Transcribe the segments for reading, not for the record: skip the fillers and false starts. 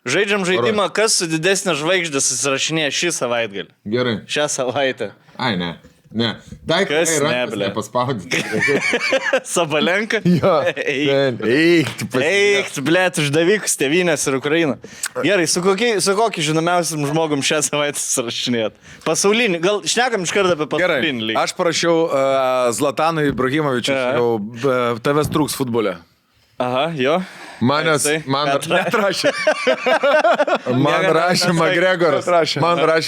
Žaidžiam žaidimą, kas su didesnė žvaigždė susirašinėja šį savaitgalį. Gerai. Šią savaitę. Ai, ne. Ne. Dai, Kas ne, ble? Paspaudyti. Sabalenka? Jo. Eik, blėt, uždavykus, tėvynės ir Ukraina. Gerai, su kokiu žinomiausiam žmogum šią savaitę susirašinėt? Pasaulinį, gal šnekam iš karto apie pasaulinį lygį. Aš parašiau Zlatanui Ibrahimovičiui, tavęs trūks futbole. Aha, jo. Man rašė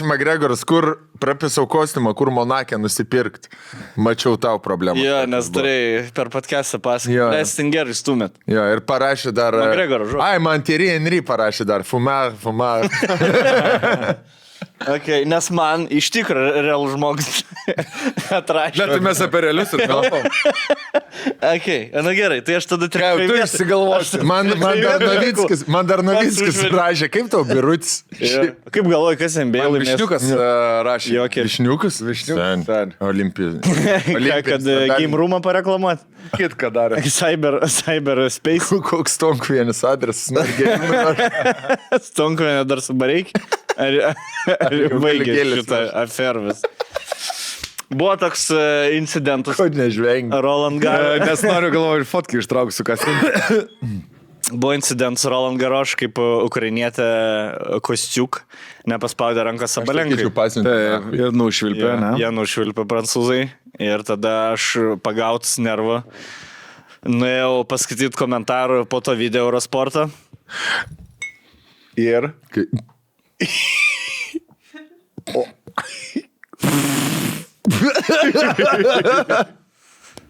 Magregoras, kur prapisau kostiumą, kur Monake nusipirkti. Mačiau tau problemą. Jo, nes turėjai per podcastą pasakyti. Lestin gerai stumėt. Jo, ir parašė dar... Magregoro žodžiu. Ai, man Thierry Henry parašė dar. Fumar. Okay, nes man iš tikrųjų realų žmogus atrašė. Bet mes apie realius ir kalbam. Okay, na gerai, tai aš tada tikrai... Tu išsigalvosi. Man dar Novickis rašė. Kaip tau, Birutis? Kaip galvoji, kas NBA laimės? Višniukas rašė. Višniukas? Olimpijos. Kad Game Roomą pareklamuot? Kitką darė. Cyber Space. Koks Stonkvienis adresas? Stonkvienė dar su bareik? Ar baigė šitą afervis? Buvo toks incidentas. Ko nežvengi? Roland Garros. Nes noriu galvoju, fotkę ištrauksiu, kas. Buvo incidentas Roland Garros, kaip ukrainietė Kostiuk nepaspaudė ranką Sabalenkai. Jie nušvilpė, ne? Jie nušvilpė prancūzai. Ir tada aš pagautas nervą. Nuėjau paskaityti komentarų po to video Eurosporto. Ir?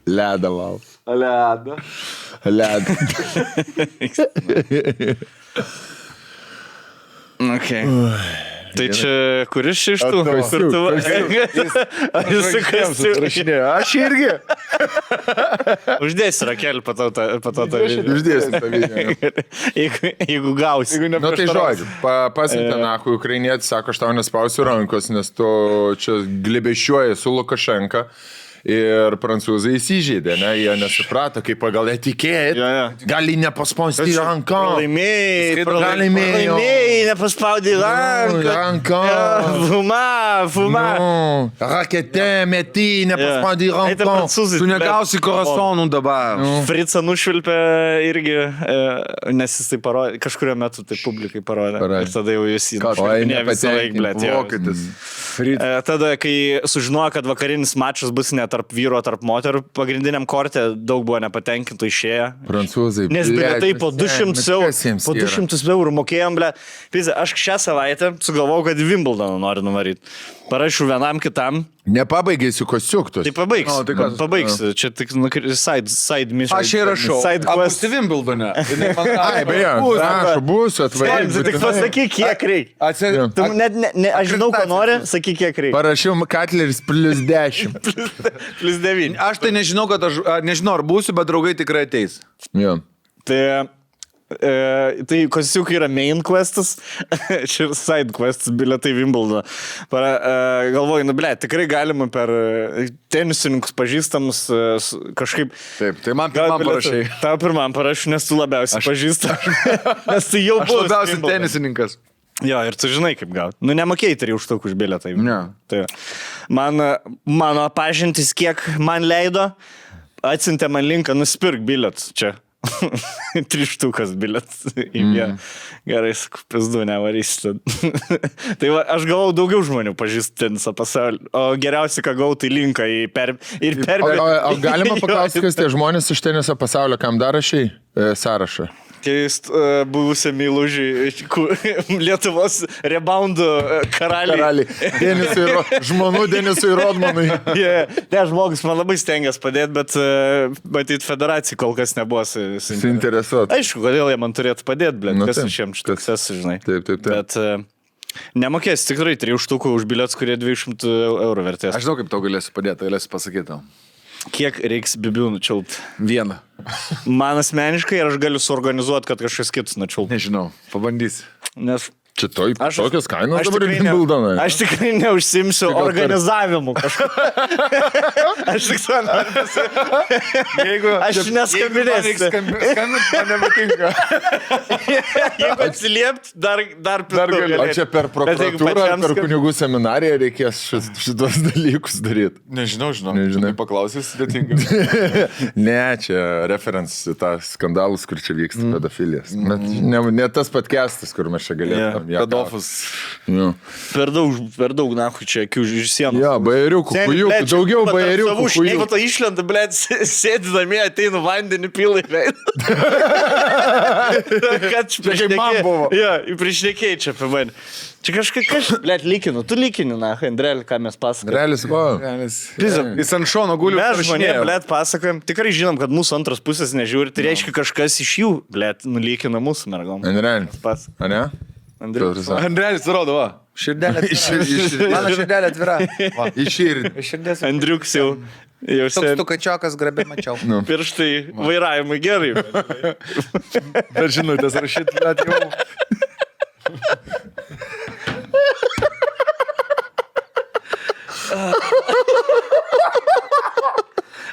Ledą val. Ledą. Okay. Tai čia kuris iš tų? Aš irgi. Uždėsi rakelį po to tą video. Uždėsim tą video. Jeigu gausi. Nu tai žodžiu, pasiuntė nahui ukrainietis, sako, aš tau nespausiu rankos, nes tu čia glebėšiuoji su Lukašenka. Ir prancūzai įsižeidė, ne? Jie nesuprato, kaip pagal etikėt, gali nepaspausti ranką. Pralaimėjai, nepaspaudė ranką. Fuma. Rakete, meti, nepaspaudė ranką. Tu negausi korasonų dabar. Fricą nušvilpė irgi, nes jis tai parodė, kažkurio metu tai publikai parodė. Ir tada jau jis įdėpinė visą laiką, blėt. Tada, kai sužinojo, kad vakarinis mačas bus net tarp vyro, tarp moterų, pagrindiniam korte daug buvo nepatenkintų išėję. Prancūzai, nes bilietai po 200 eurų mokėjom, ble. Aš šią savaitę sugalvojau, kad Wimbledoną noriu nuvaryti. Parašiau vienam kitam. Nepabaigėsiu Kostiuktus. Tai pabaigsiu. Pabaigsiu. Čia tik side mission. Aš ir rašau. Apusti Wimbledone. Ai, beje, prašau, būsiu atvaryti. Tik pasakyk, kiek reikia. Aš žinau, ko nori, sakyk, kiek reikia. Parašiau Katleris +10. +9. Aš tai nežinau, nežinau, ar būsiu, bet draugai tikrai ateis. Jo. Tai Kostiukai yra main questas, čia side questas, bilietai Wimbledoną. Galvoju, tikrai galima per tenisininkus pažįstamus kažkaip... Taip, tai man pirmam parašai. Tau pirmam parašai, nes tu labiausiai pažįsta. Nes tu jau buvai. Aš labiausiai tenisininkas. Jo, ir tu žinai, kaip gauti. Nu, nemokėjai 3 štukų už bilietą. Ne. Tai mano pažintis, kiek man leido, atsiuntė man linką, nusipirk bilietus čia. 3 štukas bilietas. Gerai, sakau, pizdu, nevarysi. Tai va, aš gavau daugiau žmonių pažįsti tenisą pasaulį. O geriausia, ką gavau, tai linką į O galima paklausti, kas tie žmonės iš teniso pasaulio, kam dar rašai sąrašą? Keist buvusią meilužį Lietuvos reboundų karaliai. Žmonų Denisui Rodmanui. Ne, žmogus man labai stengiasi padėti, bet matyt, federacija kol kas nebuvo suinteresuota. Aišku, kodėl jie man turėtų padėti, blėt, kas iš jiems štukas, žinai. Taip. Bet nemokės tikrai 3 štukų už bilietus, kurie 200 eurų vertės. Aš žinau, kaip tau galėsiu padėti, galėsiu pasakyti tau. Kiek reiks bibių nučiulti? 1. Man asmeniškai, ir aš galiu suorganizuoti, kad kažkas kitas nučiulti. Nežinau, pabandysi. Nes Čia tokios kainos Aš dabar tikrai Wimbledonai. Aš tikrai neužsimsiu organizavimu kažką. Aš tik to noriu pasakyti. Aš neskambinėsiu. Skambint man nepatinka. Jeigu atsiliept, dar galiu. O čia per prokuratūrą ar per kunigų seminariją reikės šitos dalykus daryti? Nežinau. Nežinai. Paklausys sudėtinga. Ne, čia references į tą skandalus, kur čia vyksta pedofilijas. Ne tas podcastas, kur mes čia galėtume. Pedofus. Per daug, nahu, čia akių iš sienos. Jo, bajeriukų, kujukų, daugiau bajeriukų, Jeigu to išlenda, blėt, sėdi namie, ateinu vandenį pilai veidą. Kad kaip man buvo. Jo, priešnekėjai čia apie mane. Čia kažkas, blėt, lykinu. Tu lykini, nahu, Andrėlį, ką mes pasakojame. Realis, va. Jis ant šono guli. Mes žmonė, blėt, pasakojam. Tikrai žinom, kad mūsų antros pusės nežiūri. Tai reiškia, kažkas iš jų, blėt, nulykina mūsų mergom. Realis. A ne? Andrelis rodo, va. Širdelė atvira. Mano širdelė atvira. Išširdė. Andriuks jau Toks tu kačiokas grabė mačiau. pirštai vairavimui gerai. Per žinutės rašyt, bet jau.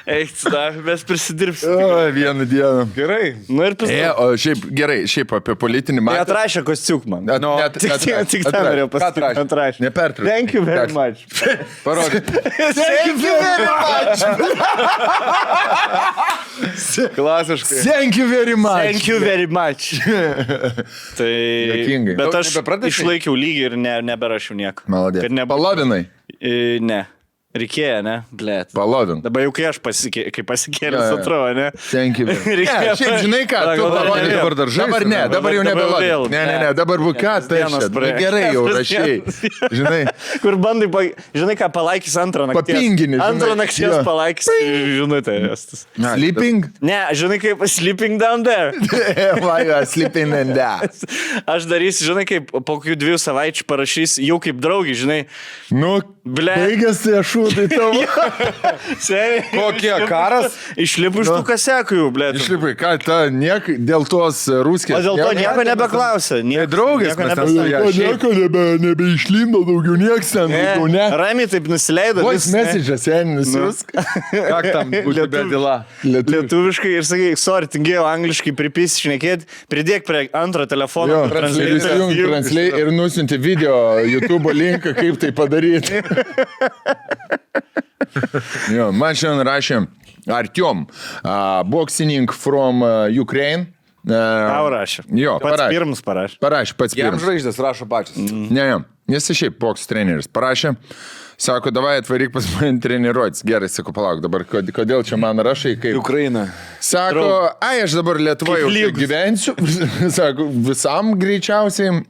Eik, mes prisidirbsim. Vieną dieną. Gerai. Nu ir prisidirbsim. O šiaip gerai, šiaip apie politinį Tai matą. atrašė kostiuk man. Tik tą norėjau pasakyti. Atrašė. Nepertrauk. Thank you very much. Parodyk. Thank you very much. Klasiškai. Thank you very much. Thank you very much. Tai... Juokingai. Bet Daug aš nebepratęsei? Išlaikiau lygį ir neberašiau nieko. Maladė. Kad nebūtų- Palavinai. Ne. Reikėjo, ne? Blėt. Palavin. Dabar jau kai aš pasikėlęs, Jo, jo. atrodo, ne? Thank you. Reikėjo- Ne, šiaip žinai ką, tu Dabar parodyk vėl. dabar dar žaisti. Dabar ne, dabar jau Dabar nebeladai. vėl. Ne, dabar buvo ką, tai Dienos aš. praėjo. Gerai jau Dienos. rašiai. Žinai, Kur bandai, žinai ką, palaikys antrą nakties. Papingini, žinai. Antrą nakties Jo. palaikys žinutę. Estus. sleeping. Ne, žinai kaip sleeping down there. Why you are sleeping in that? Aš darysiu, žinai kaip po kokių 2 savaičių parašysiu jau kaip draugį, žinai. Nu, Ble. baigėsi ašutai tavo. Seniai. Kokie karas? Išlipu iš tų kasekų jau, blėt. Išlipai, ką, dėl tos ruskės. O dėl to nieko nebeklausė. Draugės, mes ten nieko nebeišlindo daugiau, nieks ten daugiau, ne. Ramiai taip nusileido. Voice message'as, nusiusk. Ką tam būtų bedila? Lietuviškai ir sakai, sorry, tingėjau angliškai pripisi šnekėti, pridėk prie antro telefono. Jo, ir įsijung translate ir nusinti video YouTube linką, kaip tai padaryti. Jo, man šiandien rašė Artyom, boxing from Ukraine. Tau rašė. Jo, Pats pirmas parašė. Parašė, pats Jam pirmas. žvaigždės rašo pačias. Ne, jis šiaip boks treneris. Parašė, sako, davai atvaryk pas mane treniruotis. Gerai, sako, palauk, dabar kodėl čia man rašai, kaip... Ukraina. Sako, aš dabar Lietuvoje Kaip lygus. gyvensiu. Sako, visam greičiausiai.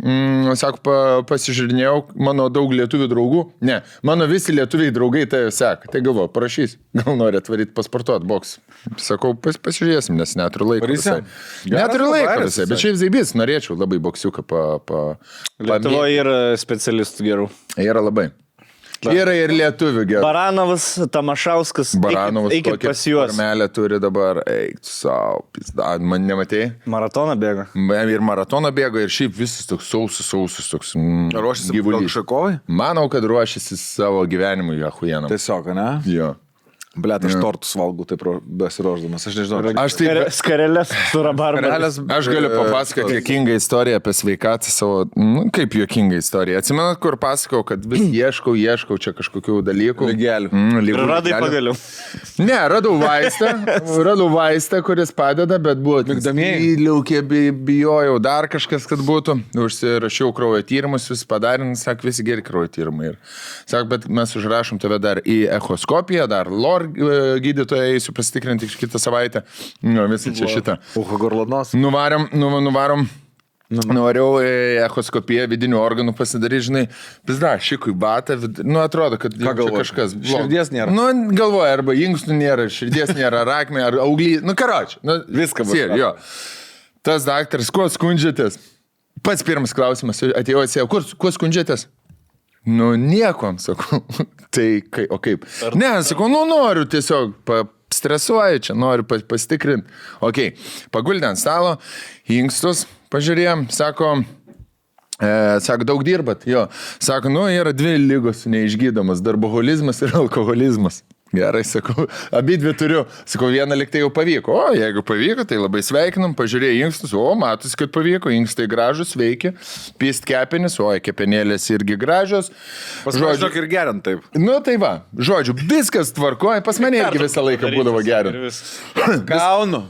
Sako, pasižiūrinėjau, mano daug lietuvių draugų. Ne, mano visi lietuviai draugai tai seka. Tai galvoju, parašys. Gal nori atvaryti pasportuoti boks. Sakau, pasižiūrėsim, nes neturiu laiko. Varysim. Visai. Neturiu laiko Geras visai, bet šiaip zaibys, norėčiau labai boksiuką Lietuvoje yra specialistų gerų. Yra labai. Yra ir lietuvių gerai. Baranovas, Tamašauskas. Baranovas Eikit pas juos. Formelę turi dabar. Eik, savo, pizda. Man nematėjai? Maratoną bėga. Ir maratoną bėgo, ir šiaip visas toks sausus, toks Ruošiasi gyvulys. Šakovai? Manau, kad ruošiasi savo gyvenimui, ahujenam. Tiesiog, ne? Jo. Blet, aš tortus valgau taip besiruošdamas, aš nežinau. Aš taip... Skarelės su rabarba. Aš galiu papasakoti juokingą istoriją apie sveikatą savo, kaip juokingą istoriją. Atsimenat, kur pasakau, kad vis ieškau čia kažkokių dalykų. Lygelių. Ir radai pagaliau. Ne, radau vaistą, kuris padeda, bet buvo liukė, bijojau dar kažkas, kad būtų. Užsirašiau kraujo tyrimus, vis padarė, sak, visi geri kraujo tyrimai. Sak, bet mes užrašom tave dar į echoskopiją, dar LOR gydytoją eisiu pasitikrinti kitą savaitę. Nu, visi čia šitą. Uho gorlanos. Nuvarom. Nuvariau echoskopiją vidinių organų pasidaryti, žinai, pizda, šikui batą, atrodo, kad kažkas blogo. Širdies nėra. Galvoja, arba inkstų nėra, širdies nėra, rakmė, ar auglį, karoči. Viską bus. Jo. Tas daktaras, kuo skundžiatės? Pats pirmas klausimas, atėjau, kuo skundžiatės? Niekom, sakau. Tai, o kaip? Ne, sakau, noriu tiesiog, stresuoju čia, noriu pasitikrinti. Ok, paguldė ant stalo, inkstus pažiūrėjom, sako, Sako, daug dirbat? Jo. Sako, yra 2 lygos neišgydomas - darboholizmas ir alkoholizmas. Gerai, sakau, abi 2 turiu. Sakau, vieną liktai jau pavyko. O, jeigu pavyko, tai labai sveikinam, pažiūrėjai inkstus. O, matus, kad pavyko, inkstai gražus, veikia. Pist kepenis, o, kepenėlės irgi gražios. Žodžiu, ir gerint taip. Tai va, žodžiu, viskas tvarkoja. Pas mane irgi visą laiką būdavo gerint. Gaunu.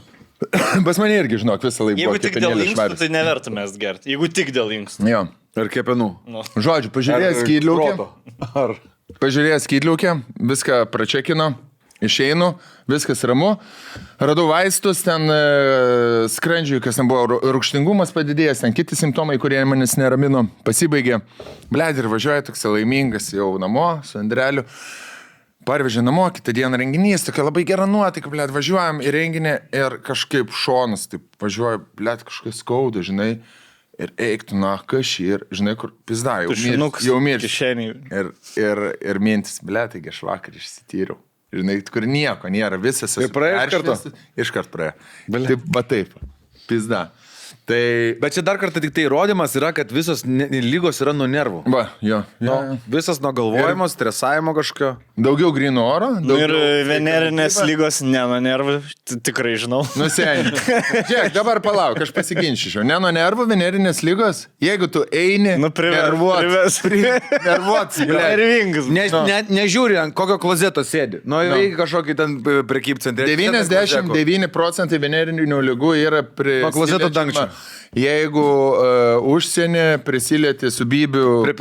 Pas mane irgi, žinok, visą laiką Jeigu buvo tik dėl kepenėlės inkstų, švarios. tai neverta mes gerti. Jeigu tik dėl inkstų. Jo. Ir kepenų. Žodžiu, pažiūrėjęs skydliaukę. Ar... Pažiūrėjęs skydliaukę, viską pračekino, išeinu, viskas ramu. Radau vaistus, ten skrandžiui, kas ten buvo, rūgštingumas padidėjęs, ten kiti simptomai, kurie manęs neramino, pasibaigė. Bled, ir važiuoja toks laimingas jau namo su Andreliu. Parvežė namo, kitą dieną renginys, tokia labai gera nuotaika, bled, važiuojam į renginį ir kažkaip šonas, taip važiuoja, bled, kažkas skauda, žinai. Ir eiktų, kašį, ir žinai, kur pizda, jau miršti. Ir mintis, ble, taigi aš vakar išsityriau. Žinai, kur nieko nėra, visas. Ir praėjo iš karto? Iškart praėjo. Taip, pizda. Tai... Bet čia dar kartą tik tai įrodymas yra, kad visos lygos yra nuo nervų. Va, jo. Visas nuo galvojimo, stresavimo kažkokio. Daugiau grino oro. Ir venerinės lygos ne nuo nervų, tikrai žinau. Seniai. Žiūrėk, dabar palauk, aš pasiginčičiau. Ne nuo nervų, venerinės lygos, jeigu tu eini, nervuotas, nervingas. Nežiūri, ant kokio klozeto sėdi. Reikia kažkokį ten prekybcentrį. 99% venerinių lygų yra prie klozeto dangčio. Jeigu užsienį prisilieti su bybių prie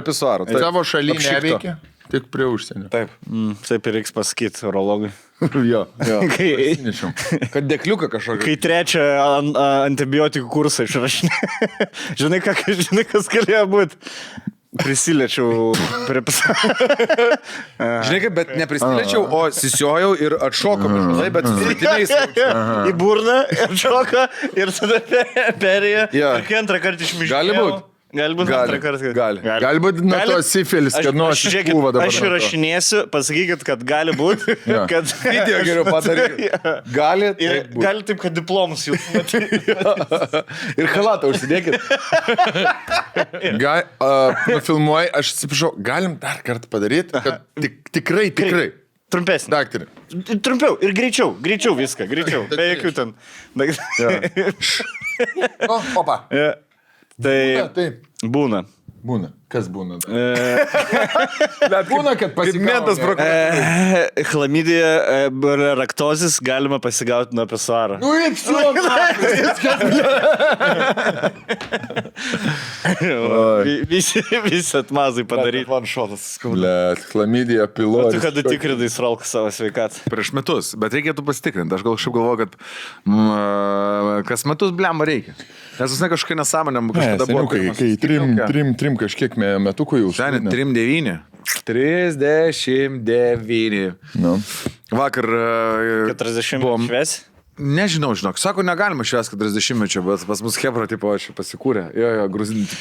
pisuarų. Savo šaly neveikia, tik prie užsienio. Taip. Taip ir reiks pasakyti urologui. Jo. Kad dekliuką kažkokį. Kai 3 antibiotikų kursą išrašinė. Žinai, kas galėjo būti? Prisiliečiau prie Žinai kaip, bet neprisiliečiau, o sisiojau ir atšokau. Bet su svetiniais. Į burną, atšoką ir tada perėjo. Ir kai antrą kartą išmiškėjau. Gali būt. Gali būti nuo to sifilis, kad nuo šipūva dabar. Aš įrašinėsiu, pasakykit, kad gali būti. Video geriau padaryti. Gali taip, kad diplomus jūs matyti. Ir halatą užsidėkit. Filmuoji, aš atsiprašau, galim dar kartą padaryti, kad tikrai. Trumpesnį. Daktarė. Trumpiau ir greičiau viską, greičiau. Be jokių ten. Opa. Tai būna. Kas būna? Bet būna, kad Pigmentas prokuratūrai. Chlamidija, raktozis galima pasigauti nuo pisuaro. Visi atmazai padaryti. Chlamidija, pilotė. Tu kada tikrinai sralką savo sveikatą? Prieš metus, bet reikėtų pasitikrinti. Aš gal šiaip galvoju, kad kas metus blemą reikia. Nes visai kažkokia nesąmonė. Kai trim kažkiek metukų jau. Šiandien 39. 39. Vakar 40 buvom šves. Nežinau, žinok, sako, negalima švęs 40-mečio, bet pas mus Hebra, tipo, aš pasiekūrė. Jo, gruzinti.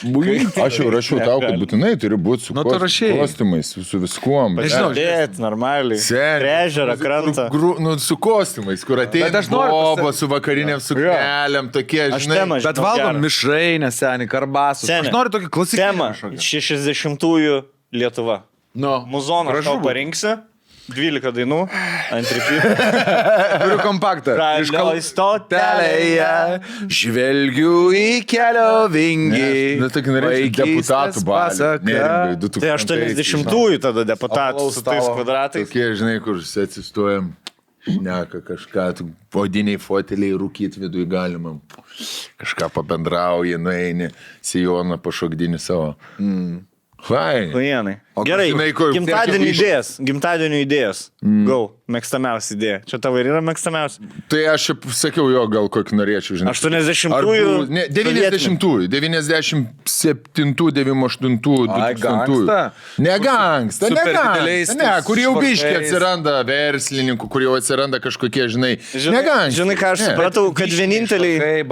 Aš jau rašiau tau, kad būtinai turi būti su kostiumais, su viskuom. Nežinau, normaliai. Ežerą, krantą. Su kostiumais, kur ateina boba, su vakarinėm suknelėm, tokie, žinai. Bet valgom mišrainę, senį, karbasus. Aš noriu tokį klasikinį. Tema 60-ųjų Lietuva. Muzoną aš tau parinksiu. 12 dainų, ant ripytų. Turiu kompaktą. Ralioj stotelėje, žvelgiu į kelio vingį. Tokį norėčiau deputatų balį. Tai 80-ųjų tada deputatų su tais kvadratais. Tokie, žinai, kur atsistojam, šneka kažką, odiniai foteliai rūkyti vidui galima. Kažką pabendrauji, nueini, sijoną pašokdini savo. Vienai. Gerai, gimtadienio idėjas. Go, mėgstamiausia idėja. Čia tavo ir yra mėgstamiausia. Tai aš šiaip sakiau jo, gal kokį norėčiau, žinai. 80-ųjų. 90-ųjų, 97-ųjų, 98-ųjų, 2000-ųjų. Negangsta. Ne, kur jau biškiai atsiranda verslininkų, kur jau atsiranda kažkokie, žinai. Negangsta. Žinai, ką aš supratau, kad vieninteliai...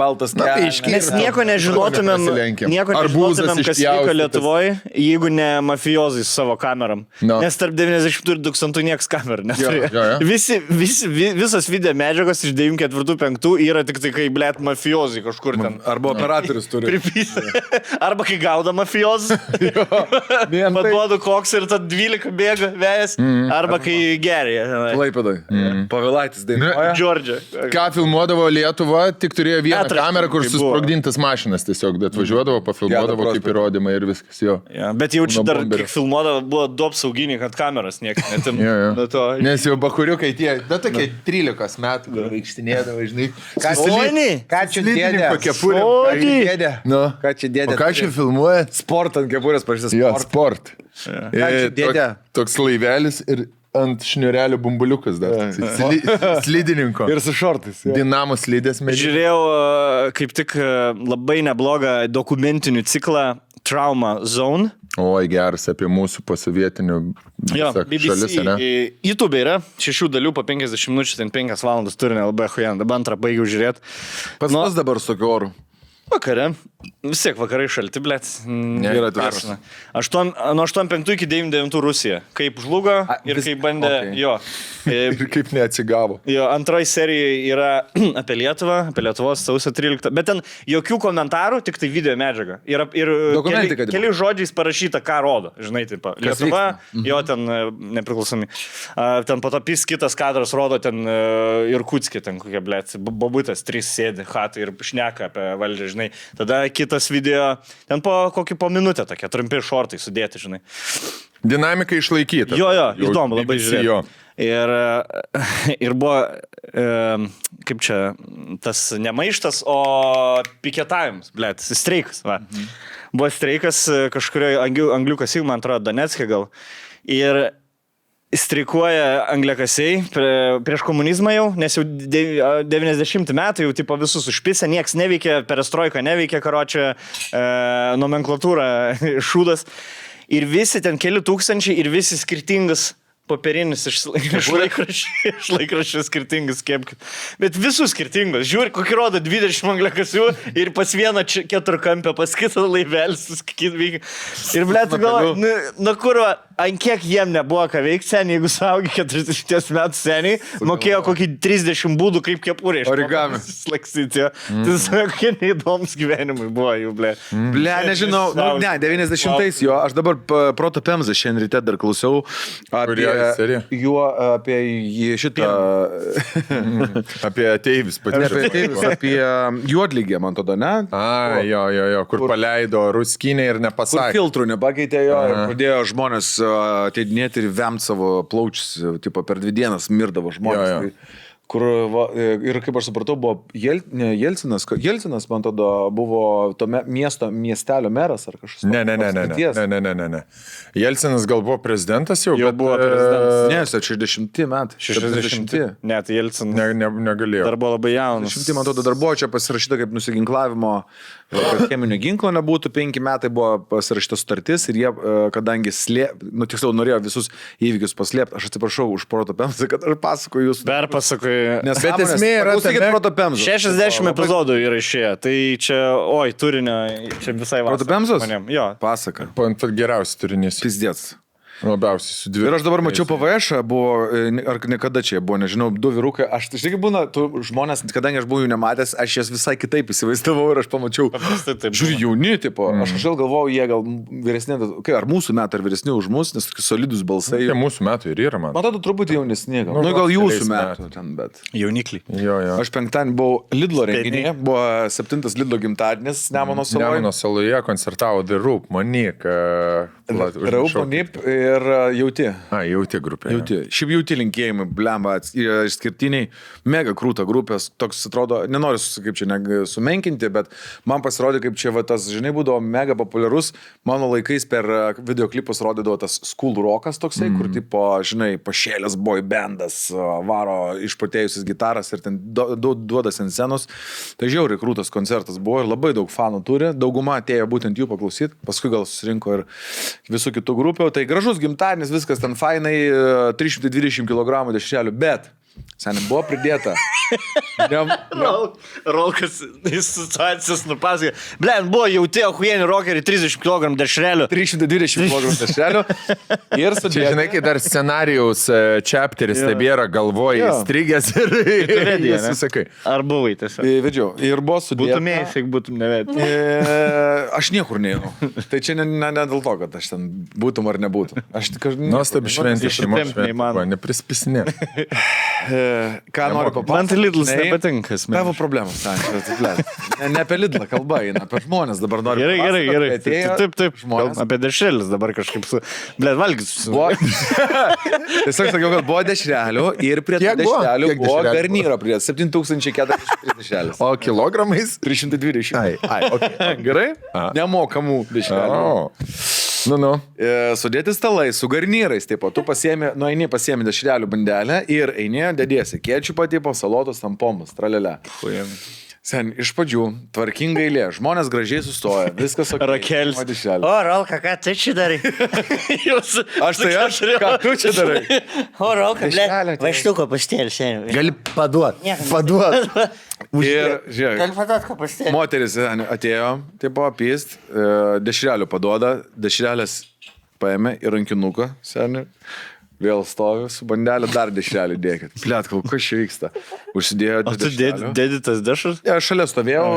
Mes nieko nežinotumėm, kas vyko Lietuvoje, jeigu ne mafijozai su savo kameram. No. Nes tarp 90 ir 2000 nieks kamerų neturėjo. Jo. Visos video medžiagos iš 94-5 yra tik tai, kai, blėt, mafiozai kažkur ten. Arba operatorius turi. Arba kai gauda mafiozas. Paduodu koks ir tad 12 bėga vėjas. Arba kai geria. Klaipėdai. Pavilaitis dainuoja. Džordžia. Ką filmuodavo Lietuva, tik turėjo vieną Teatras, kamerą, kur kai buvo. susprogdintas mašinas tiesiog, bet važiuodavo, pafilmuodavo kaip įrodymą ir viskas jo. Ja, bet jaučiu Nuo dar, bomberio. kiek filmuodavo, buvo du apsauginiai, kad kameras niekas netim. Jo. To... Nes jau bakuriukai tie, tokie 13 metų, kur vaikštinėdavo, žinai. Ką čia dėdė? Kepurė. Ką čia dėdė? Nu. Ką čia dėdė? O ką čia filmuoja? Sport ant kepurės parašytas Jo, sport. sport. Ką čia dėdė? Toks laivelis ir ant šniurelio bumbuliukas dar. Slidininko. Ir su šortais. Dinamo slidės medžiai. Žiūrėjau kaip tik labai neblogą dokumentinių ciklą Trauma Zone. Oi, geras apie mūsų posovietinių šalis, ne? YouTube yra 6 dalių po 50 minučių, ten 5 valandas turinė labai hujan. Dabar antrą baigiau žiūrėti. Pas mus dabar su tokiu oru. Vakare. Vis tiek vakarai šalti, blėt. Yra tvėras. Nuo 85 iki 99 Rusija. Kaip žlugo ir kaip bandė... Okay. Jo. Ir kaip neatsigavo. Jo, antroji serija yra apie Lietuvą, apie Lietuvos sausio 13. Bet ten jokių komentarų, tik tai video medžiaga. Ir Dokumentika, keli žodžiais parašyta, ką rodo. Žinai, taip. Lietuva, jo ten nepriklausomi. Ten po to pis kitas kadras rodo ten Irkutskė, ten kokia, blėt, bobutas, 3 sėdi, hatai ir šneka apie valdžią, žinai. Tada kitas video, ten po minutę tokie, trumpi šortai sudėti, žinai. Dinamika išlaikyta. Jo, įdomu, labai žiūrėjau. Ir buvo, kaip čia, tas ne maištas, o piketavimas, blėt, streikas, va. Buvo streikas kažkurioje angliukas, man atrodo, Donetske gal. Ir streikuoja angliakasiai prieš komunizmą jau, nes jau 90 metų jau tipo visus užpisę, nieks neveikia, perestroika neveikia, karočią, nomenklatūra šūdas. Ir visi ten keli tūkstančiai ir visi skirtingas popierinis iš laikraščių skirtingas kepkit. Bet visų skirtingos. Žiūri, kokį rodo 20 angliakasių ir pas vieną keturkampę, pas kitą laivelį suskit. Ir blėt, galvoju, nu kur, ant kiek jiem nebuvo ką veikti seniai, jeigu saugi 40 metų seniai, mokėjo kokį 30 būdų kaip kepurė. Origami. Slaksyti. Tai kokie neįdomus gyvenimai buvo jų, blė. Ble, nežinau, ne, 90-ais jo, aš dabar Proto Pemzą šiandien ryte dar klausiau apie šitą... Apie ateivis patyrę. Apie juodlygę, man tada, ne? Jo, kur paleido ruskinę ir nepasakė. Kur filtrų nepakeitė jo ir pradėjo žmonės ateidinėti ir vemt savo plaučius, tipo per 2 dienas mirdavo žmonės. Jo. Kur, ir kaip aš supratau, buvo Jelcinas, man tada buvo to miestelio meras ar kažkas. Ne. Jelcinas gal buvo prezidentas jau, bet buvo prezidentas. Ne, 60 metai. 60. Ne, tai Jelcinas negalėjo. Dar buvo labai jaunas. 60, man atrodo, dar buvo čia pasirašyta kaip nusiginklavimo, kad cheminio ginklo nebūtų, 5 metai buvo pasirašyta sutartis ir jie, kadangi tiksliau norėjo visus įvykius paslėpti, aš atsiprašau už Proto Pemzą, kad aš pasakoju jūs. Perpasakoju. Bet esmė yra Proto Pemzą. 60 epizodų yra išėję, tai čia, turinio, čia visai vasarą. Proto Pemzos? Jo. Pasaka. Geriausias turinys. Pizdėts. Labiausiai su 2. Ir aš dabar mačiau PVŠ, buvo, ar niekada čia buvo, nežinau, 2 vyrukai, aš tai būna, žmonės, kadangi aš buvau jų nematęs, aš jas visai kitaip įsivaizdavau ir aš pamačiau, žiūri, jauni, tipo, aš kažkaip galvojau, jie gal vyresni, ar mūsų metai, ar vyresni už mus, nes tokie solidus balsai. Jie mūsų metų ir yra, man. Man atrodo, truputį jaunesni, gal. Gal jūsų metų ten, bet. Jaunikliai. Jo. Aš penktadienį buvau Lidlo renginyje, buvo 7 Lidlo gimtadienis Nemuno saloje. Nemuno saloje koncertavo The Roop, Monik. Raup, Monip ir Jauti. Jauti grupė. Šiaip Jauti linkėjimai, blemba, išskirtiniai, mega krūta grupės, toks atrodo, nenoriu, kaip čia sumenkinti, bet man pasirodė, kaip čia tas, žinai, būdavo mega populiarus, mano laikais per videoklipus rodydavo tas School Rockas toksai, kur tipo, žinai, pašėlės boy bandas, varo išpatėjusis gitaras ir ten duodas ant scenos. Tai žiauriai krūtas koncertas buvo ir labai daug fanų turi, dauguma atėjo būtent jų paklausyti, paskui gal susirinko ir visų kitų grupių, tai gražus gimtadienis, viskas ten fainai, 320 kg dešrelių, bet Seniai buvo pridėta. Rolkas situacijas nupasakė. Blem, buvo jauti ahuieni rokeriai 30 kg dešrelių. 320 kg dešrelių. Ir Čia, sudėta. žinai, kai dar scenarijaus chapteris tebėra galvoje įstrigęs ir vedė, ne? susakai. Ar buvai tiesiog? Vedžiau. Ir buvo sudėta. Būtumėjai, jeigu būtum nevedęs. Aš niekur neinu. Tai čia ne dėl to, kad aš ten būtum ar nebūtum. Aš tik Nuostabi šventė šeimos Ištempt šventė. neįmanoma. Neprispisinė. Ką noriu papasakoti? Man tai Lidlas nepatinka. Tavo problemas, ne apie Lidlą kalba eina, apie žmonės dabar noriu. Gerai. Taip. Žmonės. Apie dešrelius dabar kažkaip su... Blet, valgys. Tiesiog sakiau, kad buvo dešrelių ir prie Kiek buvo? dešrelių Kiek buvo dešrelių garnyro prie 7403 dešrelės. O kilogramais? 320. Okay. Gerai? Nemokamų dešrelių. Nu. Sudėti stalai su garnyrais, taip pat tu nueini pasiemi dešrelių bandelę ir eini, dėdėsi kečupą tipo, salotos, tampomus, tralelę. Sen, iš pradžių, tvarkinga eilė, žmonės gražiai sustoja, viskas ok. Rakelis. O, Rolka, ką tu čia darai? aš, ką tu čia darai? O, Rolka, Dešrelę, blet, vaštuko pastėlį šiandien. Gali paduot. Ir, žiūrėk, Gali paduot, ko pastėlį. moteris atėjo, tai buvo apyst, dešrelių paduoda, dešrelės paėmė į rankinuką, seniai. Vėl stoviu su bandelė, dar dešrelį dėkit. Plet, kas čia vyksta? Užsidėjo O tu dešrelių. dėdi tas dešras? Ja, šalia stovėjau,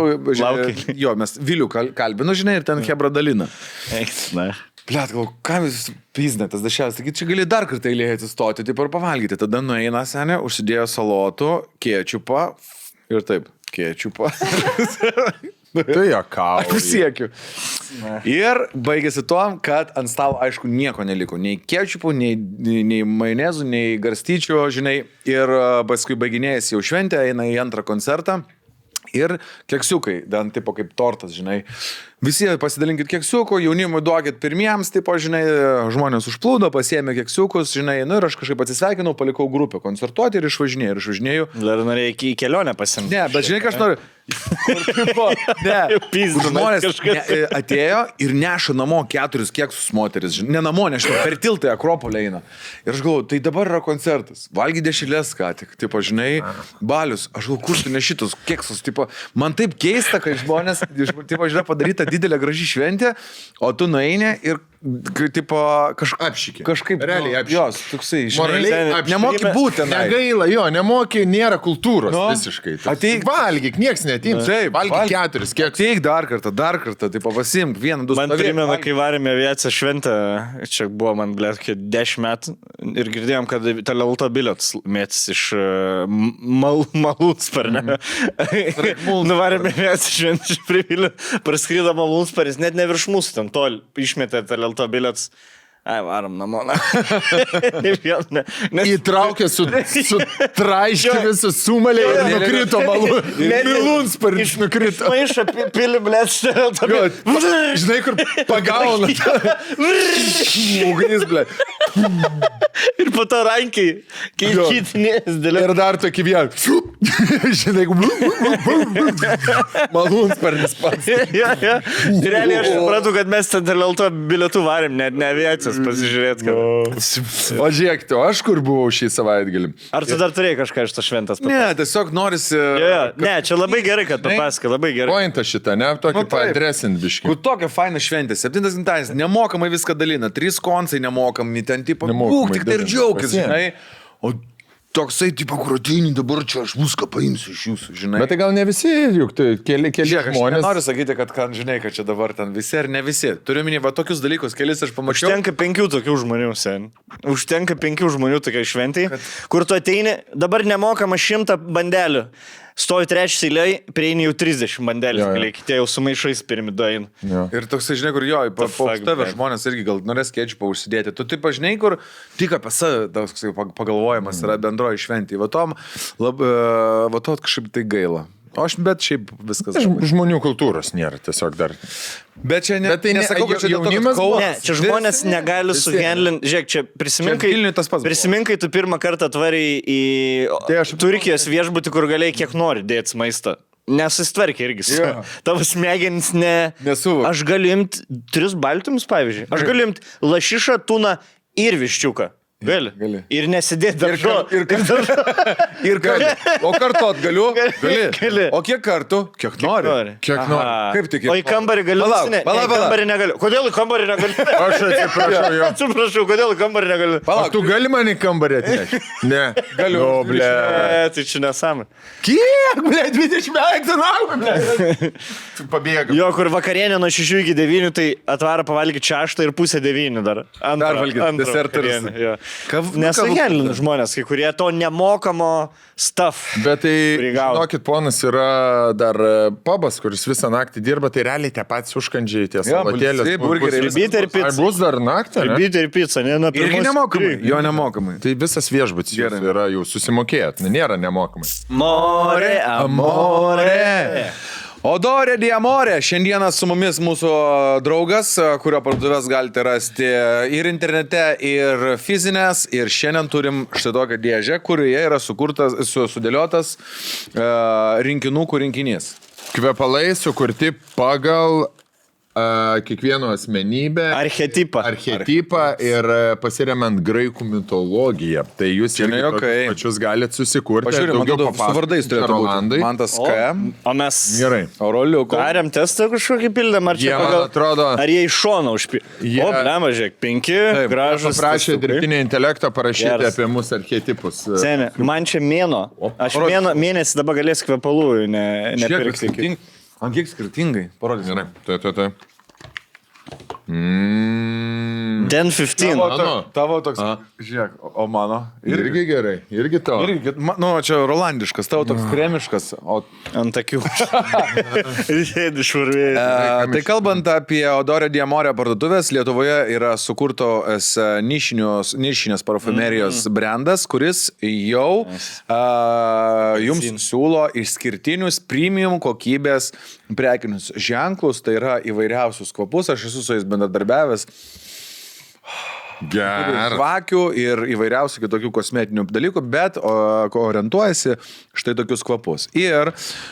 Laukai. jo, mes Vilių kalbinu, žinai, ir ten Hebra dalina. Na. Plet, kam jūs piznė tas dešrelis, taigi čia gali dar kartą eilėje atsistoti, taip ir pavalgyti. Tada nueina senė, užsidėjo salotų, kečupą ir taip, kečupą. Tu jokauji. Aš pasiekiu. Ir baigėsi tuom, kad ant stalo, aišku, nieko neliko. Nei kečupų, nei majonezų, nei garstyčių, žinai. Ir paskui baiginėjasi jau šventė, eina į antrą koncertą. Ir keksiukai, dan tipo kaip tortas, žinai. Visi pasidalinkit keksiukų, jaunimui duokit pirmiems, tipo, žinai, žmonės užplūdo, pasiėmė keksiukus, žinai, nu ir aš kažkaip atsisveikinau, palikau grupę koncertuoti ir išvažinėjau. Dar norėjai į kelionę pasimti. Ne, bet žinai, ką aš noriu. Pizdu, Žmonės kažkas. atėjo ir neša namo 4 keksus moteris. Ne namo, nežinau, per tiltą Akropolį eina. Ir aš galvoju, tai dabar yra koncertas. Valgy dešrelės ką tik. Tipo, žinai, balius. Aš galvoju, kur tu ne šitus keksus. Tipo, man taip keista, kad žmonės, tipo, žiūrė, padaryta didelė graži šventė, o tu nueini ir tipo, Apšykė. kažkaip Realiai apšykė. Jos, toksai, Moraliai žinai, apšykė. nemoki būti. Negaila, jo, nemoki, nėra kultūros visiškai. Ateik. Valgyk, nieks netims. Taip, Valgyk 4, kiek. Ateik dar kartą, tai pasimk, 1, 2, Man primena, kai varėme aviaciją šventę, čia buvo man, blėt, 10 metų ir girdėjom, kad Telelto bilietus mėtis iš Malūnsparnio. Nuvarėme aviaciją šventę iš Privilio, praskrydo Malūnsparis, net ne virš mūsų, ten tol išmetė Telelto bilietus. Ai, varom namo. Įtraukė su traiškiu visą sumalę ir nukrito Malūnsparis nukrito. Maišą pilį, blėt, Telelto bilietus. Žinai, kur pagauna. Ugnis, ble. Ir po to rankiai, kai kitinės dėlė. Ir dar tokį vieną. Žinai, Malūnsparis pats. Realiai aš supratau, kad mes ten Telelto bilietų varėm, net ne aviacijos pasižiūrėti. O žiūrėk, o aš kur buvau šį savaitgalį? Ar tu dar turėjai kažką iš to šventas? Ne, tiesiog norisi... Ne, čia labai gerai, kad papasakai, labai gerai. Pointą šitą, ne? Tokį Nu, taip. padresint biškį. Kur tokia faina šventė, 7 gimtadienis, nemokamai viską dalina, 3 koncai nemokami, ten tipo, Nemokamai būk tik tai ir dalina. džiaugis, Pasiėm. žinai. O toksai, tipo, kur ateini dabar čia, aš viską paimsiu iš jūsų, žinai. Bet tai gal ne visi, juk tai keli Žiūrėk, aš žmonės. nenoriu sakyti, kad žinai, kad čia dabar ten visi ar ne visi. Turiu minį, va tokius dalykus, kelis aš pamačiau. Užtenka 5 tokių žmonių, sen. Užtenka 5 žmonių tokiai šventai, kur tu ateini, dabar nemokama 100 bandelių. Stovi trečias eiliai, prieini jau 30 bandelės, Jo, jo. galiai, kitie jau su maišais pirmidoin. Jo. Ir toksai, žinai, kur jo, po fuck, tave man. žmonės irgi gal norės kečupą užsidėti. Tu taip, žinai, kur tik apie save toksai pagalvojimas yra bendroji šventė. Va to kažkaip tai gaila. O aš, bet šiaip viskas. Žmonių kultūros nėra tiesiog dar. Bet čia Bet tai ne- nesakau, kad čia dėl to, kad jaunimas buvo- Kaunas. Ne, čia žmonės negali suhandlinti. Žiūrėk, čia prisiminkai, Čia Vilniuj tas pats buvo. prisiminkai tu pirmą kartą atvarai į Tai aš- Turkijos viešbutį, kur galėjai kiek nori dėti maistą. Nesusitvarkė irgi. Jo. Tavo smegenys Nesuvok. Aš galiu imti 3 baltymus, pavyzdžiui. Aš galiu imti lašišą, tuną ir viščiuką. Gali. Ir nesidėti daržo. Ir o kartot galiu? Gali. O kiek kartų? Kiek nori? Kiek nori. Kaip tik? O į kambarį galiu? Palauk. Kambarį negaliu. Kodėl į kambarį negaliu? Aš atsiprašau jo. Atsiprašau, kodėl į kambarį negaliu? O tu gali man į kambarį atnešti? Ne. Galiu. O, ble. Tai čia nesąmonė. Kiek, ble, 20 metų, ble. Tu pabėgai. Jo, kur vakarienė nuo 6 iki 9, tai atvaro pavalgyti 6 ir pusę 9 dar. Dar valgyt, deserters. Nesugelina žmonės, kai kurie to nemokamo stuff. Bet tai, prigauna. žinokit, ponas yra dar pabas, kuris visą naktį dirba, tai realiai tie patys užkandžiai, tie salatėlės. burgeriai, Ribyti ir Ar pica. bus dar naktį? ne? Ribyti ir pica, ne? Irgi nemokamai. Jo nemokamai. Tai visas viešbutis jūsų yra jau susimokėjęs, nėra nemokamai. More, amore. Odorė Diamorė. Šiandieną su mumis mūsų draugas, kurio parduotuvės galite rasti ir internete, ir fizinės. Ir šiandien turim štai tokią dėžę, kurioje yra sudėliotas rinkinukų rinkinys. Kvepalai sukurti pagal kiekvieno asmenybę, Archetipą. ir pasiremiant graikų mitologiją. Tai jūs Čia ne irgi juokai. tokius pačius galite susikurti. Pažiūrėjau, man daugiau atrodo, su vardais turėtų Rolandai. būti. Mantas K. O mes Gerai. Auroliuko. darėm testą kažkokį pildėm, ar čia Jie, man pagal... atrodo, Ar jie iš šono užpildė? Jie- O, blema, žiūrėk, 5 gražus. prašė testukai. dirbtinį intelektą parašyti Geras. apie mūsų archetipus. Seni, man čia mėno. Aš mėnesį dabar galėsiu kvepalų nepirkti. Ant kiek skirtingai? Parodys. Gerai, tai. Den 15. Tavo toks. Žiūrėk, o mano. Irgi gerai, irgi to. Irgi, nu, čia rolandiškas, tavo toks kremiškas. O Ant akių. Sėdi švarvėjai. Tai kalbant apie Odorė Diamorė parduotuvės, Lietuvoje yra sukurtos nišinės parfumerijos brandas, kuris jau jums siūlo išskirtinius premium kokybės prekinius ženklus, tai yra įvairiausius kvapus, aš esu su jais bendradarbiavęs. Gerai. Žvakių ir įvairiausių kitokių kosmetinių dalykų, bet orientuojasi štai tokius kvapus. Ir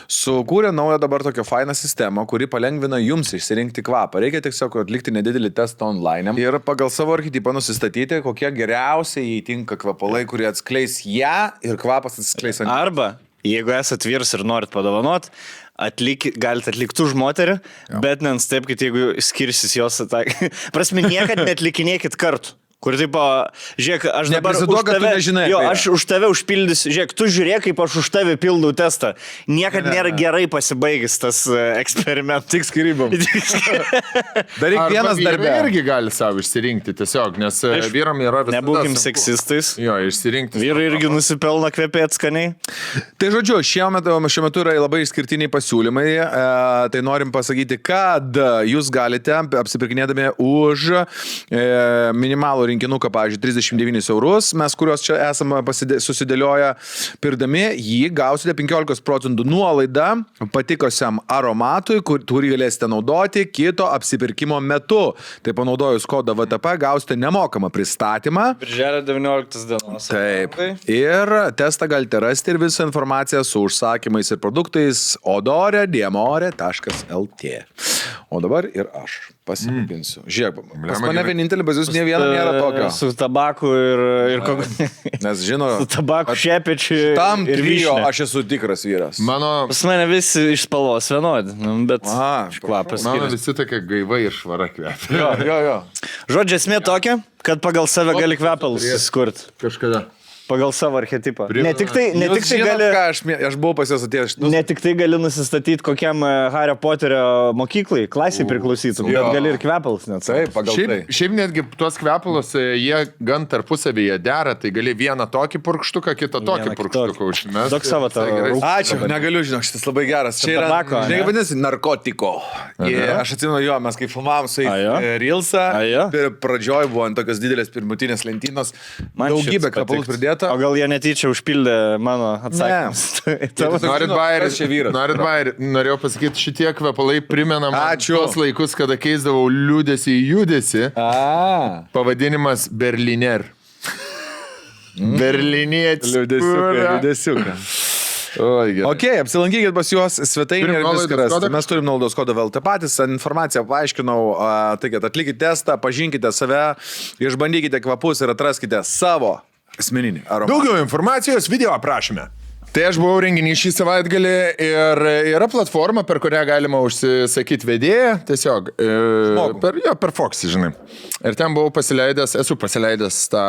sukūrė naują dabar tokią fainą sistemą, kuri palengvina jums išsirinkti kvapą. Reikia tiesiog atlikti nedidelį testą online ir pagal savo archetipą nusistatyti, kokie geriausiai įtinka kvapalai, kurie atskleis ją ir kvapas atskleis ant. Arba, jeigu esat vyras ir norit padovanot, galite atlikti už moterį, bet nenustebkit, jeigu skirsis jos atakai. Prasme, niekad netlikinėkit kartu. Kur taip, žiūrėk, aš dabar už tave, nežinai, aš už tave užpildysiu, žiūrėk, tu žiūrėk, kaip aš už tave pildau testą. Niekad nėra gerai pasibaigęs tas eksperimentas. Tik skirybom. Daryk vienas darbė. Irgi gali savo išsirinkti tiesiog, nes vyram yra visada. Nebūkim sunku. seksistais. Jo, išsirinkti. Vyrai irgi nusipelna kvepėti skaniai. Tai žodžiu, šiuo metu yra labai išskirtiniai pasiūlymai. Tai norim pasakyti, kad jūs galite apsipirkinėdami už minimalų rinkinuką, pavyzdžiui, 39 eurus, mes kuriuos čia esame susidėlioję, pirdami jį gausite 15% nuolaidą patikusiam aromatui, kurį galėsite naudoti kito apsipirkimo metu. Tai panaudojus kodą VTP gausite nemokamą pristatymą. Birželio 19 dienos. Taip. Ir testą galite rasti ir visą informaciją su užsakymais ir produktais odorediamore.lt. O dabar ir aš pasipinsiu. Žiūrėk, pas mane vienintelį bazius ne vieno nėra tokio. Su tabaku ir Nes žino, su tabaku šepečiu tam ir trio vyšnia. aš esu tikras vyras. Mano Pas mane visi iš spalvos vienodi, bet kvapas skiriasi. visi tokia gaiva ir švara kvepia. Jo. Žodžiu, esmė tokia, kad pagal save gali kvepalus susikurti. Kažkada. Pagal savo archetipą. Ne tik tai gali... Aš buvau pas juos atėjęs. Ne tik tai gali nusistatyti kokiam Hario Poterio mokyklai, klasiai priklausytum, bet gali ir kvepalus net. Taip, pagal tai. Šiaip netgi tuos kvepalus, jie gan tarpusavėje dera, tai gali vieną tokį purkštuką, kitą tokį purkštuką užmest. Duok savo tą Ačiū, negaliu, žinok, šitas labai geras. Čia yra, tabako, žinai, vadinasi, narkotiko. Aš atsimenu jo, mes kai filmavom su Reelsą, pradžioj buvo ant tokios didelės pirmutinės lentynos, daugybė kvepalų pridėta. O gal jie netyčia užpildė mano atsakymus? Norit bairį, norėjau pasakyti, šitie kvepalai primena man tos laikus, kada keisdavau liūdėsi į judesį. Pavadinimas Berliner. Berlinietis. Liūdėsiuką. Oi, gerai. Ok, apsilankykit pas juos svetainėje Turim ir nuolaidos viską rasite. kodą? Mes turim nuolaidos kodą VLT patys, informaciją paaiškinau, tai kad atlikite testą, pažinkite save, išbandykite kvapus ir atraskite savo asmeninį aromatą. Daugiau informacijos video aprašyme. Tai aš buvau renginį šį savaitgalį ir yra platforma, per kurią galima užsisakyti vedėją, tiesiog per Foxy, žinai. Ir ten buvau esu pasileidęs tą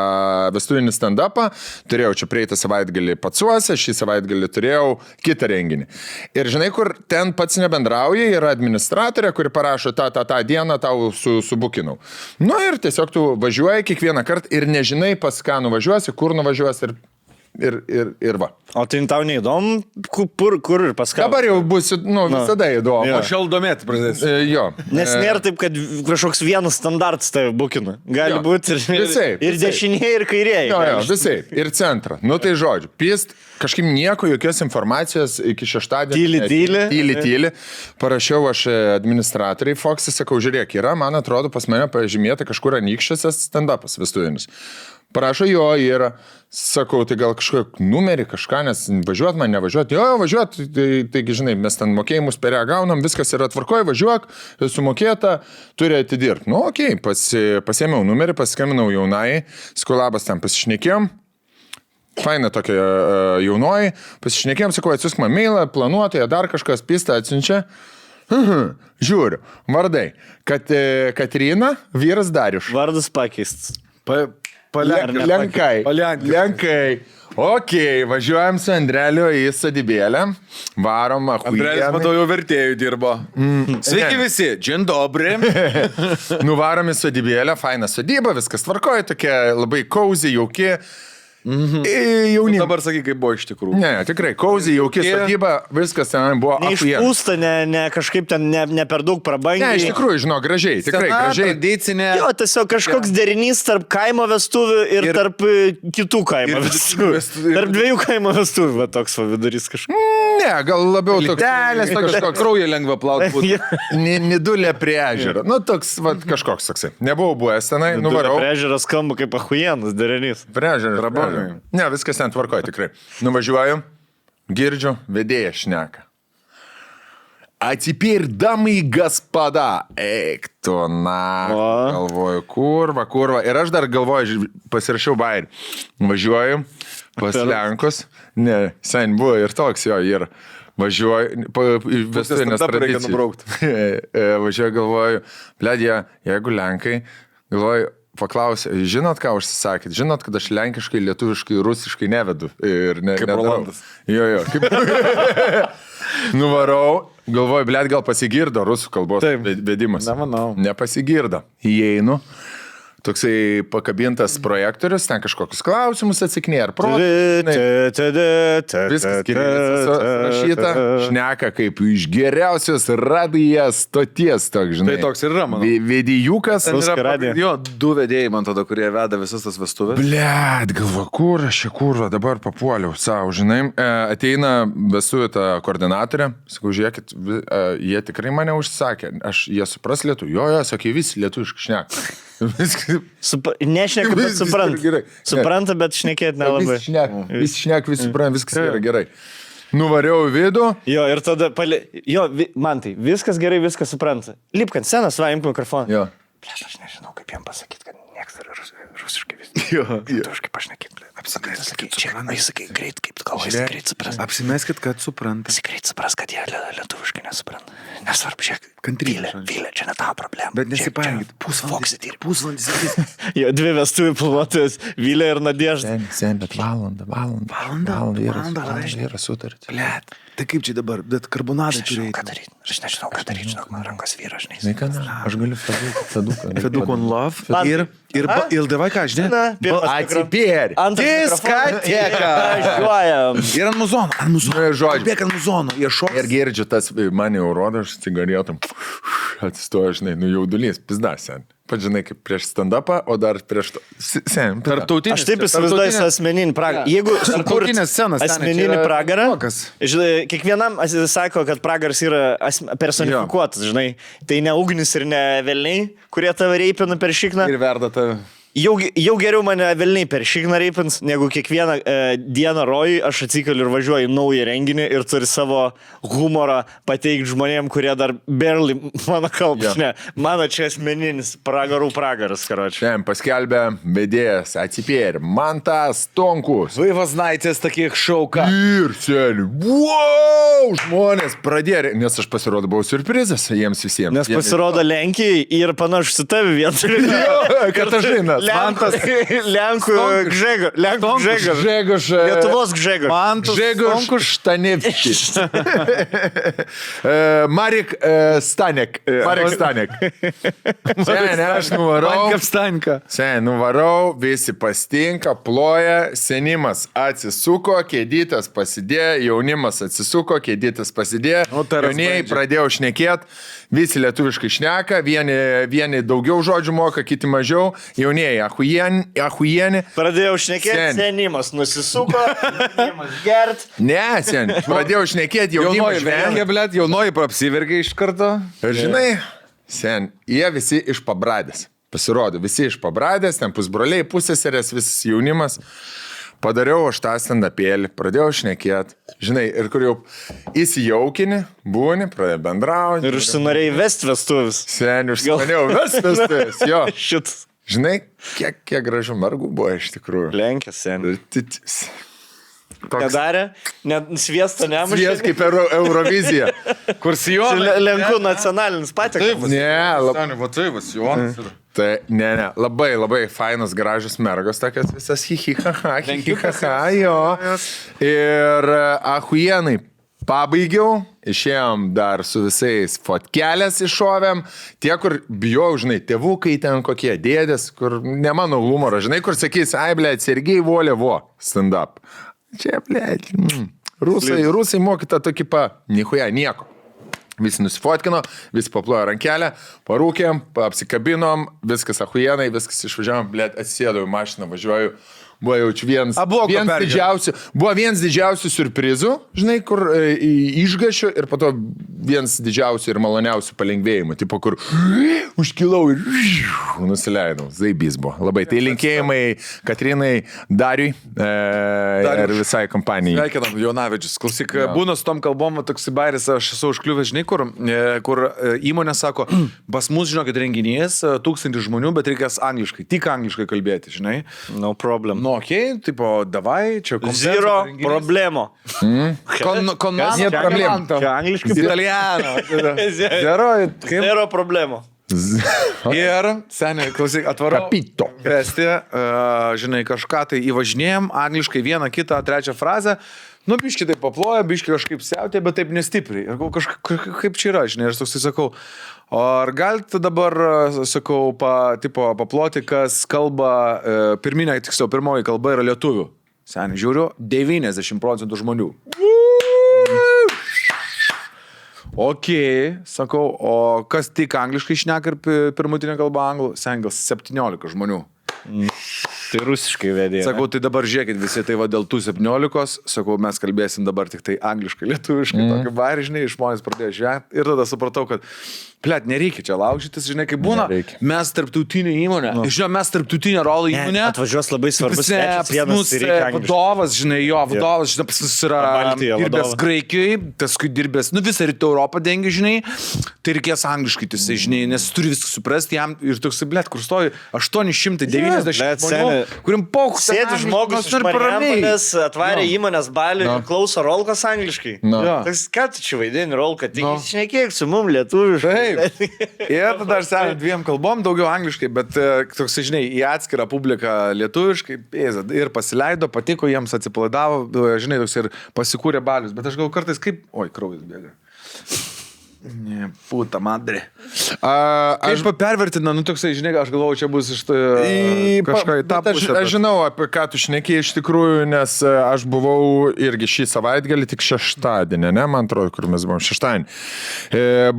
vestuvinį stand-upą, turėjau čia prieitą savaitgalį Patsuose, šį savaitgalį turėjau kitą renginį. Ir žinai, kur ten pats nebendrauja, yra administratorė, kuri parašo tą dieną tau subukinau. Nu ir tiesiog tu važiuoji kiekvieną kartą ir nežinai, pas ką nuvažiuosi, kur nuvažiuosi ir va. O tai tau neįdomu, kur ir pas ką? Dabar jau bus, visada įdomu. Jo. Aš jau domėti pradėsiu. Jo. Nes nėra taip, kad kažkoks vienas standartas tave bukina. Gali būti ir dešinėje, ir kairėje. Jo, visai. Ir centrą. Nu tai žodžiu, pist, kažkaip nieko, jokios informacijos iki šeštadienio. Tyli. Parašiau aš administratoriai Fox'e, sakau, žiūrėk, yra, man atrodo, pas mane pažymėta kažkur Anykščiuose stand-upas vestuvinis. Parašo, jo, yra. Sakau, tai gal kažkokį numerį, kažką, nes važiuot man, nevažiuot. Jo, važiuot, taigi, žinai, mes ten mokėjimus per ją gaunam, viskas yra tvarkoje, važiuok, sumokėta, turi atidirbti. Nu, okei, pasėmiau numerį, paskambinau jaunai, skolabas ten pasišnekėjom. Faina tokia jaunoji, pasišnekėjom, sakau, atsiusk man mailą, planuotoja, dar kažkas pistą atsiunčia. Žiūriu, vardai, Katrina, vyras Darius. Vardas pakeistas. Lenkai. Ok, važiuojam su Andreliu į sodybėlę. Varom, Andrelis, matau, jau vertėjų dirbo. Sveiki visi, džin dobri. Nuvarom į sodybėlę, faina sodyba, viskas tvarkoja, tokia labai cozy, jauki. Jauni. Dabar sakai, kaip buvo iš tikrųjų. Ne, tikrai, cozy, jauki sodyba, viskas ten buvo neišpūsta, ne kažkaip ten ne per daug prabangiai. Ne, iš tikrųjų, žinau, gražiai, tikrai gražiai. Tradicinė. Jo, tiesiog kažkoks derinys tarp kaimo vestuvių ir tarp kitų kaimo vestuvių. Tarp dviejų kaimo vestuvių, va toks va vidurys kažkoks. Ne, gal labiau toks. Telės, kažkoks kraują lengva plauti. Nidulė prie ežero. Nu, toks, va, kažkoks toksai. Nebuvau buvęs tenai, nuvarau. Prie ežero skamba kaip ahujenas derinys. Prie ežero. Ne, viskas ten tvarkoja tikrai. Nuvažiuoju, girdžiu, vedėja šneka. Atsipir, damai господа. Eik tu, na. Galvoju, kurva. Ir aš dar galvoju, pasirašiau bairį. Važiuoju pas Lenkus. Ne, sen buvo ir toks jo, ir važiuoju, vestuvinės tradicijos. Važiuoju, galvoju, bledė, jeigu Lenkai, galvoju, paklausė, žinot, ką užsisakėt? Žinot, kad aš lenkiškai, lietuviškai, rusiškai nevedu. Ir kaip Rolandas. Jo. Nuvarau, galvoju, blėt, gal pasigirdo rusų kalbos vedimas. Nemanau. Nepasigirdo. Įeinu. Toksai pakabintas projektorius, ten kažkokius klausimus atsakinėja, ar viskas rašyta, šneka kaip iš geriausios radijas stoties, toks, žinai. Tai toks ir yra, manau. Vedijukas. Jo, du vedėjai, man tada, kurie veda visas tas vestuvės. Blet, galvo, kur aš čia kurva, dabar papuoliau savo, žinai. Ateina vestuvių ta koordinatorė, sakau, žiūrėkit, jie tikrai mane užsakė, jie supras lietuvių. Jo, sakė, visi lietuviškai šneka. Nešneka, bet supranta. Supranta, bet šnekėti nelabai. Visi šneka, visi supranta, viskas yra gerai. Nuvariau į vidų. Jo, ir tada, man tai, viskas gerai, viskas supranta. Lipk ant scenos, va, imk mikrofoną. Jo. Blėt, aš nežinau, kaip jam pasakyti, kad nieks yra rusiškai vis. Jo. Lietuviškai pašnekėti, blėt. Apsimeskit, sakai, greit, kaip tu galvoji, greit supras. Apsimeskit, kad supranta. Greit supras, kad jie lietuviškai nesupranta. Nesvarbu, žiūrėk. Kantrybė. Vylė, čia ne tavo problema. Bet nesipainiokit. Pusvalandis. Jo, dvi vestuvių planuotojas, Vylė ir Nadežda. Sen, bet valandą yra sutartis. Blet, tai kaip čia dabar, bet karbonadą turėjai. Aš nežinau, ką daryti, žinok, man rankos vyra, žinai. Aš galiu feduką. Feduk on love. Ir davai ką, žinai? Atsipėri. Diskoteka. Važiuojam. Ir ant muzono. Žodžiu. Bėk ant muzono. Jie šoks. Ir girdžiu, tas mane jau rodo, aš cigaretam. Atsistoju, žinai, jaudulys, pizda, sen. Pat žinai, kaip prieš stand-upą, o dar prieš to. Sen, tarptautinės. Aš taip įsivaizduoju asmeninį pragarą. Jeigu asmeninį pragarą, žinai, kiekvienam sako, kad pragaras yra personifikuotas, žinai. Tai ne ugnis ir ne velniai, kurie tave reipina per šikną. Ir verda tave. Jau geriau mane velniai per šikną reipins, negu kiekvieną dieną rojui aš atsikeliu ir važiuoju į naują renginį ir turi savo humorą pateikti žmonėm, kurie dar barely mano kalbą. Ne, mano čia asmeninis pragarų pragaras, karočiui. Šiandien paskelbė vedėjas atsipėrė Mantas Tonkus. Vaivasnaitės tokie šauka. Ir seniai, wow, žmonės pradėjo, nes aš pasirodau surprizas jiems visiems. Nes pasirodo Lenkijai ir panašu su tavi vietu. Katažinas. Lenkų Gžegoš. Lietuvos Gžegoš. Mantas Gžegoš Štanevskis. Marek Stanek. Seniai, aš nuvarau, visi pastinka, ploja, senimas atsisuko, kėdytas pasidėjo, jaunimas atsisuko, kėdytas pasidėjo, jaunieji pradėjo šnekėti, visi lietuviškai šneka, vieni daugiau žodžių moka, kiti mažiau, jaunieji ahujieni. Pradėjau šnekėti, senimas nusisuko, senimas gert. Ne, seniai, pradėjau šnekėti, jaunimas vengia, blėt, jaunoji apsivergia iš karto. Ir žinai, sen, jie visi iš Pabradės. Pasirodo, visi iš Pabradės, ten pusbroliai, pusseserės, visas jaunimas. Padariau aš tą stand-upėlį, pradėjau šnekėti. Žinai, ir kur jau įsijaukini, būni, pradėjau bendrauti. Ir užsinorėjai vesti vestuvis. Sen, užsinorėjau vesti vestuvis, jo. Šitas. Žinai, kiek gražių mergų buvo iš tikrųjų. Lenkės, sen. Toks... Nedarė, net sviesto nemušė. Svies kaip Eurovizija. Kur Sijonas. Lenkų nacionalinis patiekalas. Tai, ne, labai fainos, gražios mergos, tokios visas hihihaha, jo. Ir ahujienai pabaigiau, išėjom dar su visais fotkelės iššovėm, tie, kur bijau, žinai, tėvukai ten kokie, dėdės, kur ne mano humoro, žinai, kur sakys, ai, blėt, Sergei Volė, stand up. Čia, blėt, rusai mokyta tokį nichuja, nieko. Visi nusifotkino, visi paplojo rankelę, parūkėm, apsikabinom, viskas ahujienai, viskas išvažiavom, blėt, atsisėdau į mašiną, važiuoju. Buvo jaučiu vienas didžiausių surprizų, žinai, kur išgašiu ir po to vienas didžiausių ir maloniausių palengvėjimų, tipo, kur užkilau ir nusileidau. Zaibys buvo. Labai. Tai linkėjimai Katrinai, Dariui ir visai kompanijai. Sveikinam, Jonavičius. Klausyk, būna su tom kalbom, toks bairis, aš esu užkliuvęs, žinai, kur įmonė sako, pas mus, žinokit, renginys, 1000 žmonių, bet reikės angliškai, tik angliškai kalbėti, žinai. No problem. Nu, okei, tipo, davai, čia Zero problemo. Konmanto. Čia angliškai. Italiano. Zero problemo. Ir, seniai, klausyk, atvarau. Kapito. Vesti, žinai, kažką tai įvažinėjom, angliškai vieną, kitą, trečią frazę. Nu, biški taip paploja, biški kažkaip siautė, bet taip nestipriai. Ir kaip čia yra, žinai, ir toksai sakau, ar galite dabar, sakau, paploti, kas kalba, pirmoji kalba yra lietuvių. Seniai, žiūriu, 90% žmonių. Ok, sakau, o kas tik angliškai šneka ir pirmutinė kalba anglų? Seniai, gal 17 žmonių. Tai rusiškai vedė. Sakau, tai dabar žiūrėkit visi, tai va dėl tų 17, sakau, mes kalbėsim dabar tik tai angliškai, lietuviškai, tokį barį, žinai, žmonės pradėjo žiūrėti ir tada supratau, kad, plėt, nereikia čia laužytis, žinai, kaip būna, nereikia. Mes tarptautinė įmonė, žinai, mes tarptautinė rolo įmonė. Atvažiuos labai svarbus svečias, vadovas, žinai, vadovas, žinai, pas mus yra dirbęs Graikijoje, paskui dirbęs, visą rytų Europą dengia, žinai, tai reikės angliškai, tai, žinai, nes turi viską suprasti jam ir toks, blėt, kur stovi 890 žmonių, kuriam paukų. Sėdi žmogus iš Marijampolės, atvarė įmonės balį ir klauso rolkas angliškai. Toks, ką tu čia vaidini rolką, tik šnekėk su mum lietuviškai. Ir tada aš seniai 2 kalbom, daugiau angliškai, bet toks, žinai, į atskirą publiką lietuviškai ir pasileido, patiko, jiems atsipalaidavo, žinai, toks ir pasikūrė balius, bet aš gal kartais kaip, oi, kraujas bėga. Ne, puta madre. Aš pervertina, toksai, žinai, aš galvoju, čia bus iš kažką į tą pusę. Aš žinau, apie ką tu šnekėjai iš tikrųjų, nes aš buvau irgi šį savaitgalį, tik šeštadienį, ne, man atrodo, kur mes buvom šeštadienį.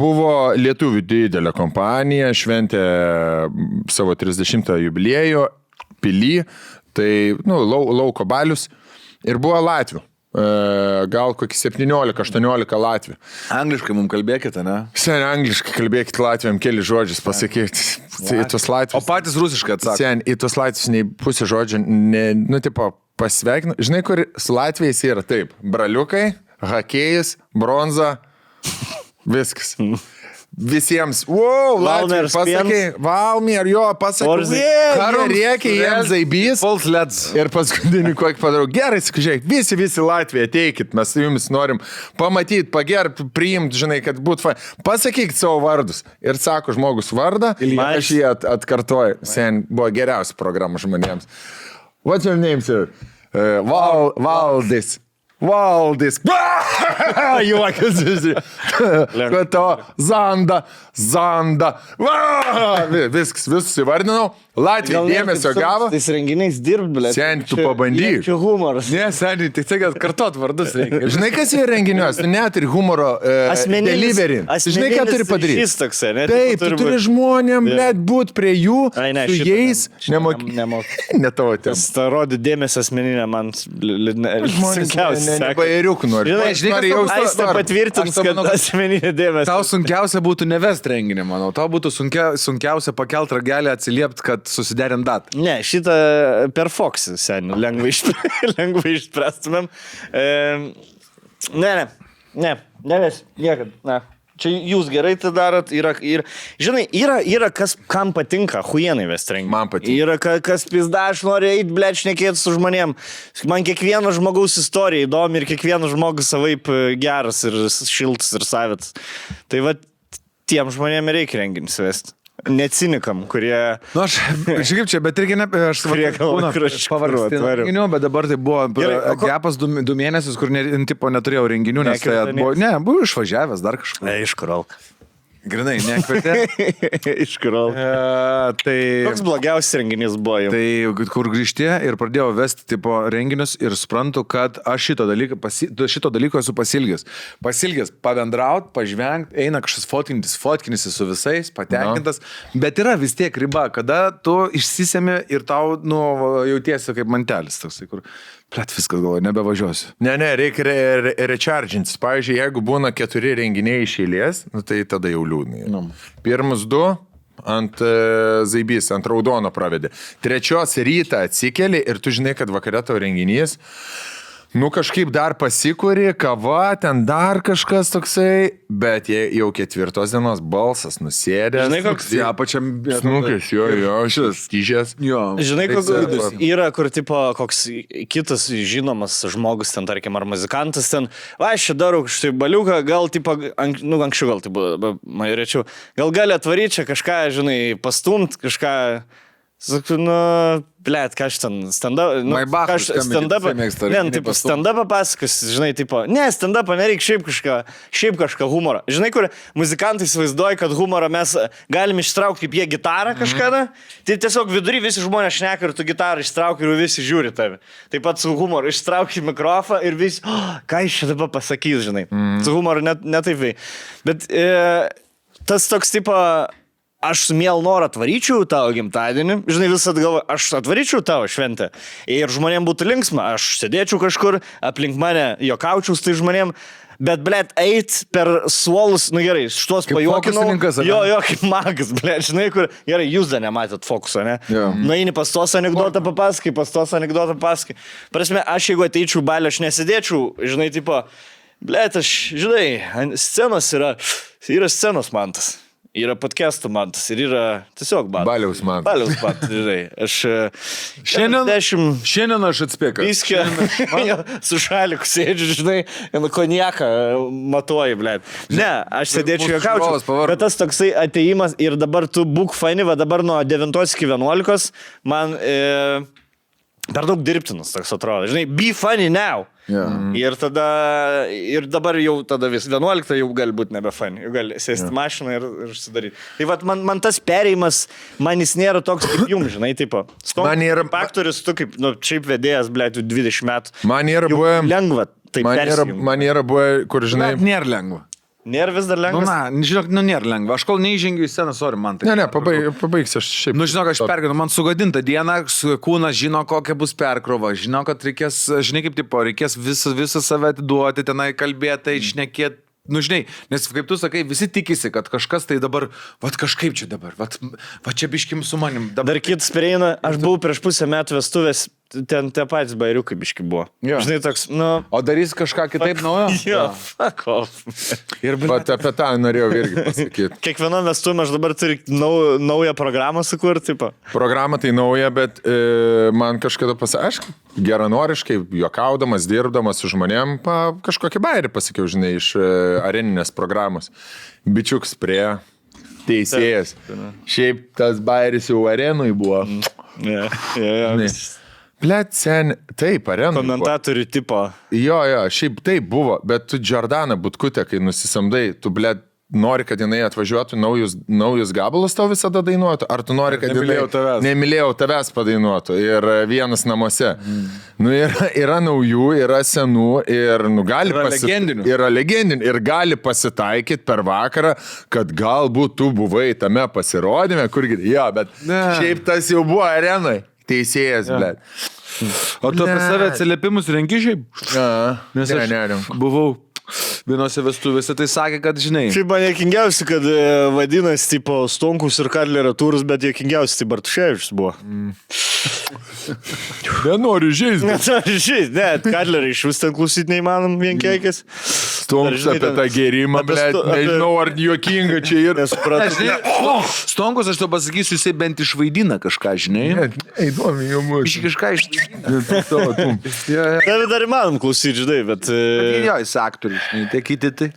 Buvo lietuvių didelė kompanija, šventė savo 30 jubiliejų, Pily, tai, lauko balius, ir buvo Latvių. gal kokį 17-18 Latvių. Angliškai mums kalbėkite, ne? Sen, angliškai kalbėkit Latviam, keli žodžius pasakyti. Į tuos O Latvius. patys rusiškai atsakė. Sen, į tuos Latvius nei pusė žodžių, tipo, pasveikinu. Žinai, kur su Latvijais yra taip. Braliukai, hakėjus, bronza, viskas. Visiems, wow, Latvijai, pasakai, Valmier, jo, pasakai, karo reikia, jiems zaibys. False Leds. Ir paskutinį kokį padarau. Gerai, žiūrėk, visi Latvija, ateikit, mes su jumis norim pamatyti, pagerbti, priimti, žinai, kad būtų fain. Pasakykit savo vardus. Ir sako žmogus vardą, aš jį atkartoju. Sen, buvo geriausia programa žmonėms. What's your name, sir? Valdis. Valdis. Juokas. Kad to Zanda. Viskas, visus įvardinau. Latvija dėmesio gavo. Tais renginiais dirbt, blė. Sen, tu pabandyk. Čia humoras. Ne, seniai, tik tai, kad kartot vardus reikia. Žinai, kas yra renginiuose? Tu net ir humoro delivery. Žinai, ką turi padaryti? Šis toksai, ne? Taip, tu turi žmonėm, blėt, būt prie jų, ne, su jais, nemoky. Nemoky. Ne tavo tem. Starodi dėmesio asmeninę man sunkiausia. Nebairiukų nori. Žinai, Aistė patvirtins, kad asmeninė dėmesio. Tau sunkiausia būtų nevest renginį, manau. Tau būtų sunkiausia pakelt ragelį, atsiliepti, kad susiderint datą. Ne, šitą per Foxį, seniai, lengvai išspręstumėm. Neves, niekad, ne. Čia jūs gerai tai darot, žinai, yra kas, kam patinka, huienai vest renginį. Man patinka. Yra kas pizda, aš noriu eiti, blėt, šnekėti su žmonėm. Man kiekvieno žmogaus istorija įdomi ir kiekvienas žmogus savaip geras ir šiltas ir savitas. Tai va, tiem žmonėm reikia renginį vesti. Necinikam, kurie... Nu, aš kaip čia, bet irgi ne... Aš kurie galvoja, kur aš pavargsti renginių, bet dabar tai buvo gepas 2 mėnesius, kur neturėjau renginių, nes tai buvo išvažiavęs dar kažkur. Iš Kuralka. Grinai, nekvietė. Iš Kuralka. Koks blogiausias renginys buvo jau? Tai kur grįžti ir pradėjau vesti tipo renginius ir suprantu, kad aš šito dalyko esu pasilgęs. Pasilgęs pabendraut, pažvengt, eina kažkas fotkinisi su visais, patenkintas, bet yra vis tiek riba, kada tu išsisemi ir tau, jautiesi kaip mantelis toksai, kur... Plet, viskas galvoju, nebevažiuosiu. Ne, reikia rechargintis. Pavyzdžiui, jeigu būna 4 renginiai iš eilės, tai tada jau liūdnai. Pirmus 2 ant zaibys, ant raudono pravedė. 3 rytą atsikeli ir tu žinai, kad vakare tavo renginys. Kažkaip dar pasikuri, kava, ten dar kažkas toksai, bet jau 4 dienos balsas nusėdęs. Žinai, koks pačiam... Snukės, jo, šis tyžės. Žinai, koks yra, kur tipo koks kitas žinomas žmogus, ten tarkim, ar muzikantas, ten, aš čia darau kažkai baliuką, gal tipo, anksčiau gal tai buvo, rečiau, gal gali atvaryti čia kažką, žinai, pastumt, kažką... Sakau, blėt, ką aš ten stand-up... stand-up pasakas, žinai, tipo, ne, stand-up nereikia šiaip kažką humorą. Žinai, kur muzikantai įsivaizduoja, kad humorą mes galim ištraukti kaip jie gitarą kažkada, tai tiesiog vidury visi žmonės šneka ir tu gitarą ištrauki ir visi žiūri tave. Taip pat su humoru ištrauki mikrofą ir visi, ką iš čia dabar pasakys, žinai. Su humoru ne taip vei. Bet tas toks tipo... Aš su mielu noru atvaryčiau tavo gimtadienį, žinai, visat galvoju, aš atvaryčiau tavo šventę ir žmonėm būtų linksma, aš sėdėčiau kažkur, aplink mane jokaučiau su tai žmonėm, bet, blėt, eit per suolus, gerai, šitos pajuokinau, jo, kaip magas, blėt, žinai, kur, gerai, jūs dar nematėt fokuso, ne? Nueini pas tos anekdotą papaskai, Prasme, aš jeigu ateičiau balę, aš nesėdėčiau, žinai, tipo, blėt, aš, žinai, scenos yra scenos mantas. Yra podcastų mantas ir yra tiesiog mantas. Baliaus mantas, žinai. Aš šiandien aš atspėkiu. Viskio, su šaliku sėdžiu, žinai, konjaką matuoju, blėt. Ne, aš sėdėčiau jokaučiau, bet tas toksai ateimas ir dabar tu būk faini, va dabar nuo 9 iki 11 man per daug dirbtinas toks atrodo. Žinai, be funny now. Ir dabar jau tada vis 11 jau gali būti nebe funny, jau gali sėsti mašiną ir sudaryti. Tai vat man tas perėjimas, man jis nėra toks kaip jums, žinai, tipo. Aktorius, tu kaip, šiaip vedėjas, blėt, 20 metų. Man yra buvę... Lengva, taip persijungti. Man yra buvę, kur, žinai... Nėra lengva. Nėra vis dar Nu, lengva. žinok, nėra lengva. Aš kol neįžengiu į sceną, sorry, man tai. Ne, pabaigsiu aš šiaip. Nu, žinok, aš pergyvenu, man sugadinta diena, kūnas žino, kokia bus perkrova, žino, kad reikės, žinai, kaip tipo, reikės visą save atiduoti, tenai kalbėti, šnekėti. Nu, žinai, nes kaip tu sakai, visi tikisi, kad kažkas tai dabar, kažkaip čia dabar, čia biškim su manim. Dar kitas prieina, aš buvau prieš pusę metų vestuvės, ten tie patys bairiukai biški buvo. Jo. Žinai, toks, nu... O darys kažką kitaip naujo? Jo, fuck off. Ir Bet apie tą norėjau irgi pasakyti. Kiekviena vestuvė aš dabar turiu naują programą sukurti, tipo. Programa tai nauja, bet man kažkada aš geranoriškai, juokaudamas, dirbdamas su žmonėm, kažkokį bairį pasakiau, žinai, iš areninės programos. Bičiuks prie teisėjas. Šiaip tas bairis jau arenui buvo. Blet, sen, taip, arenui. Komentatorių tipo. Jo, šiaip taip buvo, bet tu Jordaną Butkutę, kai nusisamdai, tu, blet, nori, kad jinai atvažiuotų naujus gabalus tau visada dainuotų, ar tu nori, kad nemylėjau tavęs padainuotų ir vienas namuose. Nu, yra naujų, yra senų ir gali legendinių ir gali pasitaikyti per vakarą, kad galbūt tu buvai tame pasirodyme, kurgi, bet šiaip tas jau buvo arenai. Teisėjas, blėt. O tu apie save atsiliepimus renki šiaip? Nes aš buvau vienose vestuvėse, tai sakė, kad žinai. Šiaip man jokingiausi, kad vadinasi, tipo, Stonkus ir Kadlerio turus, bet jokingiausi, tai Bartuševičius buvo. Nenoriu žaisti. Nenoriu žaisti, Kadlerį iš vis ten klausyti neįmanom vienkeikis. Stonkus apie tą gerimą, blėt, nežinau, ar juokinga čia ir... Stonkus, aš to pasakysiu, jisai bent išvaidina kažką, žinai. Įdomi, jau mūsų. Iš kažką išvaidina. David dar įmanom klausyti, žinai, bet... Jo, jis aktorius, tie kiti tai.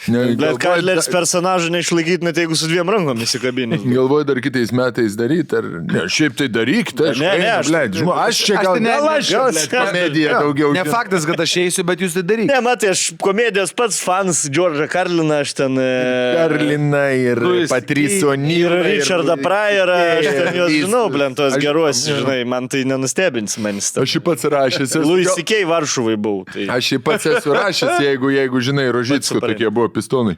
Bet Kadleris personažą neišlaikyti, net jeigu su 2 rankom įsikabinė. Galvoju dar kitais metais daryti, ar... Ne, šiaip tai daryk, tai aš čia gal komediją daugiau. Ne faktas, kad aš eisiu, bet jūs tai daryk. Ne, matai, aš komedijos pats fans Džordžą Karliną, aš ten... Karliną ir Patricio Nyrą. Ir Richardą Pryorą, aš ten juos žinau, tos geruos, žinai, man tai nenustebins manis. Aš jį pats rašęs. Louis C.K. Varšuvai buvau. Aš jį pats esu rašęs, jeigu žinai, Rožicko tokie buvo pistonai.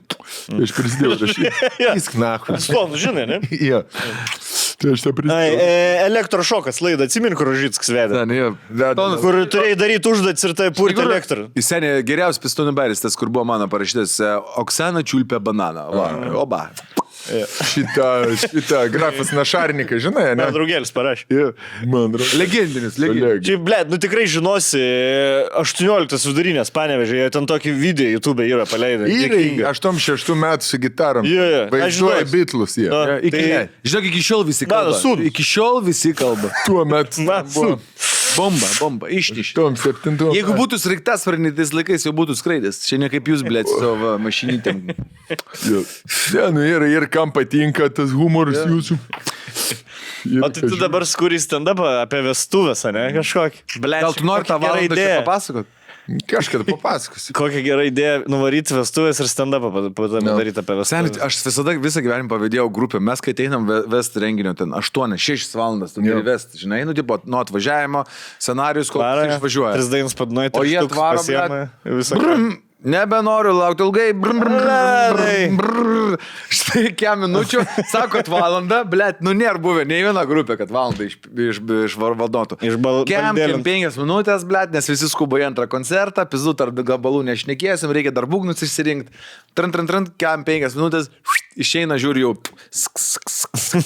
Aš prisidėjau rašyti. Jis knachu. Pistonų, žinai, ne? Jo. Tai aš tą prisidėjau. Elektrošokas laidą, atsimink, kur Rožickas vedė. Kur turėjai daryti užduotis ir tai purti elektrą. Jis seniai geriausias pistonų bairis, tas, kur buvo mano parašytas Oksana čiulpė bananą. Oba. Šitą grafas Našarnikas, žinai, ne? Man draugėlis parašė. Man draugelis. Legendinis. Čia, blėt, nu tikrai žinosi, 18 vidurinės Panevėžė, jie ten tokį video YouTube yra paleidę. Yra 86 metų su gitarom. Vaizduoja Beatlus, jie. Žinok, iki šiol visi kalba. Iki šiol visi kalba. Tuo metu buvo. Bomba, ištiš. Tom 7. Jeigu būtų sraigtasparnis, tais laikais jau būtų skraidęs. Čia ne kaip jūs, blėt, su savo mašinytėm. Ir kam patinka tas humoras jūsų. O tai tu dabar skuri stand-upą apie vestuvės, ne? Kažkokį. Gal tu nori tą valandą čia papasakot? Kažkada papasakosiu. Kokia gera idėja nuvaryti vestuvės ir stand-upą padaryti apie vestuvės. Aš visada visą gyvenimą pavydėjau grupę. Mes, kai einam vest renginio, ten 8-6 valandas, tu gali vest, žinai, nu, tipo, nuo atvažiavimo, scenarijus, kol išvažiuoja. 3 dainas padnuoja, o jie atvaro, nebenoriu laukti ilgai. Štai kiek minučių, sakot valandą, blėt, nu nėra buvę nei viena grupė, kad valandą išvarvaldotų. Kiek 5 minutės, blėt, nes visi skuba į antrą koncertą, pizdu tarp gabalų nešnekėsim, reikia dar būgnus išsirinkti. Trant, kiek 5 minutės, išeina, žiūri jau.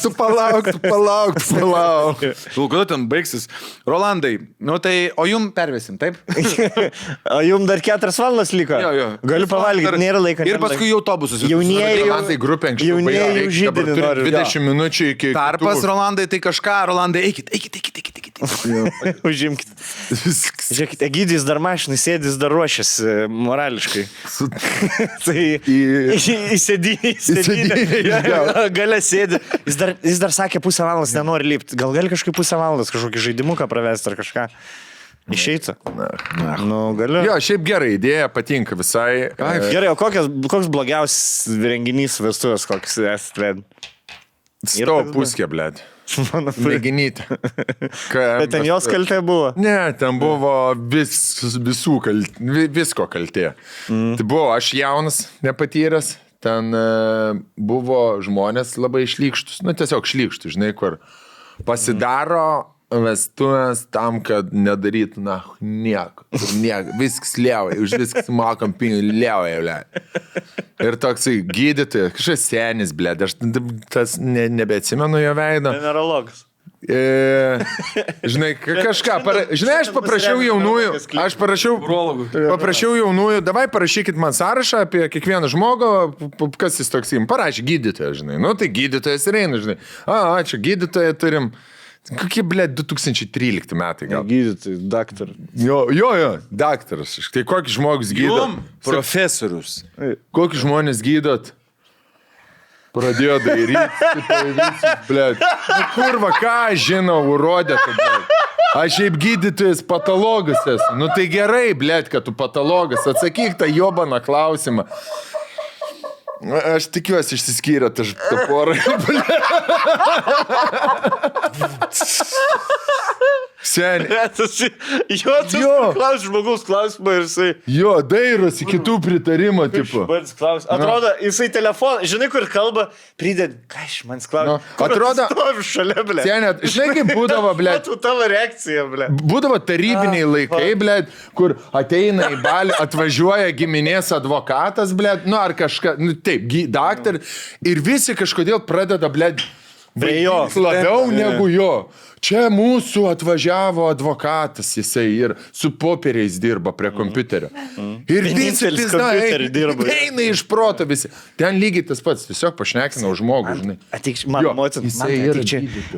Tu palauk. Kada ten baigsis? Rolandai, nu tai, o jum pervesim, taip? O jum dar 4 valandas liko? Jo. Galiu pavalgyti, nėra laiko. Ir paskui jau autobusus. Jaunieji grupė anksčiau. Jaunieji žydinį nori. 20 minučių iki... Tarpas, Rolandai, tai kažką, Rolandai, eikit. Užimkit. Žiūrėkit, Egidijus dar mašinai sėdis, dar ruošiasi morališkai. Tai įsėdinė. Galia sėdi. Jis dar sakė, 1,5 valandos nenori lipti. Gal gali kažkaip 1,5 valandos kažkokį žaidimuką pravesti ar kažką. Išeitų. Nu, galiu. Jo, šiaip gerai, idėja patinka visai. Gerai, o koks blogiausias renginys vestuvės, koks esate vedę? Stau puskė, blėt. Mėginyti. Bet ten jos kaltė buvo. Ne, ten buvo visko kaltė. Tai buvo aš jaunas, nepatyręs, ten buvo žmonės labai šlykštus, nu tiesiog šlykštus, žinai, kur pasidaro vestuvės tam, kad nedarytų, nieko, viskas liauja, už viskas mokam pinigų, liauja. Ir toksai gydytojas, kažkas senis, blėd, aš tas nebeatsimenu jo veido. Generologas. Žinai, kažką, žinai, aš paprašiau jaunųjų, davai parašykit man sąrašą apie kiekvieną žmogų, kas jis toks jim, parašė gydytoją, žinai, nu tai gydytojas ir eina, žinai, ačiū, gydytoją turim. Kokie, blėt, 2013 metai gal. Gydytojai, daktaras. Jo, daktaras. Tai kokį žmogus gydot? Profesorius. Kokį žmonės gydot? Pradėjo daryti, blėt. Nu kurva, ką aš žinau, urodė tu, blėt. Aš šiaip gydytojas patologas esu. Nu tai gerai, blėt, kad tu patologas. Atsakyk tą jobaną klausimą. Aš tikiuosi išsiskyrė tą porą. Seniai. Klaus žmogaus klausimą ir jisai... Jo, dairosi kitų pritarimo, tipo. Atrodo, jisai telefoną, žinai, kur kalba, pridėd, ką iš manęs klausia. Atrodo... Stovi šalia, blė. Seniai, žinai, kaip būdavo, blė. Tu tavo reakcija, blė. Būdavo tarybiniai laikai, blė, kur ateina į balį, atvažiuoja giminės advokatas, blė, nu ar kažką, nu taip, daktar, ir visi kažkodėl pradeda, blė, labiau negu jo. Čia mūsų atvažiavo advokatas, jisai ir su popieriais dirba prie kompiuterio. Ir visi eina iš proto visi. Ten lygiai tas pats, tiesiog pašnekinau žmogų, žinai. Ateik, mano mocin,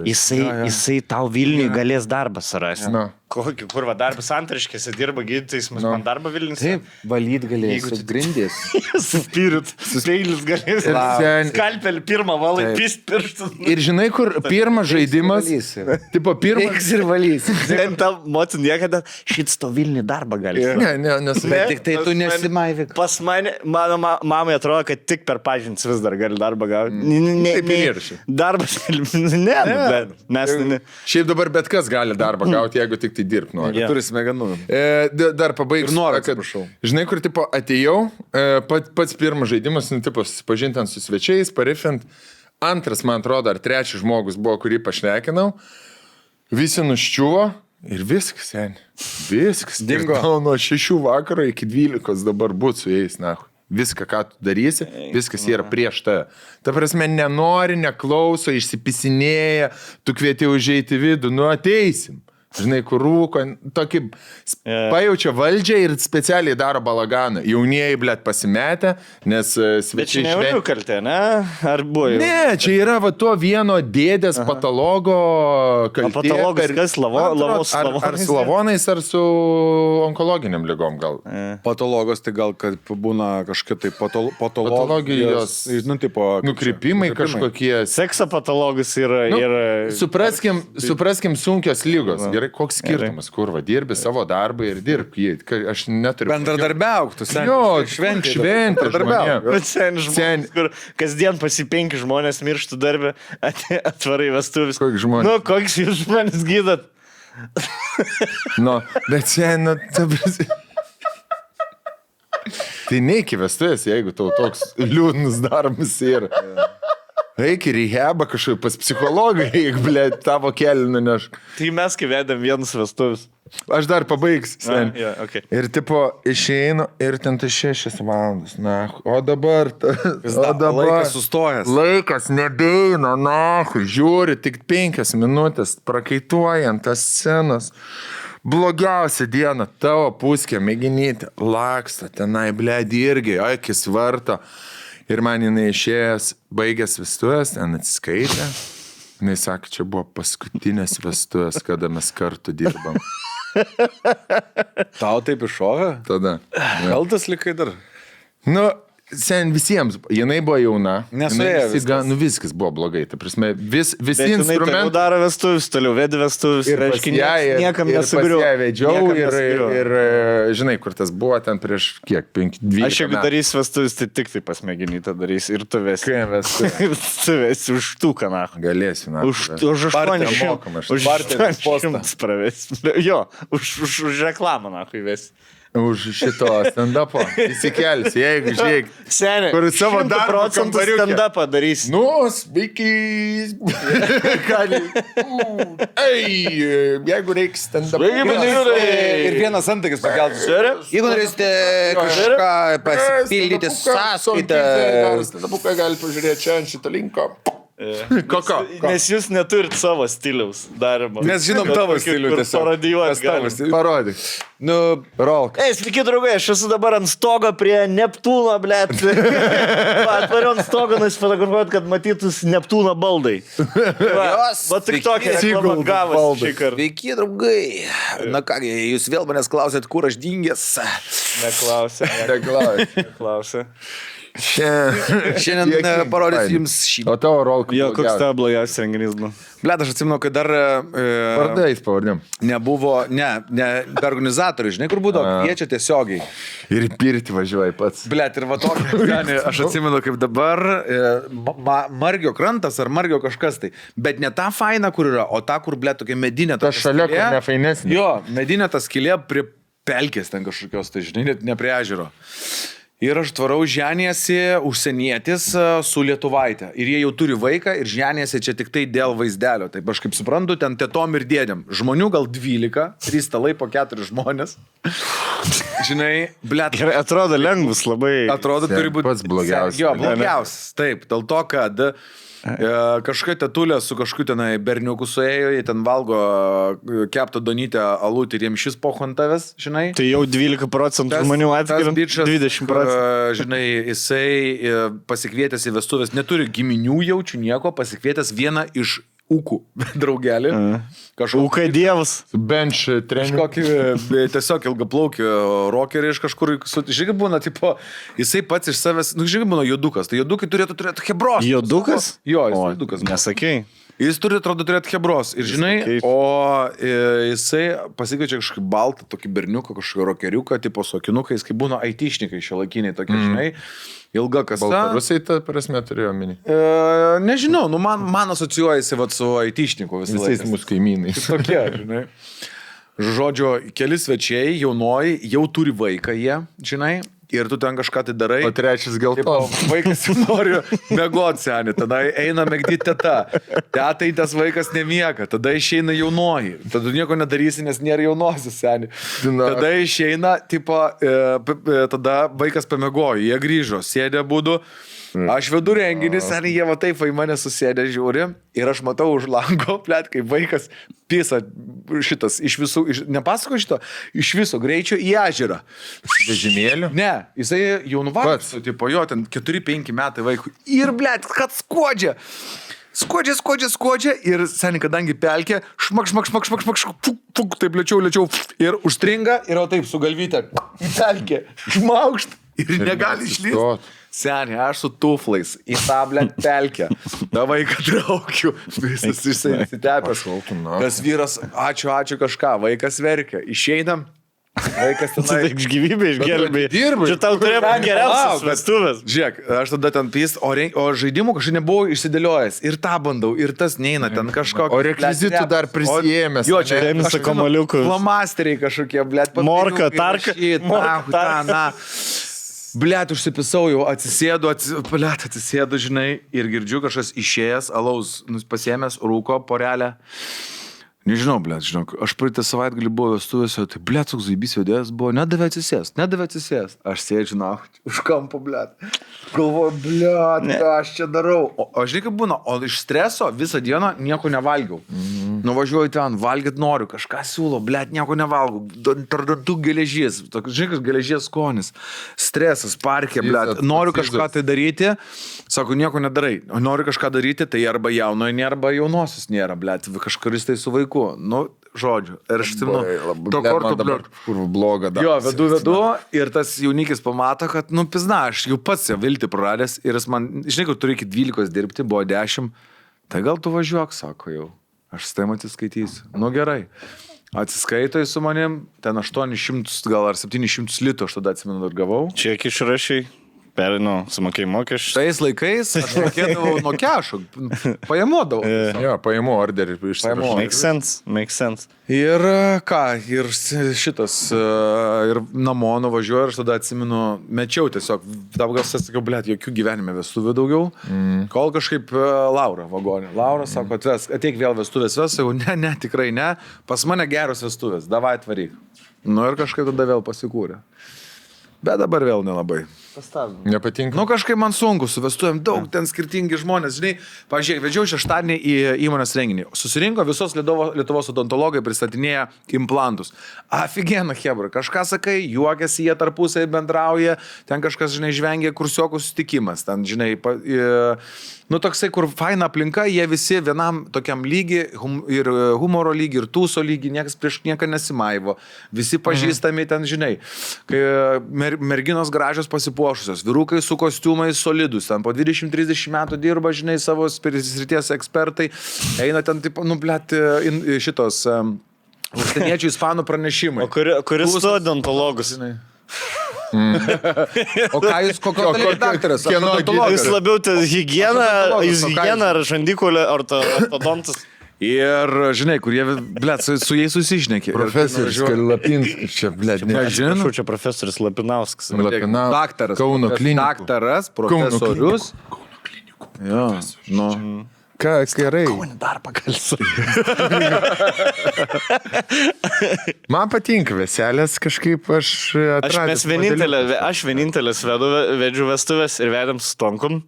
jisai tau Vilniui galės darbą surasti. Kokį, kur va darbas antraškėse dirba gydytojais, man darbą Vilnius. Taip, valyt galės, grindys. Suspirit, speilis galės. Skalpelį pirmą valai, pist pirštų. Ir žinai, kur pirmas žaidimas... Tipo, pirmas... Eiks ir valys. Ten tam mocin niekada šits to Vilniui darbą gali. Bet tik tai tu nesimaivyk. Pas mane, mano mamai atrodo, kad tik per pažintis vis dar gali darbą gauti. Taip ir šį. Darbas, mes... Šiaip dabar bet kas gali darbą gauti, jeigu tik tai dirbti nori. Turi smegenų. Dar pabaigsiu. Žinai, kur tipo atėjau, pats pirmas žaidimas, tipo susipažinti su svečiais, parifint. Antras, man atrodo, ar trečias žmogus buvo, kurį pašnekinau. Visi nuščiuvo ir viskas, seniai. Viskas. Dingo. Nuo 6 vakaro iki 12 dabar būt su jais, nahui. Viską, ką tu darysi, viskas yra prieš tave. Ta prasme, nenori, neklauso, išsipisinėja, tu kvieti užeiti vidų, nu ateisim. Žinai, kur rūko, tokį pajaučia valdžią ir specialiai daro balaganą. Jaunieji, blėt, pasimetę, nes svečiai... Bet čia ne jaunių kaltė, ne? Ar buvo jau? Ne, čia yra va to vieno dėdės patologo kaltė. O patologas kas? Ar slavonais, ar su onkologiniam ligom gal? Patologos tai gal, kad būna kažkokia tai patologijos, nu, tipo... Nukrypimai kažkokie. Sekso patologas yra... Supraskim sunkios lygos. Gerai, koks skirtumas, kur va, dirbi savo darbą ir dirb jį. Aš neturiu... Bendradarbiauk, tu seniai. Jo, šventė žmonėm. Bet žmonės, kur kasdien pasi 5 žmonės mirštų darbę, atvarai vestuvis. Koks žmonės? Nu, koks jūs žmonės gydat? Nu, bet seniai, tai neiki vestuvės, jeigu tau toks liūdnas darbas yra. Eik į rehabą kažkaip pas psichologą, eik, blė, tavo kelį nuneš. Tai mes kai vedėm vienus vestuvis. Aš dar pabaigsiu, sen. Okay. Ir tipo, išeinu ir ten tai 6 valandas, na, o dabar... Laikas sustojęs. Laikas nebeina, na, žiūri, tik 5 minutės, prakaituojant tas scenas. Blogiausia diena, tavo puskė, mėginyti, laksta, tenai, blė, irgi, akis varto. Ir man jinai išėjęs, baigęs vestuvės, ten atsiskaitė. Jinai sakė, čia buvo paskutinės vestuvės, kada mes kartu dirbam. Tau taip iššovė? Tada. Kaltas likai dar? Nu, sen visiems, jinai buvo jauna. Nesuėjo viskas. Viskas buvo blogai. Ta prasme, visi Bet jinai toliau instrumentai. daro vestuvis, toliau vedi vestuvis. Ir pas ją, niekam ir nesugriu. pas ją vedžiau, ir žinai, kur tas buvo ten prieš kiek, 5-12 Aš jeigu darysiu vestuvis, tai tik tai pasmeginytą darys ir tu vesi. Kai mes Tu vesi už tūką, na. galėsiu, na. Už 800. Už Barteris postą. 800 pravesi. Jo, už reklamą, na, kai vesi. Už šito stand-upo įsikelsi, jeigu žiūrėk. Seniai, Kur savo 100 darbo procentų kambariuke. stand-upą darysi. Nu, sveiki. Jeigu reiks stand-up. Ir vienas antakis pakeltas. Jeigu norėsite kažką pasipildyti sąskaitą. Stand-upai gali pažiūrėti čia ant šito linko. Koko. Nes jūs neturit savo stiliaus darimo. Mes žinom tavo stilių tiesiog. Parodijuoti galim. Parodyk. Nu, Rolk. Ei, sveiki, draugai, aš esu dabar ant stogo prie Neptūno, blėt. Atvariu ant stogo, nusifotografuoti, kad matytus Neptūno baldai. Va tik tokia reklama gavas šį kartą. Sveiki, draugai. Na kągi, jūs vėl manęs klausėt, kur aš dingęs. Neklausė. Neklausė. Šiandien parodysiu jums šį. O tavo Rolk. Jo, koks tavo blogiausias renginys buvo? Blet, aš atsimenu, kad dar Vardais pavardėm. nebuvo, be organizatorių, žinai, kur būdavo, kviečia tiesiogiai. Ir pirti važiuoji pats. Blet, ir va tokia, aš atsimenu, kaip dabar Margio krantas ar Margio kažkas tai. Bet ne ta faina, kur yra, o ta, kur, blet, tokia medinė. Ta šalia, kur nefainesnė. Jo, medinė ta skylė prie pelkės ten kažkokios, tai žinai, net ne prie ežero. Ir aš tvarau ženėsi užsienietis su lietuvaitė. Ir jie jau turi vaiką ir ženėsi čia tik tai dėl vaizdelio. Taip aš kaip suprantu, ten tetom ir dėdėm. Žmonių gal 12, 3 stalai po 4 žmonės. Žinai, blet. Gerai, atrodo lengvus labai. Atrodo, turi būti pats blogiausias. Jo, blogiausias. Taip, dėl to, kad kažkokia tetulė su kažkokiu tenai berniuku suėjo, jie ten valgo keptą donytę alutį ir jiems šis pohantavęs, žinai. Tai jau 12% žmonių atskiriant, 20%. Žinai, jisai pasikvietęs į vestuvės, neturi giminių jaučių nieko, pasikvietęs vieną iš ūkų draugelį. Ūkai dievas. Bench trening. Kažkokį tiesiog ilgaplaukį rockerį iš kažkur. Žiūrėk, būna, tipo, jisai pats iš savęs, žiūrėk, būna judukas. Tai judukai turėtų turėti hebros. Judukas? Jo, jis judukas. Nesakei. Jis turi, atrodo, turėti hebros. Ir žinai, o jisai pasikviečia kažkokį baltą, tokį berniuką, kažkokį rockeriuką, tipo su akinukais, kaip būna aitišnikai šiuolaikiniai tokie, žinai. Ilga kasa. Baltarusai, ta prasme, turėjo omeny. Nežinau, nu man asocijuojasi vat, su aitišniku visais mūsų kaimynais. Tokie, žinai. Žodžio, keli svečiai, jaunoji, jau turi vaiką jie, žinai. Ir tu ten kažką tai darai. O trečias geltonas. Vaikas nori mėgoti senį, tada eina mėgdyti teta. Tetai tas vaikas nemiega, tada išeina jaunoji. Tada nieko nedarysi, nes nėra jaunosios senį. Tada išeina, tipo, tada vaikas pamėgojo, jie grįžo, sėdė būdu. Aš vedu renginį, seniai jie va taip į mane susėdė, žiūri. Ir aš matau už lango, plėt, kaip vaikas pisa šitas iš visų, nepasako šito, iš viso greičio į ežerą. Vežimėlių? Ne, jisai jau nuvargęs, tipo jo, ten 4-5 metai vaikų. Ir, blėt, kad skuodžia. Skuodžia ir seniai, kadangi pelkė, šmak, fuk, taip lėčiau, ir užstringa, ir o taip su galvyte į pelkę, šmaukšt, ir negali išlysti. Seniai, aš su tuflais į tą, blėt, pelkę. Da vaiką traukiu, visas išsitepęs. Tas vyras, ačiū kažką, vaikas verkia. Išeinam. Vaikas tenai. Tai iš gyvybę išgelbėjai. Dirbai. Čia tau turėjo būti geriausias vestuvės. Žiūrėk, aš tada ten pys, o žaidimų kažkaip nebuvau išsidėliojęs. Ir tą bandau, ir tas neina ten kažkokio. O rekvizitų dar prisijėmęs. Jo, čia Tenisą kamaliukus. Flomasteriai kažkokie, blėt. Morka, tarka. Blet, užsipisau jau, atsisėdu, žinai, ir girdžiu kažkas išėjęs, alaus, pasiėmęs, rūko, porelę. Nežinau, blet, žinok, aš praeitą savaitgalį buvau vestuvėse, tai blet, toks zaibys vedėjas buvo, nedavė atsisėst. Aš sėdžiu, na, už kampo, blet. Galvoju, blet, ką aš čia darau. O žinai, kaip būna, o iš streso visą dieną nieko nevalgiau. Nuvažiuoju ten, valgyt noriu, kažką siūlo, blet, nieko nevalgau. Tardantų geležies, žinai, kas geležies skonis. Stresas, parkė, blet, noriu kažką tai daryti, sako, nieko nedarai. Noriu kažką daryti, tai arba jaunojo nėra, arba jaunosios nėra, blet, kažkuris tai su vaiku. Nu, žodžių. Ir aš atsimenu, to Man korto dabar kur bloga dar. Jo, vedu ir tas jaunikis pamato, kad, pizna, aš jau pats jau viltį praradęs ir jis man, žinai, kad turi iki 12 dirbti, buvo 10, tai gal tu važiuok, sako jau, aš su tavim atsiskaitysiu. Gerai. Atsiskaito su manim, ten 800 gal ar 700 litų aš tada atsimenu ir gavau. Kiek išrašiai? Sumokėjai mokesčius. Tais laikais aš mokėdavau nuo kešo, pajamodavau. Jo, pajamų orderį išsipaimu. Make sense. Ir ką, ir šitas, ir namo nuvažiuoju ir aš tada atsimenu, mečiau tiesiog, dabar gal sakiau, blėt, jokių gyvenime vestuvių daugiau, kol kažkaip Laura vagonė. Laura sako, ateik vėl vestuvės ves, sakau, ne, tikrai ne, pas mane geros vestuvės, davai atvaryk. Ir kažkaip tada vėl pasikūrė. Bet dabar vėl nelabai. Nepatinka. Kažkaip man sunku, su vestuvėm daug, ten skirtingi žmonės, žinai, pažiūrėk, vedžiau šeštadienį į įmonės renginį, susirinko visos Lietuvos odontologai, pristatinėja implantus. Aфигенно, hebra, kažką sakai, juokiasi, jie tarpusai bendrauja, ten kažkas, žinai, žvengia kursiokų susitikimas, ten, žinai, toksai, kur faina aplinka, jie visi vienam tokiam lygi, ir humoro lygi, ir tūso lygi, niekas prieš nieką nesimaivo, visi pažįstami ten, žinai, kai merginos gražios pasipuošusios, vyrukai su kostiumais solidus, ten po 20-30 metų dirba, žinai, savo srities ekspertai, eina ten, taip, šitos užsieniečių ispanų pranešimai. O kuris tu odontologus? O ką jūs, kokio daktaras? Jūs labiau higieną ar žandikulį ortodontus? Ir, žinai, kur jie, blėt, su jais susišnekė. Profesorius Lapinskas, čia, blėt, Žinau, čia profesorius Lapinauskas. Daktaras. Kauno klinikų. Daktaras, profesorius. Kauno klinikų. Jo, Ką, gerai. Dar pakalsiu. Man patinka veselės, kažkaip aš atradęs. Aš vienintelis vedžiu vestuvės ir vedėm su Tonkum,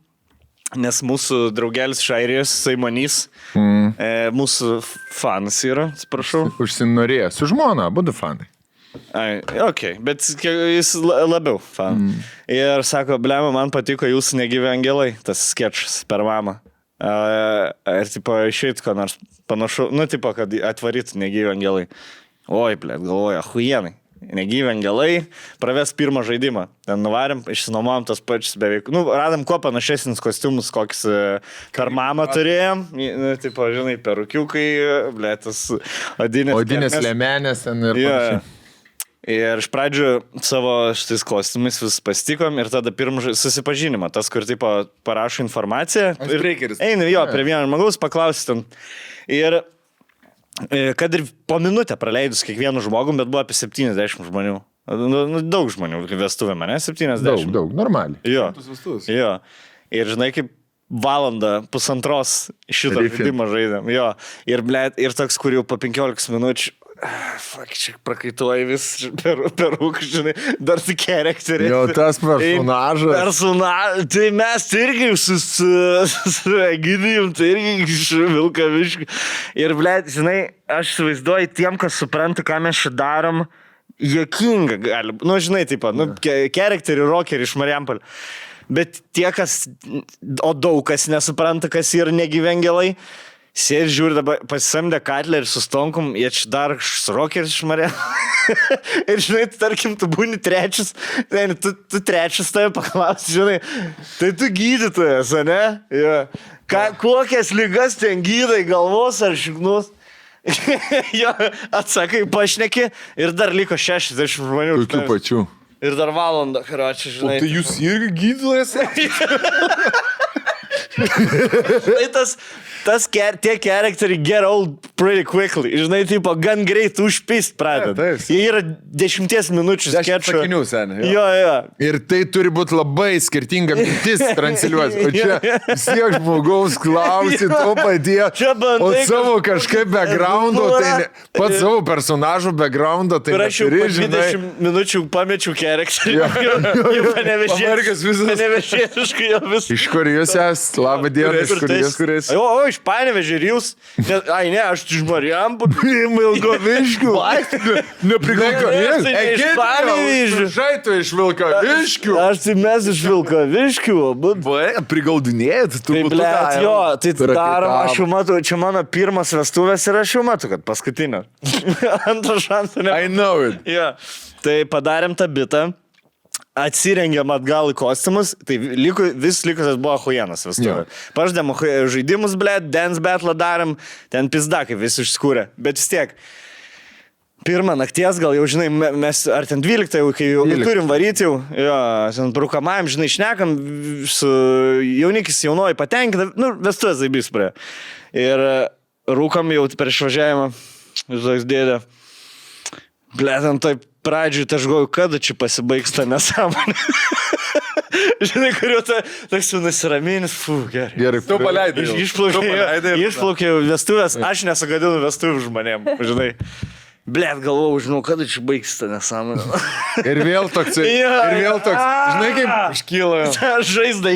nes mūsų draugelis iš Airijos, Saimonys, mūsų fanas yra, atsiprašau. Užsinorėjo, su žmona, abudu fanai. Bet jis labiau fan. Ir sako, blema, man patiko jūsų negyvi angelai, tas skečas per mamą. Ir tipo išeit, ko nors panašu, tipo, kad atvaryt negyvi angelai. Oi, blėt, galvoju, ahuienai. Negyvi angelai, praves pirmą žaidimą. Ten nuvarėm, išsinuomojom tas pačius beveik. Radom kuo panašesnis kostiumus, kokius per mamą turėjom. Tipo, žinai, perukiukai, blėt, tas odinės lėmenės ten ir panašiai. Ir iš pradžių savo šitais kostiumais vis pasitikom ir tada pirmą susipažinimą, tas, kur tipo parašo informaciją. Eini jo, prie vieno žmogaus paklausti ten. Ir kad ir po minutę praleidus kiekvienu žmogum, bet buvo apie 70 žmonių. Daug žmonių vestuvė mane, 70. Daug, normaliai. Jo. Ir žinai, kaip valandą, pusantros šitą žaidimą žaidėm. Jo. Ir toks, kur jau po 15 minučių čia prakaituoji vis peruk, žinai, dar tik charakterį. Jo, tas personažas. Tai mes irgi su Egidijum, tai irgi iš Vilkaviškių. Ir, žinai, aš įsivaizduoju tiem, kas supranta, ką mes čia darom, juokinga gali. Žinai, taip pat, charakterį, rockerį iš Marijampolio. Bet tie, daug kas nesupranta, kas yra negyvengelai, sėdi, žiūri, dabar pasisamdė Katlerį su Stonkum, jie čia dar rokeris šmarė. Ir žinai, tarkim, tu būni trečias, tu trečias tave paklausi, žinai, tai tu gydytojas, ne? Ja. Kokias ligas ten gydai, galvos ar šiknus? Jo, atsakai, pašneki ir dar liko 60 žmonių. Tokių pačių. Ir dar valandą, karočią, žinai. O tai jūs irgi gydytojas? Tie charakteriai get old pretty quickly. Žinai, tipo, gan greit užpist pradeda. Jie yra 10 minučių skečio. Jo. Ir tai turi būti labai skirtinga mintis transliuos. O čia siek žmogaus klausit, o paties. O savo kažkaip backgroundo, tai pat savo personažo backgroundo, tai neturi, žinai. Aš jau 20 minučių pamečiau charakterį. Jau panevežėsiškai jau vis. Iš kur jūs esate? Labą dieną, iš kur jūs, kuris? O, iš Panevėžio ir jūs. Ai, ne, aš iš Marijampolės. Vilkaviškių. Nepriklausomės. Iš Panevėžio. Žai tu iš Vilkaviškių. Aš tai mes iš Vilkaviškių, būt. Prigaudinėjat, tu Tai, blėt, jo, tai darom, aš jau matau, čia mano pirmas vestuvės ir aš jau matau, kad paskutinio. Antro šansų ne. I know it. Ja. Tai padarėm tą bitą. Atsirengėm atgal į kostiumus, tai vis likusias buvo huienas vestuvė. Paždėm žaidimus, blėt, dance battle darėm, ten pizdakai visi išskūrė. Bet vis tiek, pirmą nakties gal jau, žinai, mes, ar ten 12, jau, kai jau turim varyti jau, jo, ten brukamajam, žinai, šnekam, su jaunikis jaunoji patenkinta, nu, vestuvės zaibys prie. Ir rūkam jau per išvažiavimą, žinai, dėdė, blėt, ant taip, pradžiui, tai aš galvoju, kada čia pasibaigs tą nesąmonę. Žinai, kuriuo toks jau nusiraminis, gerai. Gerai, Tu paleidai. Išplaukė vestuvės, aš nesugadinu vestuvių žmonėm, žinai. Blėt, galvojau, žinau, kada čia baigs tą nesąmonę. Ir vėl toks, žinai, kaip iškyla. Žaizda,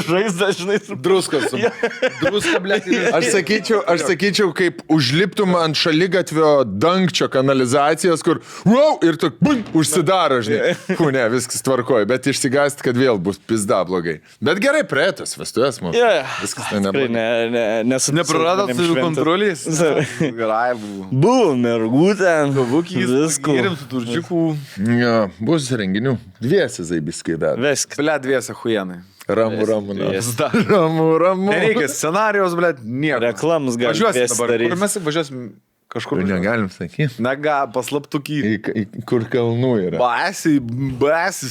žaizda, žinai. Druskos. Druska, blėt. Aš sakyčiau, kaip užliptum ant šaligatvio dangčio kanalizacijos, kur, wow, ir tu užsidaro, žinai. Ne, viskas tvarkoja, bet išsigąsti, kad vėl bus pizda blogai. Bet gerai, praeitas vestuvės mums. Viskas ten neblogai. Nepraradot su kontrolės? Gerai buvo. Buvo mergutė. Gavukys, Visko. gėrim su turčiukų. Ja, bus renginių. Dviesi zaibiskai dar. Viskas. Ble, dviese huienai. Ramu. Ramu. Nereikia scenarijos, ble, nieko. Reklamus gali Važiuosim dabar. daryt. Kur mes važiuosim? Kažkur. Negalim sakyti. Nega, paslaptukį. Kur kalnų yra. Basi,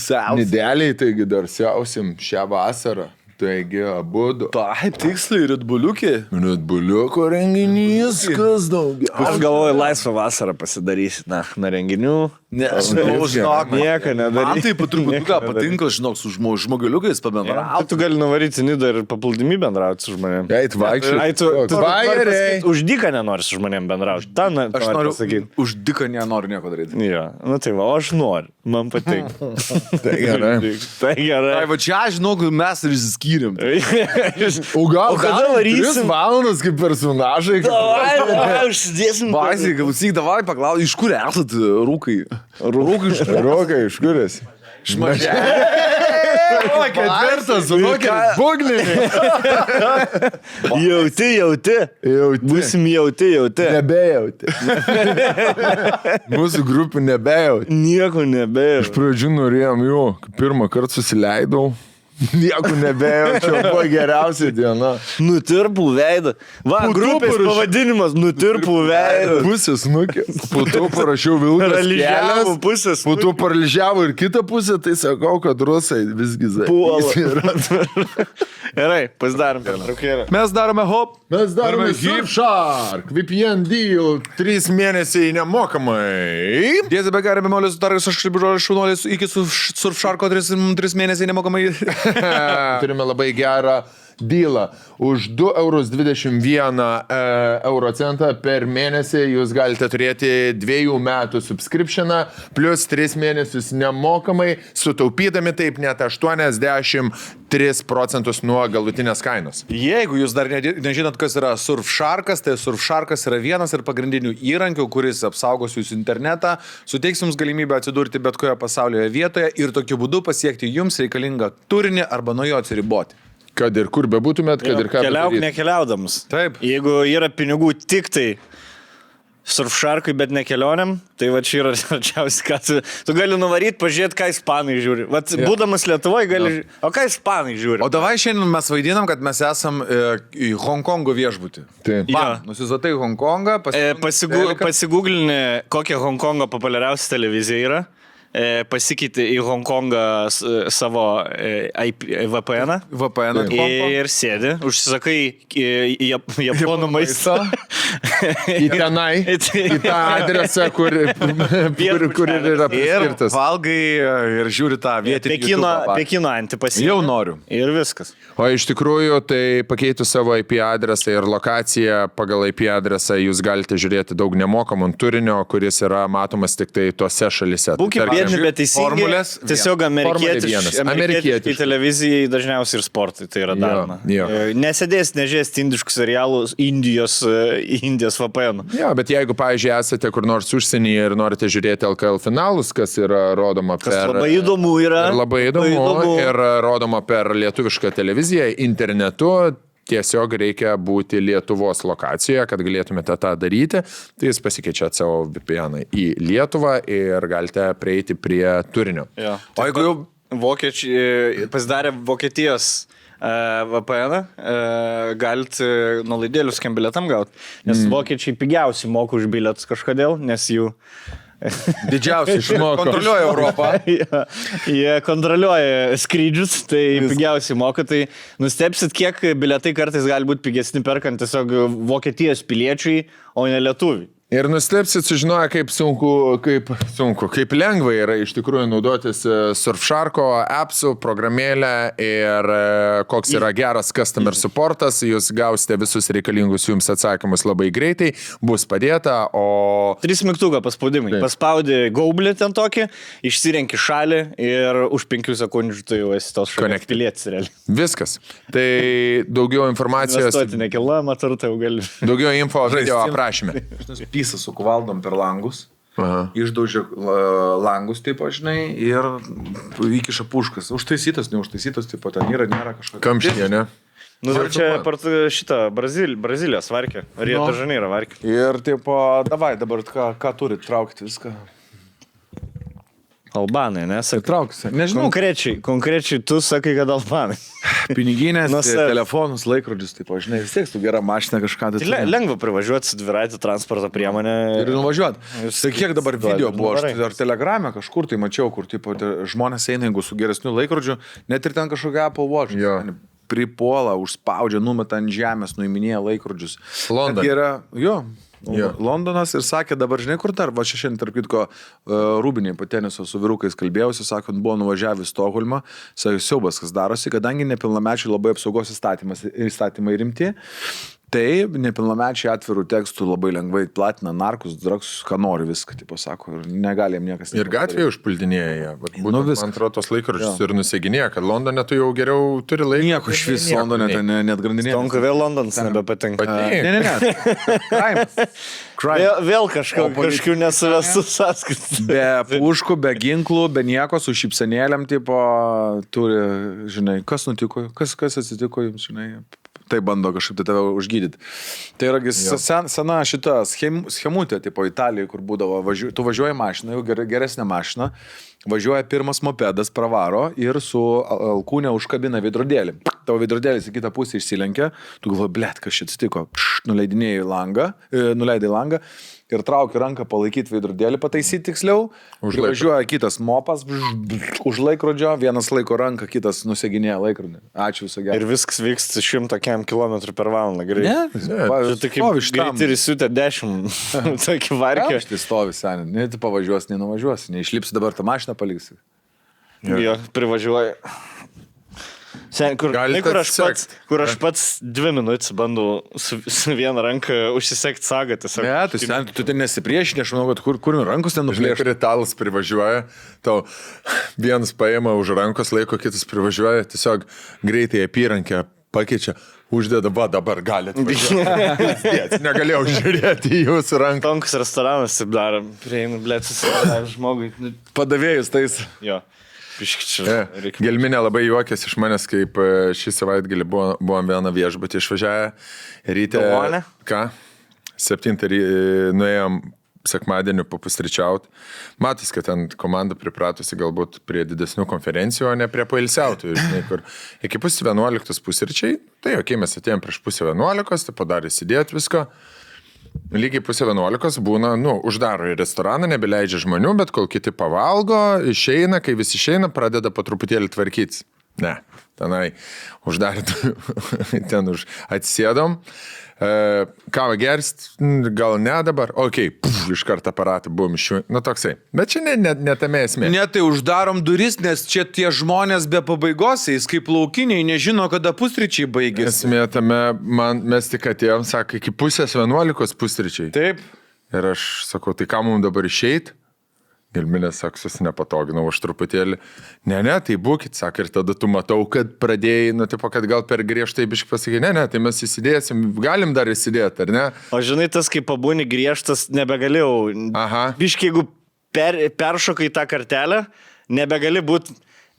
siausia. Nedėliai, taigi dar siausim šią vasarą. Taigi, abudu. Taip, tiksliai, Redbuliukė. Redbuliuko renginys, kas daugiau. Aš galvoju, laisvą vasarą pasidarysit, na renginių. Ne, aš žinok, Nieko nedaryt. Man taip truputuką patinka, žinok, su žmogeliukais Tai pabendrauti. tu gali nuvaryti Nidą ir paplūdimį bendrauti su žmonėm. Eit vaikščiai. Ai, tu Vajeriai. už dyką nenori su žmonėm bendrauti. Ta, Aš noriu pasakyti. Už diką nenoriu nieko daryti. Jo, nu tai va, aš noriu. Man patinka. Tai gerai. Tai gerai. Ai, va čia, žinok, mes ir išsiskyrėm. O gal kada varysim? 3 valandas kaip personažai. Davai, užsidėsim. Baisiai, klausyk, davai paklausyk, iš kur esat rūkai? Rūkai iš Rokai, iš kur esi? Šmažė. O, ketvirtas, rokeris, būgninė. Jauti. Būsim jauti. Nebejauti. Mūsų grupių nebejauti. Nieko nebėjau. Iš pradžių norėjom jo, pirmą kartą susileidau. Nieko nebejaučiau, buvo geriausia diena. Nutirpų veidą. Va, grupės pavadinimas Nutirpų veidą. Pusės nukė. Po to parašiau Vilkas Paralyžiavo kelias. pusės. Po to paralyžiavo ir kitą pusę, tai sakau, kad rusai visgi zai. Puola. Gerai, pasidarom. Mes darome hop. Mes darome Hip Surfshark, VPN deal, 3 mėnesiai nemokamai. Dėzė be garė bemolės sutarės, aš kaip žodžiu šaunuolės iki Surfsharko 3 mėnesiai nemokamai. Turime labai gerą dealą. Už 2,21 eurocentą per mėnesį jūs galite turėti 2 metų subscriptioną, plus 3 mėnesius nemokamai, sutaupydami taip net 83% nuo galutinės kainos. Jeigu jūs dar nežinot, kas yra Surfsharkas, tai Surfsharkas yra vienas ir pagrindinių įrankių, kuris apsaugos jūsų internetą, suteiks jums galimybę atsidurti bet kurioje pasaulio vietoje ir tokiu būdu pasiekti jums reikalingą turinį arba nuo jo atsiriboti. Kad ir kur bebūtumėt, kad ir ką Keliauk bedaryt. nekeliaudamas. Taip. Jeigu yra pinigų tik tai Surfsharkui, bet ne kelionėm, tai va čia yra arčiausiai, ką tu gali nuvaryti, pažiūrėti, ką ispanai žiūri. Vat būdamas Lietuvoje gali žiūrėti, o ką ispanai žiūri. O davai šiandien mes vaidinam, kad mes esam į Hongkongo viešbutį. Taip. Nusizatai Hongkongą, Pasigūglinį, kokia Hongkongo populiariausia televizija yra. Pasikeitė į Hongkongą savo VPN-ą. VPN-ą. Ir sėdi, užsisakai japonų maistą. į tenai, į tą adresą, kur ir yra Ir priskirtas. valgai ir žiūri tą vietinį Pekino antipasį. Jau noriu. Ir viskas. O iš tikrųjų, tai pakeitus savo IP adresą ir lokaciją pagal IP adresą jūs galite žiūrėti daug nemokamų turinio, kuris yra matomas tik tai tose šalise. Būkime Tai tarkim, biedni, bet teisingai. formulės Tiesiog amerikietiškai Amerikietiškai. televizijai dažniausiai ir sportui tai yra daroma. jo. Nesėdės, nežiūrės indiškus serialus Indijos VPN. Jo, bet jeigu, pavyzdžiui, esate kur nors užsienyje ir norite žiūrėti LKL finalus, kas yra rodoma Kas per... labai įdomu yra. Ir labai įdomu. Ir rodoma per lietuvišką televiziją internetu. Tiesiog reikia būti Lietuvos lokacijoje, kad galėtumėte tą daryti. Tai jūs pasikeičiate savo VPN į Lietuvą ir galite prieiti prie turinio. Jo. O jeigu jau Vokiečiai pasidarė Vokietijos VPN, galite nuolaidėlius kiam bilietam gauti, nes vokiečiai pigiausiai moka už bilietus kažkodėl, nes jų didžiausiai išmoko. Kontroliuoja Europą. jie kontroliuoja skrydžius, tai pigiausiai moka, tai nustepsit, kiek bilietai kartais gali būti pigesni perkant tiesiog Vokietijos piliečiai, o ne lietuviai. Ir nustepsit sužinoję, kaip lengva yra iš tikrųjų naudotis Surfsharko appsų, programėlę ir koks yra geras customer supportas, jūs gausite visus reikalingus jums atsakymus labai greitai, bus padėta, o... 3 mygtuką paspaudimai. Paspaudi gaublį ten tokį, išsirenki šalį ir už 5 sekundžių tu jau esi tos šalies pilietis realiai. Viskas. Tai daugiau informacijos... Investuoti nekilnojamą turtą jau gali. Daugiau info video aprašyme. Pysą sukuvaldom per langus, išdaužia langus, taip, žinai, ir įkiša puškas. Užtaisytas, neužtaisytas, taip, ten yra, nėra kažkokio. Kamštyje, ne? Nu, čia per šitą Brazilijos varkę. Rio de Janeiro varkę. Ir, taip, davai, dabar ką turit, traukti viską. Albanai, nesakai. Traukti. Nežinau. Konkrečiai tu sakai, kad albanai. Piniginės, telefonus, laikrodžius, taip, žinai, vis tiek tu gerą mašiną kažką. Tai lengva privažiuoti su dviratį transporto priemonę. Ir nuvažiuoti. Tai kiek dabar video buvo, aš ar Telegrame kažkur tai mačiau, kur tipo, žmonės eina, jeigu su geresniu laikrodžiu, net ir ten kažkokia Apple Watch. Pripuola, užspaudžia, numeta ant žemės, nuiminėja laikrodžius. London. Londonas ir sakė, dabar žinai, kur dar, va šiandien, tarp kitko, Rūbiniai po teniso su vyrukais kalbėjausi, sakant, buvo nuvažiavę į Stokholmą, sakė, siaubas, kas darosi, kadangi nepilnamečiai labai apsaugos įstatymai rimti, tai nepilnamečiai atvirų tekstų labai lengvai platina narkus, dragsus, ką nori viską, tipo sako, ir negali jam niekas. Ir gatvėje užpuldinėja. Man atrodo, tos laikrodžius ir nuseginėja, kad Londone tu jau geriau turi laiką. Nieko iš vis Londone ten net grandinėja. Tonka vėl Londonas nebepatinka. Ne. Vėl kažkokių nesuvestų sąskaitų. Be puškų, be ginklų, be nieko, su šypsenėlėm, tipo, turi, žinai, kas nutiko, kas atsitiko jums, žinai. Tai bando kažkaip tai tave užgydyti. Tai yra sena šita schemutė, tipo Italijoje, kur būdavo, tu važiuoji mašiną, jau geresnė mašina, važiuoja pirmas mopedas, pravaro ir su alkūnė užkabina veidrodėlį. Tavo veidrodėlis į kitą pusę išsilenkia, tu galvoji, blet, kas šit stiko, nuleidai langą ir trauki ranką palaikyti veidrodėlį, pataisyti tiksliau, važiuoja kitas mopas, už laikrodžio, vienas laiko ranką, kitas nuseginėja laikrodį. Ačiū viso gero. Ir viskas vyksta 100 km/h greitai. Ne? Tai kaip greitai ir įsiutė 10 tokį varkę. Aš tai stovi seniai, ne tu pavažiuosi, nenuvažiuosi, neišlipsi dabar tą mašiną paliksi. Jo, privažiuoja. Sen, kur aš pats 2 minutės bandau su viena ranka užsisekti sagą. Ne, tu ten nesipriešini, aš manau, kad kur rankos ten nuplėšti. Žinai, italas privažiuoja, tau vienas paima už rankos laiko, kitas privažiuoja, tiesiog greitai apyrankę pakeičia, uždeda, va dabar galite važiuoti. Negalėjau žiūrėti į jūsų ranką. Tonkus restoranas taip daro, prieinu, blėt, susidarė žmogui. Padavėjus tais. Jo. Gelminė labai juokės iš manęs, kaip šį savaitgalį buvom vieną viešbutį išvažiavę. Ryte, ką? 7 nuėjom sekmadienį papusryčiauti. Matos, kad ten komanda pripratusi galbūt prie didesnių konferencijų, o ne prie pailsiautų. Kur iki 10:11 pusryčiai, tai okei, mes atėjom prieš 10:11, tai padarė įsidėti visko. Lygiai 10:11 būna, uždaro į restoraną, nebeleidžia žmonių, bet kol kiti pavalgo, išeina, kai visi išeina, pradeda po truputėlį tvarkytis. Ne, tenai uždarė, ten atsisėdom, Kavą gerst, gal ne dabar, iš karto aparatą buvom iš jų, toksai. Bet čia ne tame esmė. Ne, tai uždarom duris, nes čia tie žmonės be pabaigos, jis kaip laukiniai, nežino, kada pusryčiai baigėsi. Esmė tame, mes tik atėjom, sako, iki 10:11 pusryčiai. Taip. Ir aš sakau, tai ką mums dabar išeit? Gelminės saksus nepatoginau aš truputėlį. Ne, tai būkit, sako, ir tada tu matau, kad pradėjai, kad gal per griežtai biškai pasakė, ne, tai mes įsidėsim, galim dar įsidėti, ar ne? O žinai, tas, kai pabūni griežtas, nebegalėjau. Aha. Biškai, jeigu peršokai tą kartelę, nebegali būti.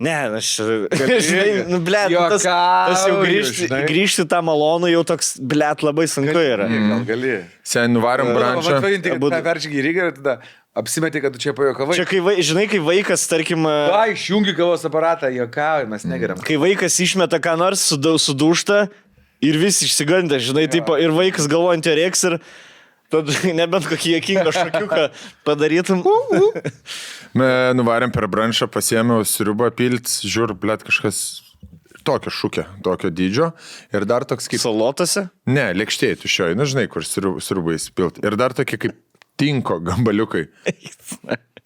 Ne, aš... Žinai, tas jau grįžti tą malonų, jau toks, labai sunku yra. Gal gali. Sen nuvarom brančą. Vadinti, kad peršyk į Rygą ir tada apsimetė, kad tu čia pajokavai. Čia, žinai, kai vaikas, tarkim... Išjungi kavos aparatą, jokavai, mes negeriam. Kai vaikas išmeta ką nors, sudūšta ir visi išsigandė, žinai, tipo, ir vaikas galvojant jo reiks ir... Tad nebent kokį jėkingą šokiuką padarytum. Nuvarėm per branšą, pasiėmiau sriubą pilt, žiūr, kažkas tokio šūkio, tokio dydžio. Ir dar toks kaip... Salotose? Ne, lėkštėj tuščioj, žinai, kur sriubą įspilt. Ir dar tokie kaip tinko gambaliukai.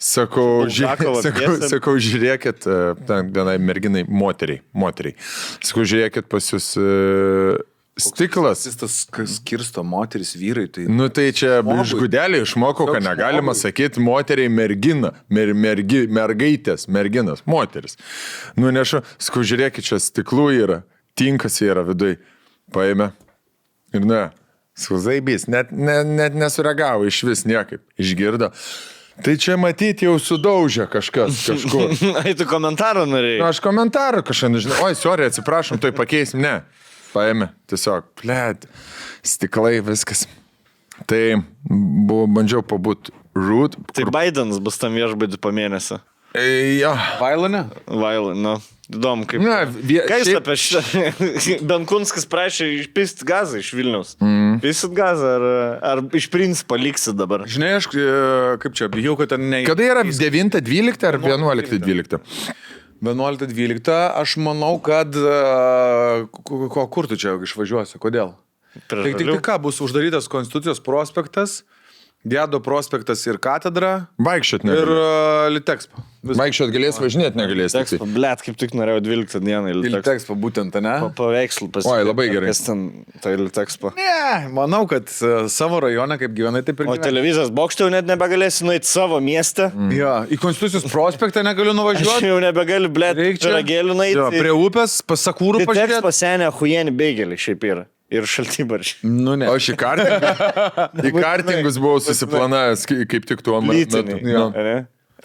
Sakau, žiūrėkit, vienai merginai, moteriai. Sakau, žiūrėkit pas jūs... Stiklas. Jis tas skirsto moteris, vyrai. Tai... Tai čia iš gudelį išmokau, kad negalima sakyti moteriai mergina, mergaitės, merginas, moteris. Nešu, sakau, žiūrėkit, čia stiklų yra, tinkas yra vidui. Paėmė. Ir sakau, zaibys, net nesureagavo iš vis niekaip. Išgirdo. Tai čia matyti jau sudaužė kažkas kažkur. Ai, tu komentarą norėjai? Aš komentarą kažką nežinau. Oi, sorry, atsiprašom, tai pakeisim. Ne. Paėmė, tiesiog, stiklai, viskas. Tai bandžiau pabūt root. Tai Bidenas bus tam viešbadį po mėnesio. Jo. Vailone? Vailone, įdomu kaip. Ką jis apie šitą? Benkunskas prašė išpist gazą iš Vilniaus. Pisit gazą ar iš principo liksi dabar? Žinai, aš kaip čia, bijau, kad ten ne... Kada yra 9-12 ar 11-12? 11-12, aš manau, kad... Kur tu čia išvažiuosi? Kodėl? Tai ką, bus uždarytas Konstitucijos prospektas, Gedo prospektas ir katedra. Vaikščiot negali. Ir Litexpo. Vaikščiot galės, važinėt negalės. Litexpo, kaip tik norėjau 12 dieną į Litexpo būtent, ne? Paveikslų pasiekti. Oi, labai gerai. Kas ten, tai Litexpo. Ne, manau, kad savo rajone, kaip gyvenai, taip ir gyvenai. O televizijos bokšte jau net nebegalėsi nueiti savo miestę. Jo, į Konstitucijos prospektą negaliu nuvažiuoti. Aš jau nebegaliu, piragėlių nueiti. Jo, prie upės, pas Sakūrų pažiūrėti. Litexpo senė huienį beigėlį šiaip yra. Ir šaltybaršiai. Ne. O aš į kartingus buvau susiplanavęs, kaip tik tuo metu.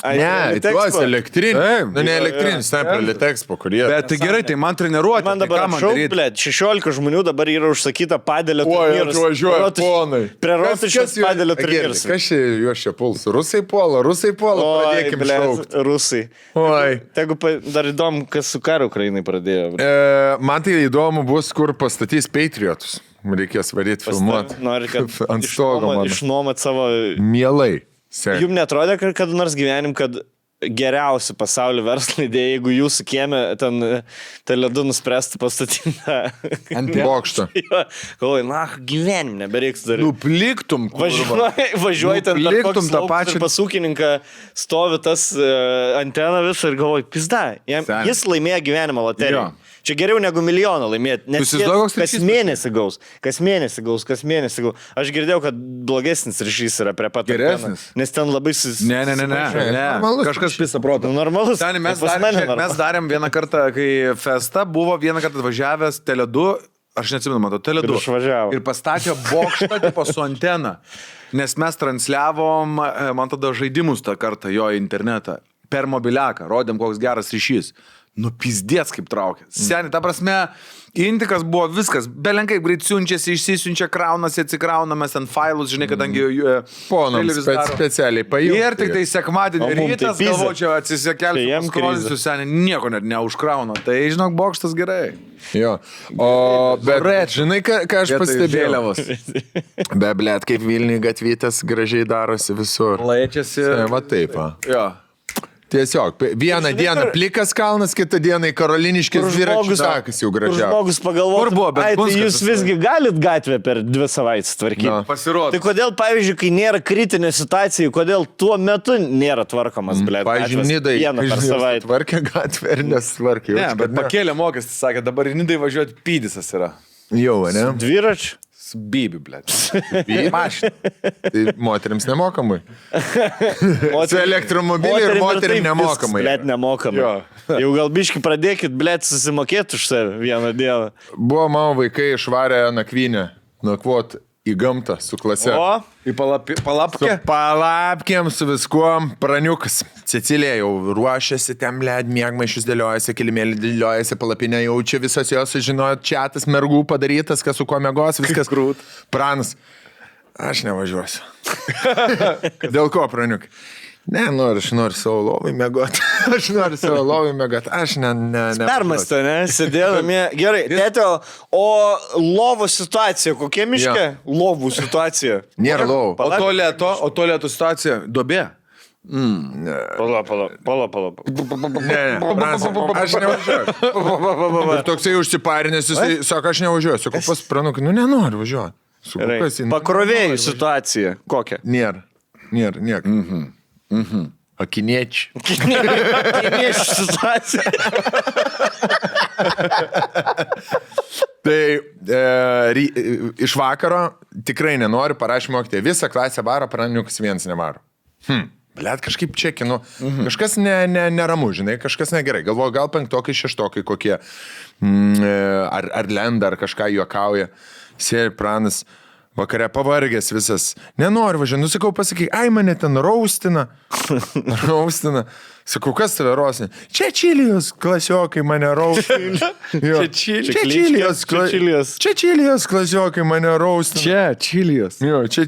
Ne, tuos elektrinius. Ne elektrinius, ten prie Litexpo, kurie. Bet tai gerai, tai man treniruoti. Man dabar šau, 16 žmonių dabar yra užsakyta padėlio turnyrus. Oi, atvažiuoja ponai. Prie Rotušės padėlio turnyrus. Kas čia juos čia puls? Rusai puola, pradėkim šaukti. Rusai. Oi. Tegu dar įdomu, kas su karu Ukrainai pradėjo. Man tai įdomu bus, kur pastatys Patriotus. Reikės varyti filmuoti. Nori, kad ant stogo išnuomot savo... Mielai. Jums netrodė, kad nors gyvenim, kad geriausi pasaulio verslo idėja, jeigu jūsų kieme ten ledu nuspręstų pastatyti ant bokšto. Galvoju, gyvenim nebereiks daryti. Nupliktum, važiuoji ten per kokį lauką ir pas ūkininką stovi tas antena visą ir galvoju, pizda, jis laimėjo gyvenimo loteriją. Čia geriau negu milijoną laimėti, nes kas mėnesį gaus. Aš girdėjau, kad blogesnis ryšys yra prie pat. Geresnis. Nes ten labai... Ne. Kažkas pisa proto. Normalus. Mes darėm vieną kartą, kai festa buvo vieną kartą atvažiavęs Tele2, aš neatsimenu, matau, Tele2. Ir pastatė bokštą tipo su antena. Nes mes transliavom, man tada žaidimus tą kartą jo internetą. Per mobiliaką. Rodėm, koks geras ryšys. Pizdėts kaip traukia. Seniai, ta prasme, intikas buvo viskas. Belenkai greit siunčiasi, išsisiunčia, kraunasi, atsikrauna, mes ant failus, žinai, kadangi... Ponams specialiai pajungti. Ir tik tai sekmadienį rytas, galvočiau, atsisekelsiu, paskrolisiu, seniai, nieko net neužkrauna. Tai, žinok, bokštas gerai. Jo. Bet, žinai, ką aš pastebėjau? Blet, kaip Vilniui gatvytės gražiai darosi visur. Laičiasi. Va taip, va. Jo. Tiesiog, vieną dieną plikas kalnas, kitą dieną į Karoliniškės dviračių takas jau gražiausias. Žmogus pagalvoja, Kur buvo, bet tai Punskas jūs visgi galit gatvę per 2 savaitės tvarkyti. Na. Pasirodo. Tai kodėl, pavyzdžiui, kai nėra kritinė situacija, kodėl tuo metu nėra tvarkomas, blėt, Pavyzdžiui, Nidai vieną per savaitę. tvarkė gatvę ir nesvarkė. Ne, bet pakėlė mokestį, sakė, dabar į Nidai važiuoti pydisas yra. Jau, ne? Dviračių? Su bibi, blėt. Mašina. Tai moteriams nemokamai. Su elektromobiliu ir moterim nemokamai. Blėt, nemokamai. Jo. Jau gal biški pradėkit, blėt, susimokėti už save vieną dieną. Buvo mano vaikai išvarę nakvynę, nakvot į gamtą su klase. O? Į palapkę? Su palapkėm, su viskuom, praniukas. Cecilija jau ruošiasi, ten blėd, mėgmaišius dėliojasi, kilimėlį dėliojasi, palapinę jau čia visos jos sužinojo, čiatas mergų padarytas, kas su kuo mėgos, viskas krūt. Pranas, aš nevažiuosiu. Dėl ko, praniuk? Ne, aš noriu savo lovai mėgoti. Aš noriu savo lovai mėgoti. Aš ne. Permastė, ne? Sėdėdami. Gerai, tėtio, o lovų situacija, kokia miške? Jo. Lovų situacija. Nėra lovų. O tualeto situacija? Duobė? Pala. Ne, Pranas, aš nevažiuoju. Ir toksai užsiparinęs, jisai sako, aš nevažiuoju. Sakau, pas pranukai, nenoriu važiuoti. Gerai. Pakrovėjų situacija. Kokia? Nėra nieko. Akiniečiai. Kiniečių situacija. Tai iš vakaro tikrai nenoriu, parašyti mokytė. Visą klasę varo, praniukas vienas nevaro. Blet, kažkaip čekinu. Kažkas neramu, žinai, kažkas negerai. Galvoju, gal 5-okai, 6-okai kokie. Ar lenda, ar kažką juokauja. Sėri pranas. Vakare pavargęs visas. Nenoriu važiuoti. Nusakau, pasakyk, ai mane ten raustina. Sakau, kas tave raustina? Čia Čilijos klasiokai mane raustina. Čia Čilijos klasiokai mane raustina. Čia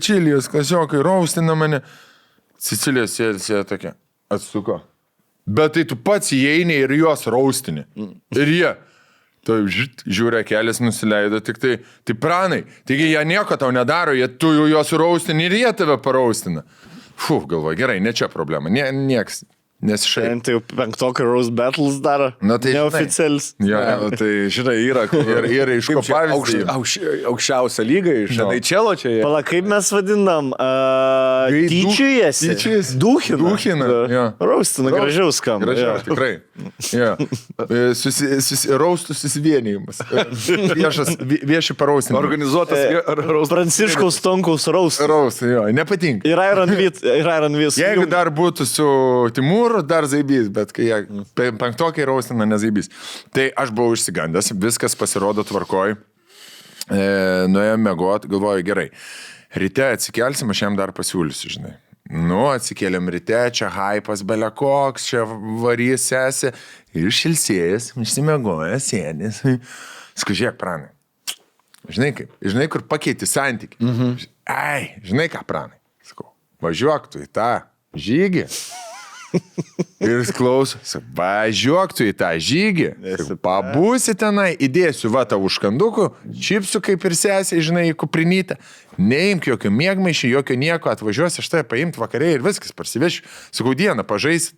Čilijos klasiokai raustina mane. Cecilija sėdė tokia. Atsuko. Bet tai tu pats įeini ir juos raustini. Ir jie. Tai žiūrė, kelias nusileido, tik tai pranai. Taigi jie nieko tau nedaro, tu juos raustini ir jie tave paraustina. Galvoju, gerai, ne čia problema, nieks. Nesišai. Tai jau 5-okai Rose Battles daro. Na, tai neoficialis. Jo, Tai žinai, yra ir iš ko pavyzdžiui. Aukščiausia lyga iš NHL čia. Pala, kaip mes vadinam? Tyčiujasi. Dūchina. Raustina, gražiau skamba. Gražiau, tikrai. Raustų susivienijimas. Vieši paraustinimai. Organizuotas Pranciškaus Tonkaus raustas. Raustų, jo, nepatinka. Ir Iron Vis. Jeigu dar būtų su Timūru, dar zaibys, bet kai jie 5-okai raustina, nezaibys. Tai aš buvau išsigandęs, viskas pasirodo tvarkoj. Nuėjom mėgot, galvoju, gerai. Ryte atsikelsim, aš jam dar pasiūlysiu, žinai. Atsikėlėm ryte, čia haipas belekoks, čia varys sesi. Ir šilsėjęs, išsimėgojęs, sėdės. Skužiek, pranai. Žinai, kur pakeiti santykį. Ai, žinai ką, pranai. Sakau, važiuok tu į tą žygį. Ir jis klauso, važiuok tu į tą žygį, pabūsi tenai, įdėsiu va tavo užkandukų, čipsų kaip ir sesiai, žinai, į kuprinytę, neimk jokio mėgmaišį, jokio nieko, atvažiuosi aš tai paimti vakarė ir viskas, parsivešiu, sakau, dieną pažaisit.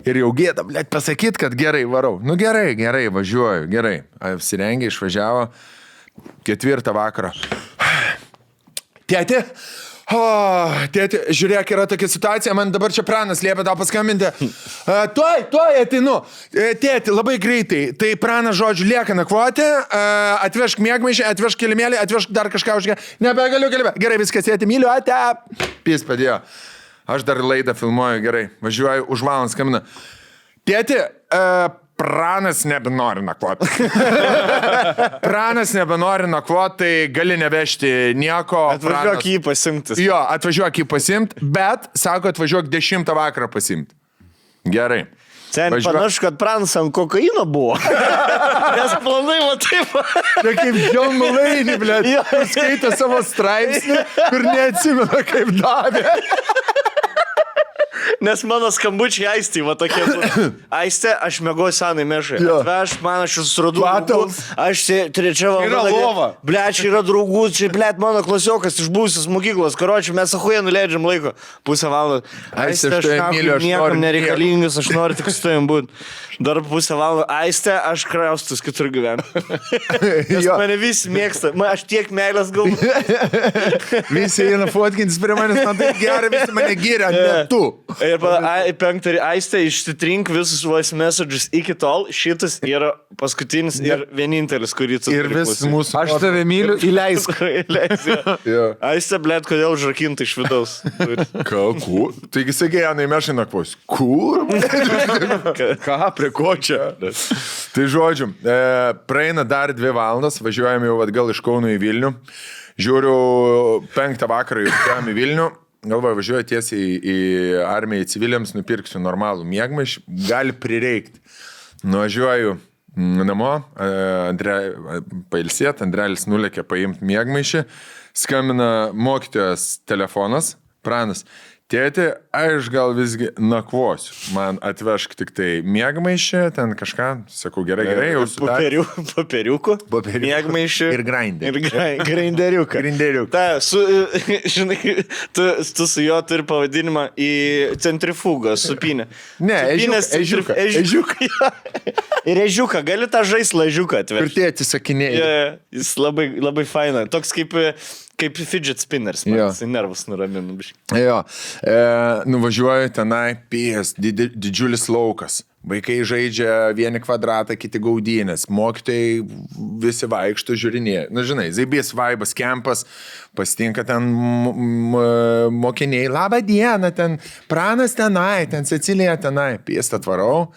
Ir jau gėda, blėt, pasakyt, kad gerai varau. Gerai, važiuoju, gerai. Apsirengė, išvažiavo, 4 vakaro. Tėti? Tėti, žiūrėk, yra tokia situacija, man dabar čia pranas liepia tau paskambinti. Tuoj ateinu. Tėti, labai greitai. Tai pranas, žodžiu, lieka nakvoti, atvežk mėgmaišį, atvežk kilimėlį, atvežk dar kažką užgę. Nebegaliu. Gerai, viskas, tėti, myliu, ate. Pys padėjo. Aš dar laidą filmuoju, gerai. Važiuoju, už valandą skambina. Tėti, pranas nebenori nakvoti. Pranas nebenori nakvoti, tai gali nevežti nieko. Atvažiuok jį pasimti. Jo, atvažiuok jį pasimti, bet, sako, atvažiuok 10 vakarą pasimti. Gerai. Sen panašu, kad pranas ant kokaino buvo. Nes planai va taip. Tai kaip John Mulaney, blėt, skaitė savo straipsnį, kur neatsimena, kaip davė. Nes mano skambučiai Aistį, va tokie. Aistė, aš mėgoju senai mešai. Atveš man, aš suradau draugų. Aš trečia valanda. Ble, čia yra draugų, čia, ble, mano klasiokas iš buvusios mokyklos. Karočiui, mes achuja nuleidžiam laiko. Pusę valandą. Aistė, aš niekam nereikalingas, aš noriu tik su tavim būti. Dar pusę valandą. Aistė, aš kraustus kitur gyvenu. Nes mane visi mėgsta. Aš tiek meilės galvoju. Visi eina fotkintis prie manęs, man tai gerai, visi mane gyria, ne tu. Ir penktą, Aistė, išsitrink visus voice messages iki tol. Šitas yra paskutinis ir vienintelis, kurį tu ir vis mūsų. Aš tave myliu, įleisk. Aistė, blėt, kodėl užrakinta iš vidaus. Kalku. Taigi sakė, Janai, mešai nakvos. Kur? Ką, prie ko čia? Tai žodžiu, praeina dar 2 valandas, važiuojame jau atgal iš Kauno į Vilnių. Žiūriu, 5 vakarą jau į Vilnių. Galvoju, važiuoju tiesiai į armiją, į civiliams, nupirksiu normalų miegmaišį. Gali prireikti. Nuvažiuoju namo, pailsėt, Andrelis nulėkė paimti miegmaišį. Skambina mokytojas telefonas, Pranas. Tėti, aš gal visgi nakvosiu. Man atvešk tik tai miegmaišį, ten kažką. Sakau, gerai, jau sutarė. Papiriukų. Miegmaišį. Ir grindį. Ir grinderiuką. Ta, žinai, tu su juo turi pavadinimą į centrifugą, supinę. Ne, ežiuką. Ir ežiuką, gali tą žaislą ežiuką atvežti. Ir tėti sakinėjai. Jis labai, labai faina. Toks kaip fidget spinners, man jisai nervus nuraminu. Jo, nuvažiuoju tenai, didžiulis laukas. Vaikai žaidžia vieni kvadratą, kiti gaudynės. Mokytojai visi vaikšto, žiūrinėje. Na, žinai, zaibės vaibas, kempas, pasitinka ten mokiniai. Labą dieną, ten Pranas tenai, ten Cecilija tenai. Piestą tvarau.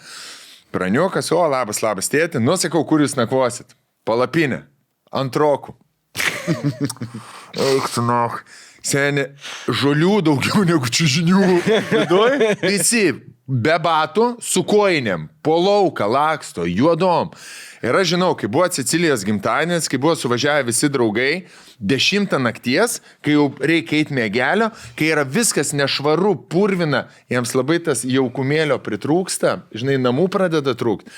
Praniukas, o, labas tėti. Nusakau, kur jūs nakvosit. Palapinė. Antrokų. Eik tu nach. Seni, žolių daugiau negu čiužinių. Visi be batų, su koinėm, po lauką, laksto, juodom. Ir aš žinau, kai buvo Cecilijos gimtadienis, kai buvo suvažiavę visi draugai, 10 nakties, kai jau reikia eiti mėgelio, kai yra viskas nešvaru, purvina, jiems labai tas jaukumėlio pritrūksta, žinai, namų pradeda trūkti.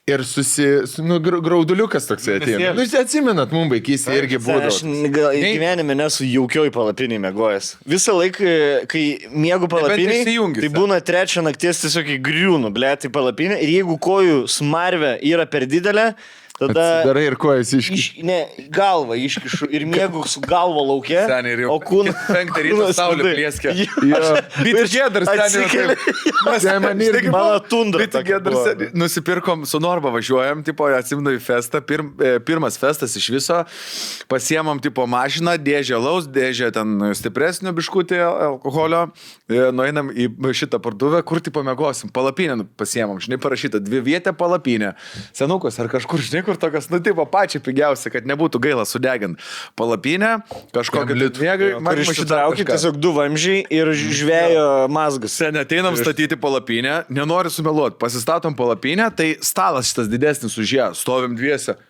Ir grauduliukas toksai ateina. Jūs atsimenat, mums vaikystė irgi būdavo. Aš gyvenime nesu jaukioj palapiniai mėgojęs. Visą laiką, kai miegu palapiniai, tai būna 3 nakties tiesiog įgriūnu, blėt, į palapinę. Ir jeigu kojų smarvė yra per didelė, tada... Atsidarai ir kojas iškišu. Ne, galvą iškišu ir miegu su galva laukia. Seniai, o kūną... 5 ryto saulė plėskia. Bitgedars seniai. Mano tundra. Bitgedars nusipirkom, su Norba važiuojam, tipo, atsimenu į festą. Pirmas festas iš viso. Pasiemam, tipo, mašiną, dėžę laus, dėžę ten stipresnio biškutį alkoholio. Nueinam į šitą parduotuvę, kur, tipo, mėgosim. Palapinę pasiemam. Žinai, parašyta 2 vietę palapinę. Senukas ar kažkur, žinai, kur tokias, nu, tipo, pačią pigiausia, kad nebūtų gaila sudegint. Palapinę, kažkokią litmėgai, man išsitraukit tiesiog 2 vamžiai ir žvėjo mazgas. Sen ateinam statyti palapinę, nenori sumeluoti, pasistatom palapinę, tai stalas šitas didesnis už ją, stovim dviese.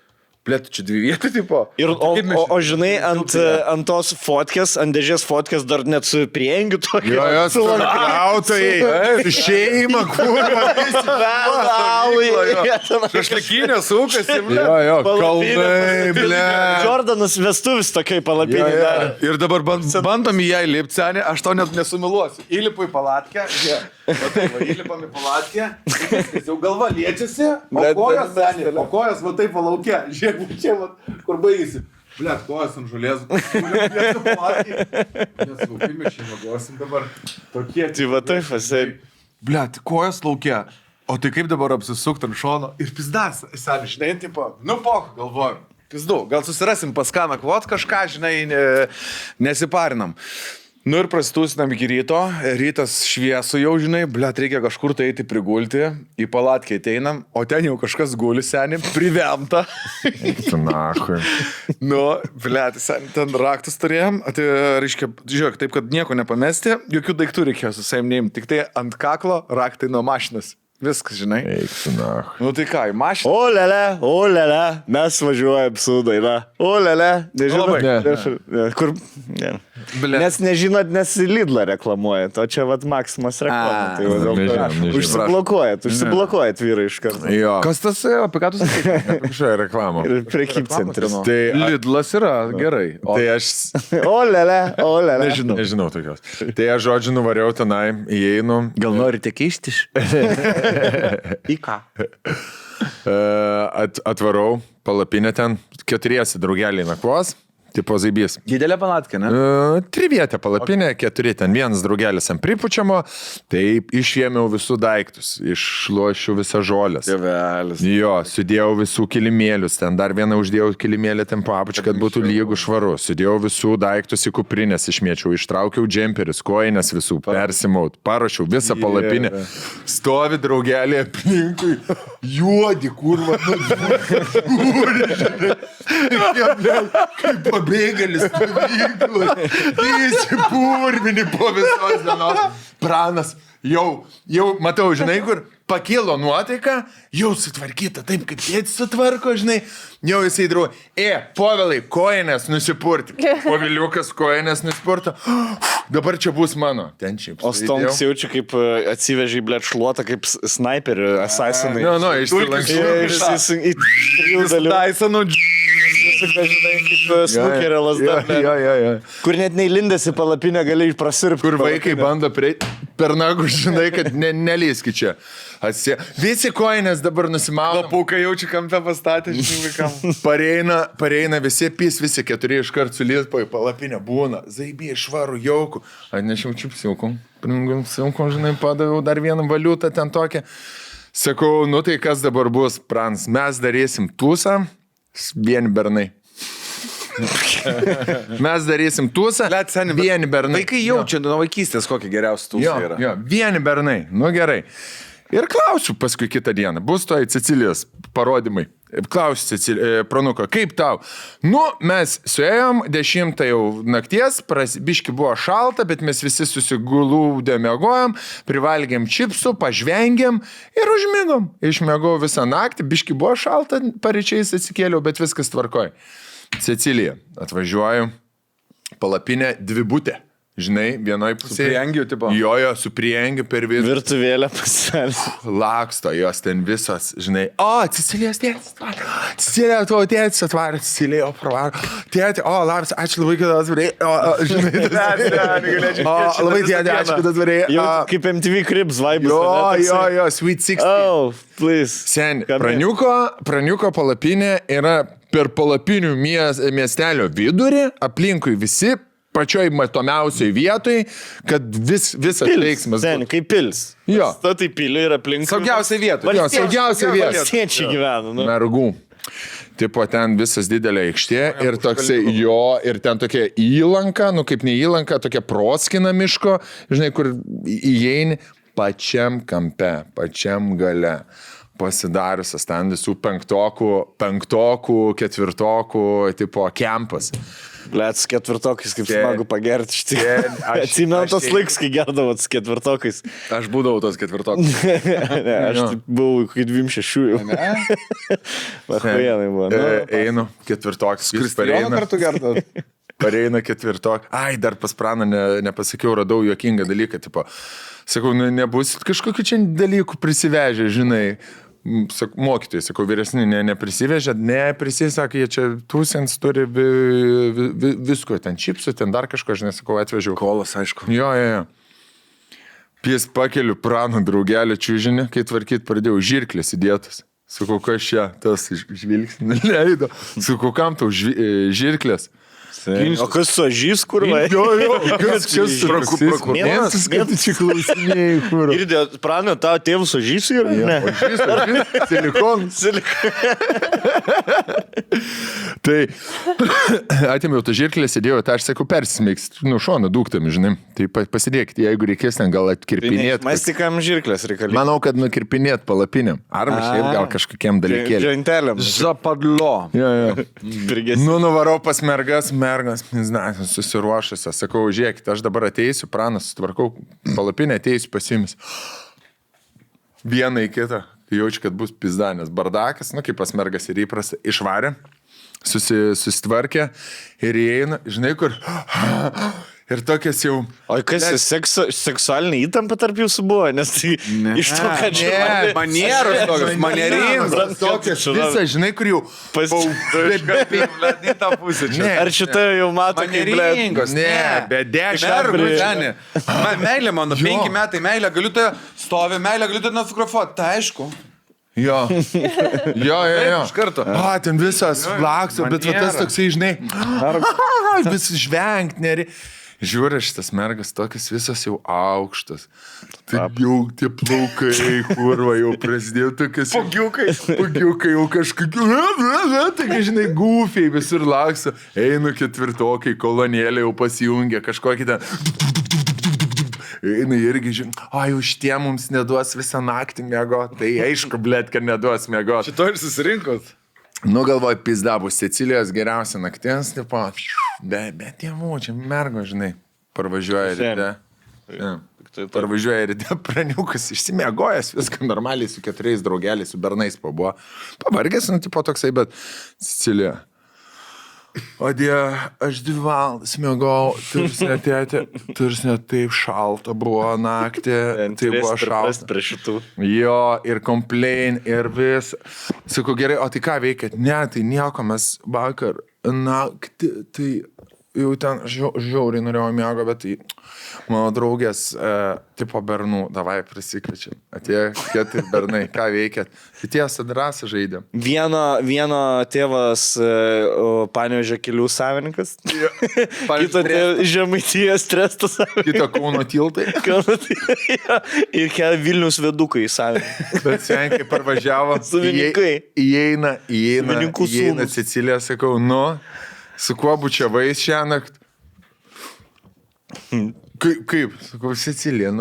Plėtų čia 2 vietų, tipo. Ir, o žinai, ant tos fotkės, ant dėžės fotkės dar net su priengiu tokio. Jo, su lanklautojai, šeima, kurva, šašlikinė sūkas. Jo, kalnai, ble. Jordanas vestuvis tokiai palapinė dar. Ir dabar bandom į ją įlipti, senė, aš tau net nesumiluosiu. Įlipu į palatkę, įlipam į palatkę, jau galva liečiasi, o kojas va taip palaukia. Žiūrėk, čia, kur baigėsi. Blet, kojas ant žolės. Nesaukime, šį vagosim dabar. Tokie. Tai va taip, asai. Blet, kojas laukia. O tai kaip dabar apsisukti ant šono? Ir pizdas, seniai, žinai, tipo, nu pok, galvojam. Pizdu, gal susirasim pas ką nakvot kažką, žinai, nesiparinam. Nu ir prasitusinam iki ryto, rytas šviesu jau, žinai, blėt, reikia kažkur tai eiti prigulti, į palatkę ateinam, o ten jau kažkas guli, seniai, privemta. Tu nahui. Nu, blėt, seniai, ten raktus turėjom, tai reiškia, žiūrėk, taip, kad nieko nepamesti, jokių daiktų reikėjo su savim neimti, tik tai ant kaklo raktai nuo mašinas. Viskas, žinai. Eik tu nahui. Nu tai ką, į mašiną. O lele, mes važiuojam su daina. O lele, nežinau. Ne. Kur... Ne. Ble. Nes nežinot, nes Lidlą reklamuoja, o čia vat Maximas reklama. Tai va, dėl to užsiblokuojat vyrai iš karto. Jo. Kas tas, apie ką tu sakai? Kažkokia reklama. Ir prekybcentris. Tai, Lidlas yra gerai. O tai aš O lele. nežinau tokios. Tai aš žodžiu nuvariau tenai, įeinu. gal norite keistis? Į ką? Atvarau palapinę ten, 4 draugeliai nakvos. Tipo zaibys. Didelė palatkė, ne? 3 vietė palapinė, 4 ten, 1 draugelis ant pripučiamo, taip išėmiau visų daiktus, išlošiu visą žolės. Tėvelis. Jo, sudėjau visų kilimėlius, ten dar vieną uždėjau kilimėlį ten po apačią, kad būtų lygų švaru. Sudėjau visų daiktus į kuprinės, išmėčiau, ištraukiau džemperius, koinės visų, persimaut, paruošiau visą palapinę. Stovi draugelį aplinkui, juodi, kurva, kaip pabėgėlis, įsipurvini po visos dienos. Pranas, jau, matau, žinai, kur pakilo nuotaika, jau sutvarkyta taip, kaip tėtis sutvarko, žinai, jau jisai drau, Povilai, koinės nusipurti. Poviliukas koinės nusipurto, dabar čia bus mano. Ten šiaip. O Stonks jaučia, kaip atsivežė į blėt šluotą, kaip sniperį, assassinai. Išsilankščiau. Tysonų. Žinai, kaip snukerio lasda. Kur net neįlindęs į palapinę gali prasirpti. Kur vaikai bando per nagų, žinai, kad nelįski čia. Visi koinės dabar nusimaudo. Paukai jaučia kampe pastatė, žinai, vaikam. Pareina visi 4 iškart sulėspo į palapinę. Būna, zaibė, švarų, jaukų. Atnešiau čipsiukom. Silkom, žinai, padaviau dar vieną valiutą ten tokią. Sakau, nu tai kas dabar bus, Prans? Mes darysim tūsą, vieni bernai. Mes darysim tūsą, vieni bernai. Vaikai jaučia nuo vaikystės, kokie geriausi tūsai yra. Jo, vieni bernai, nu gerai. Ir klausiu paskui kitą dieną, bus to į Cecilijos parodymai. Klausiu Pranuko, kaip tau? Nu, mes suėjom 10 jau nakties, biški buvo šalta, bet mes visi susigulūdė mėgojom, privalgėm čipsų, pažvengėm ir užmigom. Išmėgau visą naktį, biški buvo šalta, paryčiais atsikėliau, bet viskas tvarkoj. Cecilija, atvažiuoju, palapinė dvibutė. Žinai, vienoj pusėje. Su priengiu, tipo? Jo, su priengiu per vidų. Virtuvėlę pasidarė. Laksto jos ten visos, žinai. O, Cecilijos tėtis atvarė. Cecilija, tavo tėtis atvarė. Cecilija, pravaro. Tėti, labas, ačiū labai, kad atvarė. Žinai, labai tėti, ačiū, kad atvarė. Kaip MTV Cribs vaibus. Jo, Sweet 16. Oh, please. Sen, Praniuko palapinė yra per palapinių miestelio vidurį, aplinkui visi, pačioj matomiausioj vietoj, kad visas veiksmas. Sen, kaip pils. Jo. Statai pilį ir aplink. Saugiausia vieta. Jo, saugiausia vieta. Valstiečiai gyvena. Nu. Mergų. Tipo, ten visas didelė aikštė ir toksai jo, ir ten tokia įlanka, nu kaip ne įlanka, tokia proskina miško, žinai, kur įeini pačiam kampe, pačiam gale. Pasidariusias ten visų penktokų, ketvirtokų, tipo, kempas. Blėt, su ketvirtokais, kaip smagu pagerti štai. Atsimenu tos laikus, kai gerdavot su ketvirtokais. Aš būdavau tos ketvirtokas. Ne, aš buvau kaip 26 jau. Vahuienai buvo. Einu, ketvirtokas. Kristijoną kartu gerdavot? Pareina ketvirtok. Ai, dar pas Praną nepasakiau, radau juokingą dalyką, tipo. Sakau, nebus kažkokių čia dalykų prisivežę, žinai. Mokytojai, sakau, vyresni neprisivežė, sakė, jie čia tūsins turi visko, ten čipsų, ten dar kažko, žinai, sakau, atvežiau. Kolas, aišku. Jo. Pies pakeliu Prano draugelį čiūžinį, kai tvarkyt pradėjau žirklės įdėtas. Sakau, kas čia, tas žvilgsnį leido. Sakau, kam tau žirklės? O kas su ažys, kur vai? Jo, kas čia prokuroras, kad čia klausinėjai, kur. Ir Prano, tavo tėvus ažys yra? Ne. Ažys, silikonas. Tai atėmiau tą žirklę, sėdėjau, tai aš sakau, persismeiks, šoną dūktami, žinai. Tai pasidėkite, jeigu reikės ten gal atkirpinėti. Mes tik kam žirklės reikalingi. Manau, kad nukirpinėti palapinėm. Arba šiaip gal kažkokiem dalykėlėm. Dženteliam. Zapadlo. Nu, nuvarau pas mergas, susiruošusios. Sakau, žiūrėkit, aš dabar ateisiu, Pranas, sutvarkau palapinę, ateisiu pasimis. Vieną į kitą. Jaučiu, kad bus pizdanės. Bardakas, kaip pas mergas ir įprasta, išvarė, susitvarkė ir įeina, žinai kur, ir tokias jau... O kas, seksualinė įtampa tarp jūsų buvo? Nes tai iš to, kad čia... Manieros tokios, manieringos. Tokias visą, žinai, kur jau... Ar šitą jau mato, kaip manieringos? Ne, bet 10 Mergų, meilė mano, 5 metai, meilė, galiu tai stovi, meilė, galiu tai nufotografuoti, tai aišku. Jo. Iš karto. Ten visas lakso, bet va tas toksai, žinai, vis žvengt, neri. Žiūrė, šitas mergas tokias visas jau aukštas. Tai jau tie plaukai, kurva, jau prasidėjo tokias... Pagiukai jau kažkokiu... Taigi, žinai, gufiai visur lakso. Einu ketvirtokai, kolonėlė jau pasijungia, kažkokį ten... Einu irgi, žinai, už tie mums neduos visą naktį mėgo. Tai aišku, blėt, kad neduos mėgo. Šito ir susirinkot. Nu, galvoju, pizda bus Sicilijos geriausia nakties, tipo, bet tėvų, čia mergo, žinai, parvažiuoja ryte. Parvažiuoja ryte, praniukas, išsimiegojęs, viską normaliai su 4 draugeliais, su bernais pabuvo. Pavargęs, nu, tipo toksai, bet Sicilija. O Dieve, aš 2 valandas miegojau, tarsi net taip šalta buvo naktį, tai buvo šalta. Prie šitų. Jo, ir complain, ir vis. Sakau, gerai, o tai ką veikėt? Ne, tai nieko, mes vakar naktį, tai jau ten žiauriai norėjau miego, bet tai mano draugės tipo bernų, davai prisikvečiam. Atėjo 4 bernai, ką veikėt? Tai tiesa drąsą žaidėm. Vieno tėvas Panevėžio kelių savininkas, kito Žemaitijos tresto savininkas. Kito Kauno tiltai. Ir Vilnius vedukai savininkai. Bet senkai parvažiavo. Savininkai. Įeina Savininkų sūnus. Sicilija, sakau, su kuo bučiavais šiąnakt? Kaip? Sakau, Sicilija,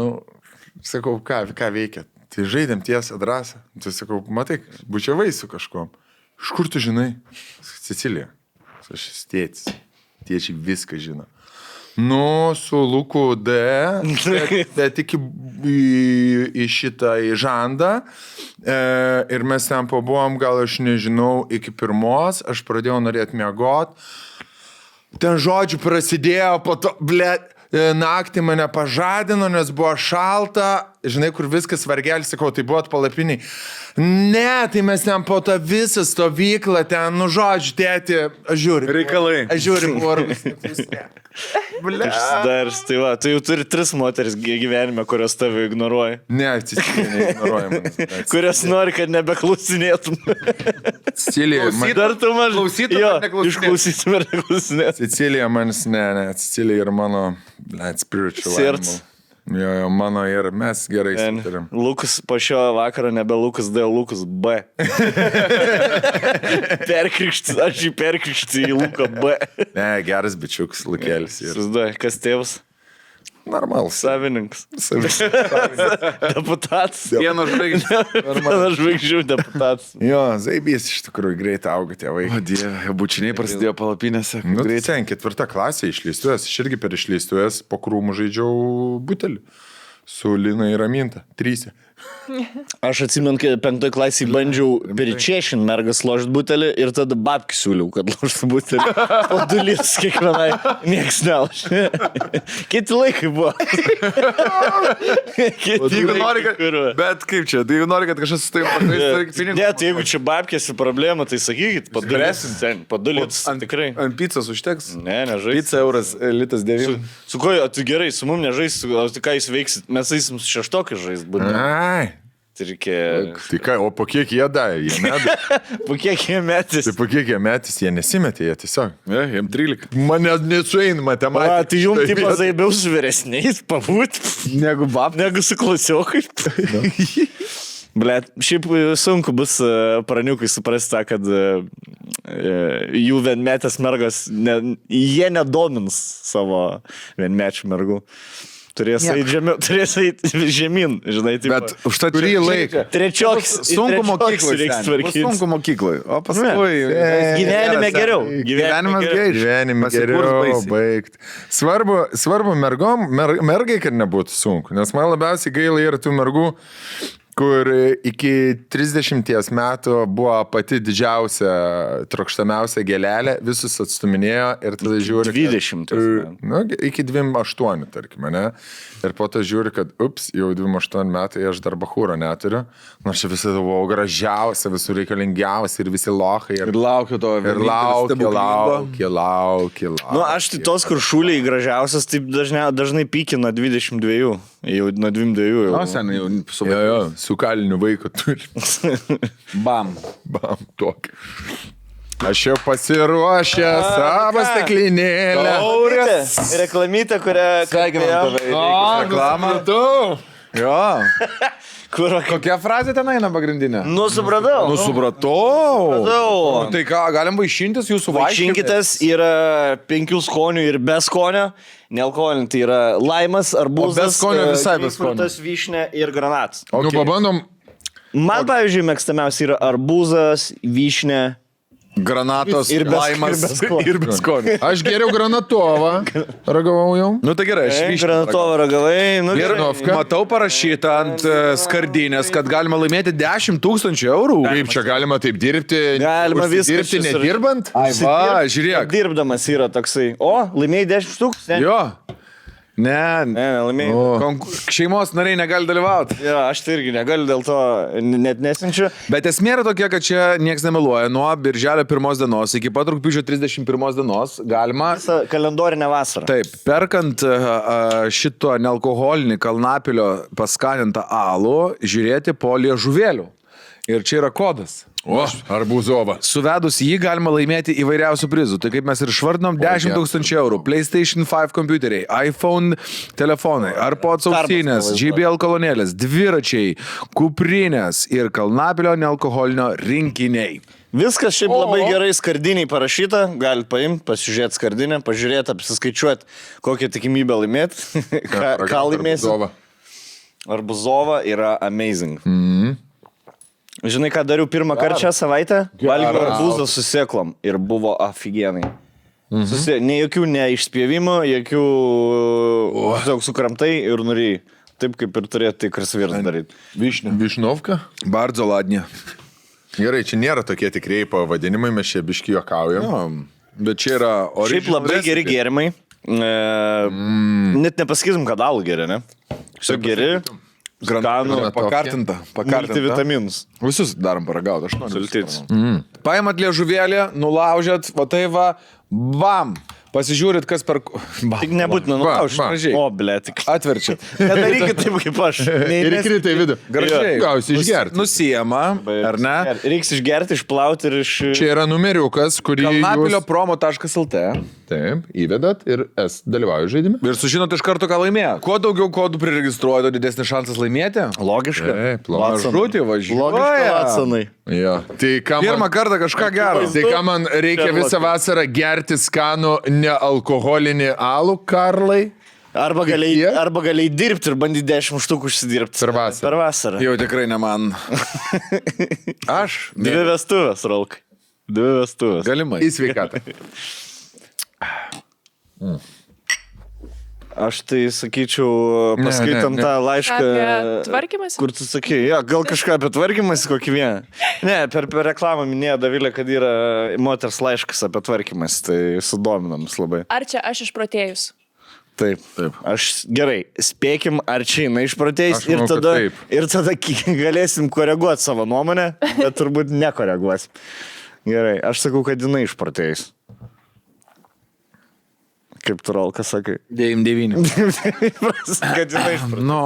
sakau, ką veikia? Tai žaidėm tiesą drąsą. Tai sakau, matai, bučiavai su kažkuom. Iš kur tu žinai? Sicilija. Aš tėtis. Tėčiai viską žino. Su Luku D, bet tik į šitą į žandą. Ir mes ten pabuvom, gal aš nežinau, iki 1, aš pradėjau norėti miegot. Ten žodžių prasidėjo, po to, naktį mane pažadino, nes buvo šalta, žinai, kur viskas vargelis, sakau, tai buvo palapiniai. Ne, tai mes ten po tą visą stovyklą, ten, žodžiu, tėti, aš žiūriu. Reikalai. Aš žiūriu, porus. Išsidars, tai va, tu jau turi 3 moteris gyvenime, kurios tave ignoruoja. Ne, Sicilija neignoruoja manęs. Kurios nori, kad nebeklausinėtum. Sicilija, Dar tu mažai. Klausytum ar neklausinėtum? Išklausytum ar neklausinėtum. Sicilija manis, ne, Sicilija ir mano, spiritual Sirds. animal. Jo, mano ir mes gerai sutarim. Lukas po šio vakaro nebe Lukas D, Lukas B. Perkrikštis, aš jį perkrikštis į Luką B. Ne, geras bičiukas, Lukėlis. Susiduoja, kas tėvas? Normalus. Savininkas. Deputatas. Vieno žvaigždžių. Vieno žvaigždžių deputatas. Jo, zaibys iš tikrųjų greit auga tie vaikai. O Dieve, bučiniai prasidėjo palapinėse. Nu, greit ten 4 klasė išleistuvės, aš irgi per išleistuvės po krūmų žaidžiau butelį. Su Lina ir Raminta. 3. Aš atsimenu, kai 5 klasėje bandžiau peričiešin mergas ložt butelį ir tada babkį siūliau, kad ložtų butelį. Po 2 litrus kiekvienai. Nieks neložė. Kiti laikai buvo. Jeigu nori, bet kaip čia, tai jeigu nori, kad kažkas su tai pakviesti, ne, tai jeigu čia babkėsi problema, tai sakykit, po 2 litrus tikrai. Ant pizzos užteks? Ne, nežais. Pizza euras, litas 9. Su ko, tu gerai, su mum nežais, o tai ką jūs veiksit? Mes eisim su 6 žais būtent. Ai. Tai reikia... Tai ką, o po kiek jie davė? Jie nedavė. Po kiek jie metys? Tai po kiek jie metys, jie nesimetė, jie tiesiog. Ne, jiem 13. Mane nesueina matematika. Tai jums taip zaibiau su vyresniais pabūt, negu su klasiokai. Blet, šiaip sunku bus praniukui suprasti tą, kad jų vienmetės mergos, jie nedomins savo vienmečių mergų. Turės eiti žemyn, žinai, taip. Bet už tą kurį laiką. Trečios sunku mokyklai. reiks tvarkyti. Sunku mokyklai. O paskui... Gyvenime geriau. Gyvenimas geriau. Gyvenime geriau baigti. Svarbu mergai, kad nebūtų sunku. Nes man labiausiai gaila yra tų mergų, kur iki 30 metų buvo pati didžiausia, trokštamiausia gėlelė, visus atstuminėjo ir tada žiūri... 20. Nu, iki 28, tarkime, ne? Ir po to žiūri, kad, jau 28 metai aš dar bachūro neturiu. Nors čia visada buvau gražiausia, visų reikalingiausia ir visi lochai. Ir laukiu to. Ir laukiu. Nu, aš tai tos, kur šūliai gražiausias, taip dažnai pykina 22. Jau nuo 22. O, seniai jau su Jo, su kaliniu vaiku turi. Bam. Bam, tokį. Aš jau pasiruošęs savo stiklinėlę. Taurės. Reklamytė, kurią... Sveikinam tave. Reklamą. Jo. Kokia frazė ten eina pagrindinė? Nu, supratau. Supratau. Tai ką, galim vaišintis jūsų Vaišinkitas yra 5 skonių ir be skonio. Nealkoholinį tai yra laimas, arbūzas, be skonio visai be skonio. grapefruitas, vyšnė ir granatas. Nu, pabandom. Man, pavyzdžiui, mėgstamiausia yra arbūzas, vyšnė. Granatos Ir be- laimas ir be skonio. Aš geriau granatovą ragavau jau. Nu tai gerai, aš vyšnią Granatovą ragavai. Nu, Ir gerai. matau parašyta ant skardinės, kad galima laimėti 10 000 eurų. Kaip čia galima taip dirbti? Galima viską dirbti susir- nedirbant? Ai, va, žiūrėk. Dirbdamas yra toksai. O, laimėjai 10 tūkstančių. Jo. Ne, Ne, laimėjai. šeimos nariai negali dalyvauti. Ja, aš tai irgi negaliu, dėl to net nesinčiu. Bet esmė yra tokia, kad čia niekas nemeluoja. Nuo birželio 1 dienos iki pat rugpjūčio 31 dienos galima... Visą kalendorinę vasarą. Taip, perkant šito nealkoholinį kalnapilio paskanintą alų, žiūrėti po liežuvėlių. Ir čia yra kodas. O, arbūzova. Suvedus jį galima laimėti įvairiausių prizų. Tai kaip mes ir išvardinom, 10 000 eurų. PlayStation 5 kompiuteriai, iPhone telefonai, AirPods ausinės, JBL kolonėlės, dviračiai, kuprinės ir kalnapilio nealkoholinio rinkiniai. Viskas šiaip labai gerai skardiniai parašyta. Galit paimti, pasižiūrėti skardinę, pažiūrėti, apsiskaičiuoti, kokią tikimybę laimėti. ką laimėsi. Arbuzova yra amazing. Žinai, ką dariau pirmą kartą šią savaitę? Valgiau arbūzą su sėklom ir buvo aфиgenai. Ne jokių neišspjėvimų, jokių tiesiog sukramtai ir nurijai. Taip kaip ir turėtų tikras vyras daryti. Višnovka? Bardzo ladnie. Gerai, čia nėra tokie tikrieji pavadinimai, mes čia biški juokaujam. Bet čia yra Šiaip labai geri gėrimai. Net nepasakysim, kad alų geri, ne? Šiaip geri. Skanų, pakartinta. multivitaminus. Visus darom paragauti, aš noriu. Sultits. Paimat liežuvėlį, nulaužėt, va tai va, bam. Pasižiūrit, kas per... Tik nebūtina nulaužti. Va. Gražiai. O, ble, tik. Atverčiat. Nedarykit taip, kaip aš. Ir įkrita į vidų. Gražiai. Gausi išgerti. Nusijama, ar ne? Reiks išgerti, išplauti ir iš... Čia yra numeriukas, kurį Kalnapilio jūs... promo.lt. Taip, įvedat ir dalyvauju žaidime. Ir sužinot iš karto, ką laimėjo. Kuo daugiau kodų priregistruoja, tuo didesnis šansas laimėti. Logiška. Taip, Mažutį Logiška, važiuoja. Vatsanai. Jo. Tai ką Pirmą man, kartą kažką gero. tai ką man reikia visą vasarą gerti skanų nealkoholinį alų, Karlai? Arba galėjai dirbti ir bandyti 10 štukų užsidirbti. Per vasarą. Per vasarą. Jau tikrai ne man. Aš? 2 vestuvės, Rolkai. 2 vestuvės. Galimai. Į sveikatą. Aš tai sakyčiau, paskaitam tą laišką. Apie tvarkymąsi? Kur tu sakai, ja, gal kažką apie tvarkymąsi kokį vieną. Ne, per reklamą minėjo Davilė, kad yra moters laiškas apie tvarkymąsi, tai sudominamas labai. Ar čia aš išprotėjus? Taip. Aš gerai, spėkim, ar čia jinai išprotėjus Aš manau, ir tada galėsim koreguoti savo nuomonę, bet turbūt nekoreguosim. Gerai, aš sakau, kad jinai išprotėjus. Kaip tu, Rolka, sakai? 9-9. Kad jinai išprotėjus. No.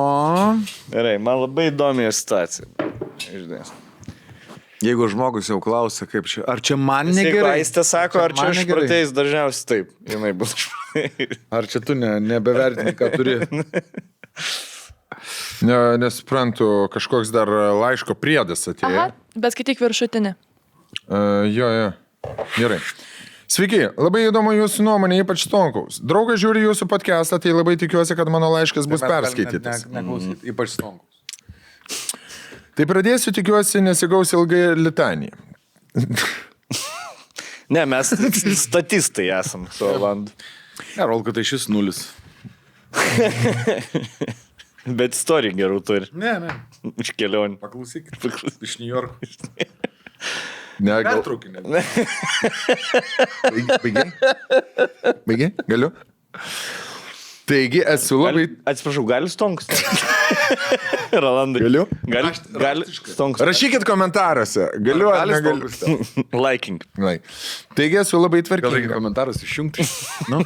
Gerai, man labai įdomi situacija. Išdės. Jeigu žmogus jau klausia, kaip čia, ar čia man Jeigu negerai? Aistė sako, ar čia man negerai? išprotėjus, dažniausiai taip. Jinai bus išprotėjus. Ar čia tu nebevertini, ką turi? Nesuprantu, kažkoks dar laiško priedas atėjo. Aha, bet skaityk viršutinį. Jo. Gerai. Sveiki, labai įdomu jūsų nuomonė, ypač Stonkaus. Draugas žiūri jūsų podcastą, tai labai tikiuosi, kad mano laiškas bus perskaitytas. Neklausyt, ypač Stonkaus. Tai pradėsiu, tikiuosi, nesigaus ilgai litanija. Ne, mes statistai esam su Olandu. Ne, Rolka, tai šis 0. Bet istorija gerų turi. Ne. Iš kelionių. Paklausykit. Iš New Yorko. Ne, gal... Pertraukinė. Baigiai? Galiu? Taigi, esu labai... Atsiprašau, gali stonkus? Rolandai. Galiu? Gali stonkus. Rašykit komentaruose. Galiu ar negaliu? Liking. Taigi, esu labai Gal reikia tvarkinga. komentarus išjungti? Nu,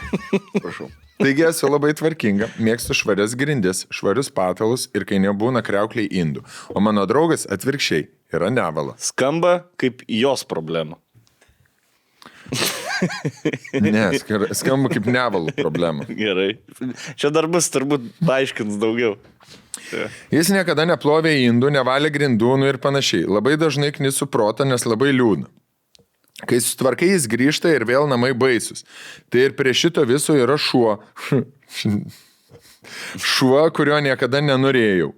prašau. Taigi, esu labai tvarkinga. Mėgstu švarias grindis, švarius patalus ir kai nebūna kriaukliai indų. O mano draugas atvirkščiai yra nevala. Skamba kaip jos problema. Ne, skamba kaip nevalų problema. Gerai. Čia dar bus turbūt paaiškins daugiau. Jis niekada neplovė indų, nevalė grindų ir panašiai. Labai dažnai knisu protą, nes labai liūdna. Kai sutvarkai, jis grįžta ir vėl namai baisus. Tai ir prie šito viso yra šuo. Šuo, kurio niekada nenorėjau.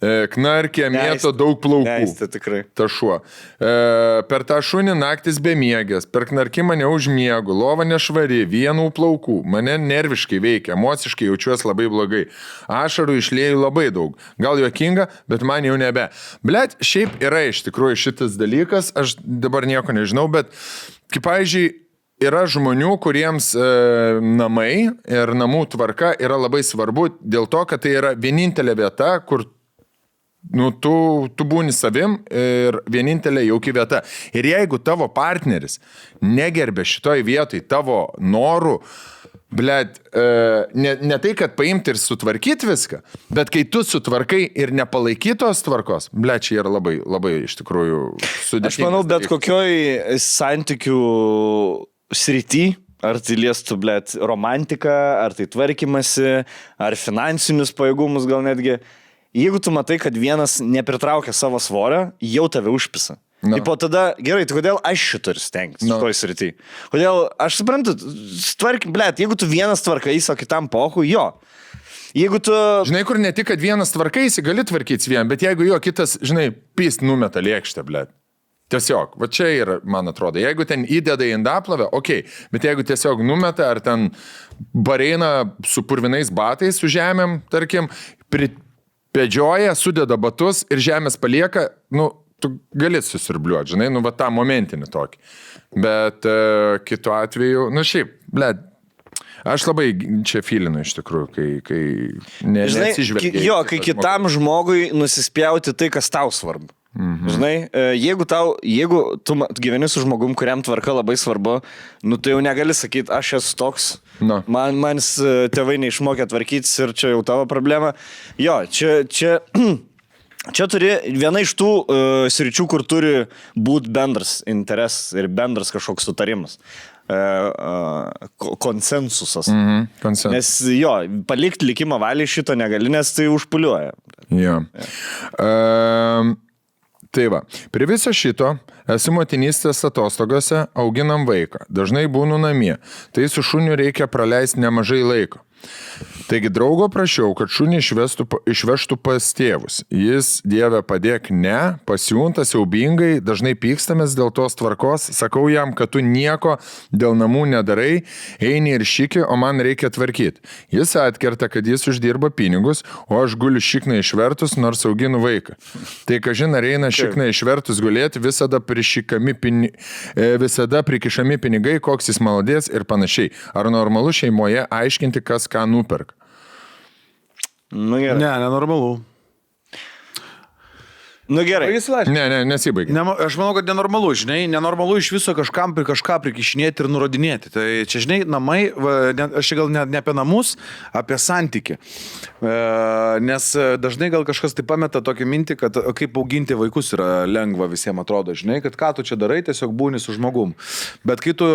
Knarkė, mėto daug plaukų. Neįstė tikrai. Ta šuo. Per tą šunį naktis bemiegės, per knarkimą neužmiegu, lova nešvari, vienų plaukų. Mane nerviškai veikia, emociškai jaučiuosi labai blogai. Ašarų išlėjau labai daug. Gal juokinga, bet man jau nebe. Blet, šiaip yra iš tikrųjų šitas dalykas, aš dabar nieko nežinau, bet kaip pavyzdžiui, yra žmonių, kuriems namai ir namų tvarka yra labai svarbu dėl to, kad tai yra vienintelė vieta, kur tu būni savim ir vienintelė jauki vieta. Ir jeigu tavo partneris negerbė šitoj vietoj tavo norų, blet, ne tai, kad paimti ir sutvarkyti viską, bet kai tu sutvarkai ir nepalaikytos tvarkos, blet, čia yra labai, labai iš tikrųjų sudėtingas. Aš manau, bet kokioj santykių srity, ar tai liestų, blet, romantiką, ar tai tvarkymasi, ar finansinius pajėgumus gal netgi. Jeigu tu matai, kad vienas nepritraukia savo svorio, jau tave užpisa. No. Ir po tada, gerai, tai kodėl aš šitą ir stengtis šitoj srity? Kodėl, aš suprantu, tvarkim, blėt, jeigu tu vienas tvarkais, o kitam pohu, jo. Jeigu tu... Žinai, kur ne tik, kad vienas tvarkaisi, gali tvarkytis vien, bet jeigu jo kitas, žinai, pist numeta lėkštę, blėt. Tiesiog, va čia yra, man atrodo, jeigu ten įdeda į indaplovę, okei, bet jeigu tiesiog numeta, ar ten bareina su purvinais batais, su žemėm, tarkim, pedžioja, sudeda batus ir žemės palieka, tu gali susirbliuoti, žinai, va tą momentinį tokį. Bet kitu atveju, šiaip, blėt, aš labai čia filinu iš tikrųjų, kai neatsižvelgia. Jo, kai kitam žmogui nusispjauti tai, kas tau svarbu. Žinai, jeigu tu gyveni su žmogum, kuriam tvarka labai svarbu, tu jau negali sakyti, aš esu toks, man tėvai neišmokė tvarkytis ir čia jau tavo problema. Jo, čia turi viena iš tų sričių, kur turi būti bendras interesas ir bendras kažkoks sutarimas. Konsensusas. Konsensus. Nes jo, palikti likimą valiai šito negali, nes tai užpuliuoja. Jo. Tai va, prie viso šito esu motinystės atostogose, auginam vaiką, dažnai būnu namie, tai su šuniu reikia praleisti nemažai laiko. Taigi draugo prašiau, kad šunį išvežtų pas tėvus. Jis, Dieve, padėk, ne, pasiūntas siaubingai, dažnai pykstamės dėl tos tvarkos, sakau jam, kad tu nieko dėl namų nedarai, eini ir šiki, o man reikia tvarkyti. Jis atkerta, kad jis uždirba pinigus, o aš guliu šikną išvertus, nors auginu vaiką. Tai kažin ar eina šikną išvertus gulėti, visada prikišami pinigai, koks jis maladės ir panašiai. Ar normalu šeimoje aiškinti, kas ką nuperka? Gerai. Ne, nenormalu. Gerai. Ne, nesibaigia. Aš manau, kad nenormalu, žinai, nenormalu iš viso kažką prikišinėti ir nurodinėti. Tai čia, žinai, namai, aš gal ne apie namus, apie santykį. Nes dažnai gal kažkas tai pameta tokią mintį, kad kaip auginti vaikus yra lengva visiems atrodo, žinai, kad ką tu čia darai, tiesiog būni su žmogum. Bet kai tu,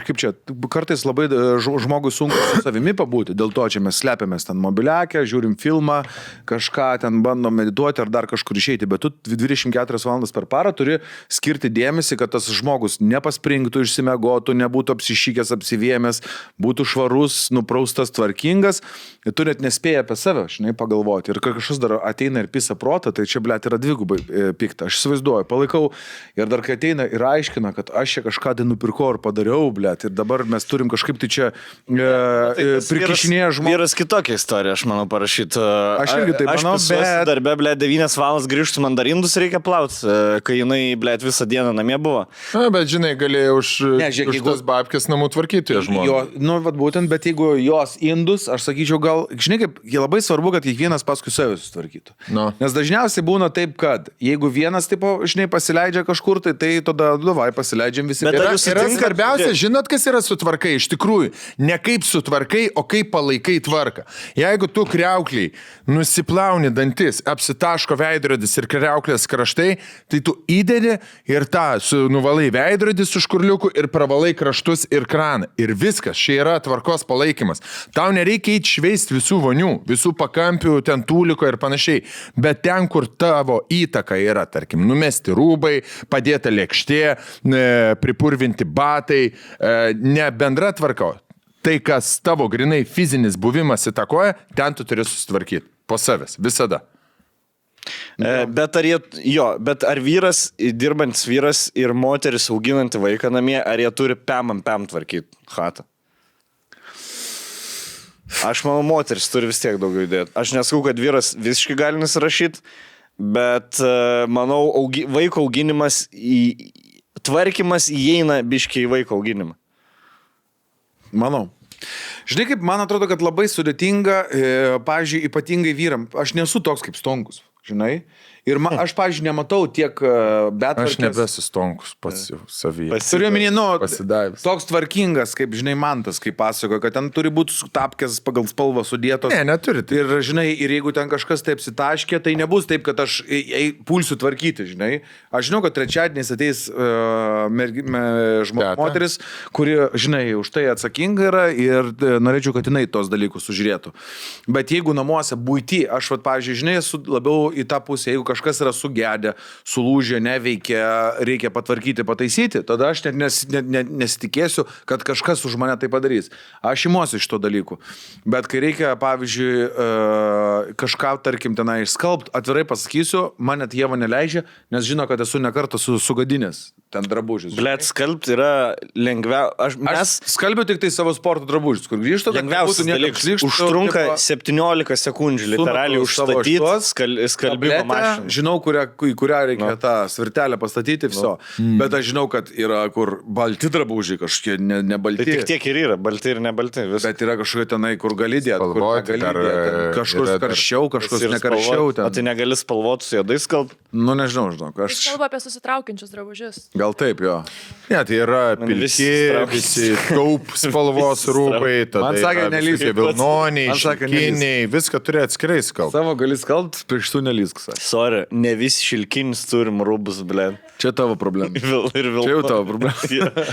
kaip čia, kartais labai žmogui sunku su savimi pabūti, dėl to čia mes slepiamės ten mobiliakę, žiūrim filmą, kažką ten bandom medituoti ar dar kažkur išeiti. išeiti, bet tu 24 valandas per parą turi skirti dėmesį, kad tas žmogus nepaspringtų, išsimegotų, nebūtų apsišykęs, apsivėmęs, būtų švarus, nupraustas, tvarkingas. Ir tu net nespėji apie save, žinai, pagalvoti. Ir kažkas dar ateina ir pisa protą, tai čia, blėt, yra dvigubai pikta. Aš įsivaizduoju, palaikau. Ir dar kai ateina ir aiškina, kad aš čia kažką tai nupirkau ir padariau, blėt, ir dabar mes turim kažkaip tai čia prikišinėję žmogų. Vyras kitokia istorija, aš manau, parašyti. Aš irgi taip manau, bet... Darbė, blėt, 9 valandas grįžtų mandarindus reikia plauti, kai jinai, blėt, visą dieną namie buvo. Na, bet žinai, galėjai už tas babkės namų tvarkyti žmonės. Nu, vat būtent, bet jeigu jos indus, aš sakyčiau, gal, žinai, kaip labai svarbu, kad kiekvienas paskui save susitvarkytų. No. Nes dažniausiai būna taip, kad jeigu vienas, tipo, žinai, pasileidžia kažkur, tai tada, davai, pasileidžiam visi. Bet Yra svarbiausia, žinot, kas yra sutvarkai, iš tikrųjų, ne kaip sutvarkai, o kaip palaikai tvarką. Jeigu tu kriaukliai nusiplauni dantis, apsitaško veidrodis ir kriauklės kraštai, tai tu įdedi ir nuvalai veidrodį su škurliuku ir pravalai kraštus ir kraną. Ir viskas, čia yra tvarkos palaikymas. Tau nereikia eiti šveisti visų vonių, visų pakampių, ten tūliko ir panašiai. Bet ten, kur tavo įtaka yra, tarkim, numesti rūbai, padėta lėkštė, pripurvinti batai, ne bendra tvarka. Tai, kas tavo grinai fizinis buvimas įtakoja, ten tu turi susitvarkyti po savęs, visada. Bet ar vyras, dirbantis vyras ir moteris auginanti vaiką namie, ar jie turi pem tvarkyti chatą? Aš manau, moteris turi vis tiek daugiau įdėti. Aš nesakau, kad vyras visiškai gali nusirašyti, bet manau, vaiko auginimas, tvarkymas įeina biškiai į vaiko auginimą. Manau. Žinai, kaip man atrodo, kad labai sudėtinga, pavyzdžiui, ypatingai vyram. Aš nesu toks kaip Stonkus, žinai. Ir aš, pavyzdžiui, nematau tiek betvarkės. Aš nebesistonkus pats jau savyje. Turiu minį, pasidavęs. Toks tvarkingas, kaip, žinai, Mantas, kaip pasakoja, kad ten turi būti tapkės pagal spalvą sudėtos. Ne, neturi. Ir, žinai, ir jeigu ten kažkas taip sitaškė, tai nebus taip, kad aš pulsiu tvarkyti, žinai. Aš žinau, kad trečiadieniais ateis moteris, kuri, žinai, už tai atsakinga yra ir norėčiau, kad jinai tos dalykus sužiūrėtų. Bet jeigu namuose būti, aš, pavyzdžiui, žinai, esu labiau į tą pusę, jeigu kažkas yra sugedę, sulūžę, neveikia, reikia patvarkyti, pataisyti, tada aš net nesitikėsiu, kad kažkas už mane tai padarys. Aš imuosi iš to dalykų. Bet kai reikia, pavyzdžiui, kažką, tarkim, tenai išskalbt, atvirai pasakysiu, man net Ieva neleidžia, nes žino, kad esu nekartą sugadinęs ten drabužius. Blet, skalbt yra lengviau. Aš skalbiu tik tai savo sporto drabužius, kur grįžtu, lengviausias dalykas. Užtrunka 17 sekundžių, literaliai užstatyti skalbimo mašiną. Žinau, į kurią reikia tą svirtelę pastatyti, viso. Bet aš žinau, kad yra kur balti drabužiai, kažkokie nebalti. Tai tik tiek ir yra, balti ir nebalti. Bet yra kažkokie tenai, kur gali dėti, kur negali dėti. Kažkur karščiau, kažkur nekarščiau. O tai negali spalvoti su juodais skalb? Nu, nežinau, žinok. Aš kalbu apie susitraukiančius drabužius. Gal taip, jo. Ne, tai yra pilki, visi taup spalvos rūbai, man sakė, nelįsk. Vilnoniai, šilkiniai, viską turi atskirai skalbti. Savo gali skalbti, pirštų nelįsk. Sorry, ne visi šilkinis turim rūbus, blė. Čia tavo problema. Čia jau tavo problema.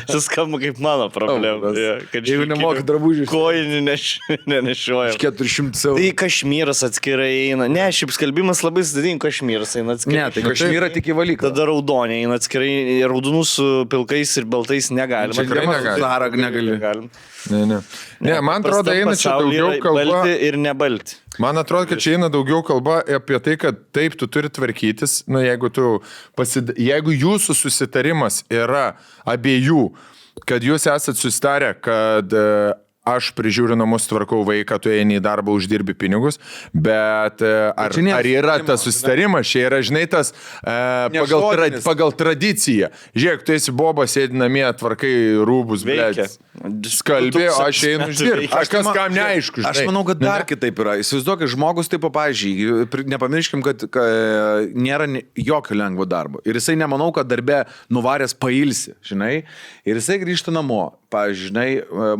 Čia skamba kaip mano problema. Jeigu nemoki drabužių. Kojinį nenešioja. 400 eurų. Tai kašmyras atskirai eina. Ne, šiaip skalbimas labai sudėtinga, kašmyras eina atskirai. Ne, tai kašmyrą tik į valyklą. Tada raudonė eina atskirai, raudonų su pilkais ir baltais negalima. Tikrai negali. Ne, man atrodo, eina čia daugiau kalba. Balti ir nebalti. Man atrodo, kad čia eina daugiau kalba apie tai, kad taip, tu turi tvarkytis, nu, jeigu jūsų susitarimas yra abiejų, kad jūs esat susitarę, kad aš prižiūriu namus, tvarkau vaiką, tu eini į darbą, uždirbi pinigus, bet ar yra tas susitarimas, čia yra, žinai, tas pagal tradiciją. Žiūrėk, tu esi bobas, sėdi namie, tvarkai rūbus, blėdės. Skalbė, aš einu uždirbti. Kažkas kam neaišku, žinai. Aš manau, kad dar kitaip yra. Įsivaizduok, žmogus taip, pavyzdžiui, nepamirškim, kad nėra jokio lengvo darbo. Ir jisai nemanau, kad darbe nuvaręs pailsi, žinai. Ir jisai grįžta namo. Pavyzdžiui, žinai,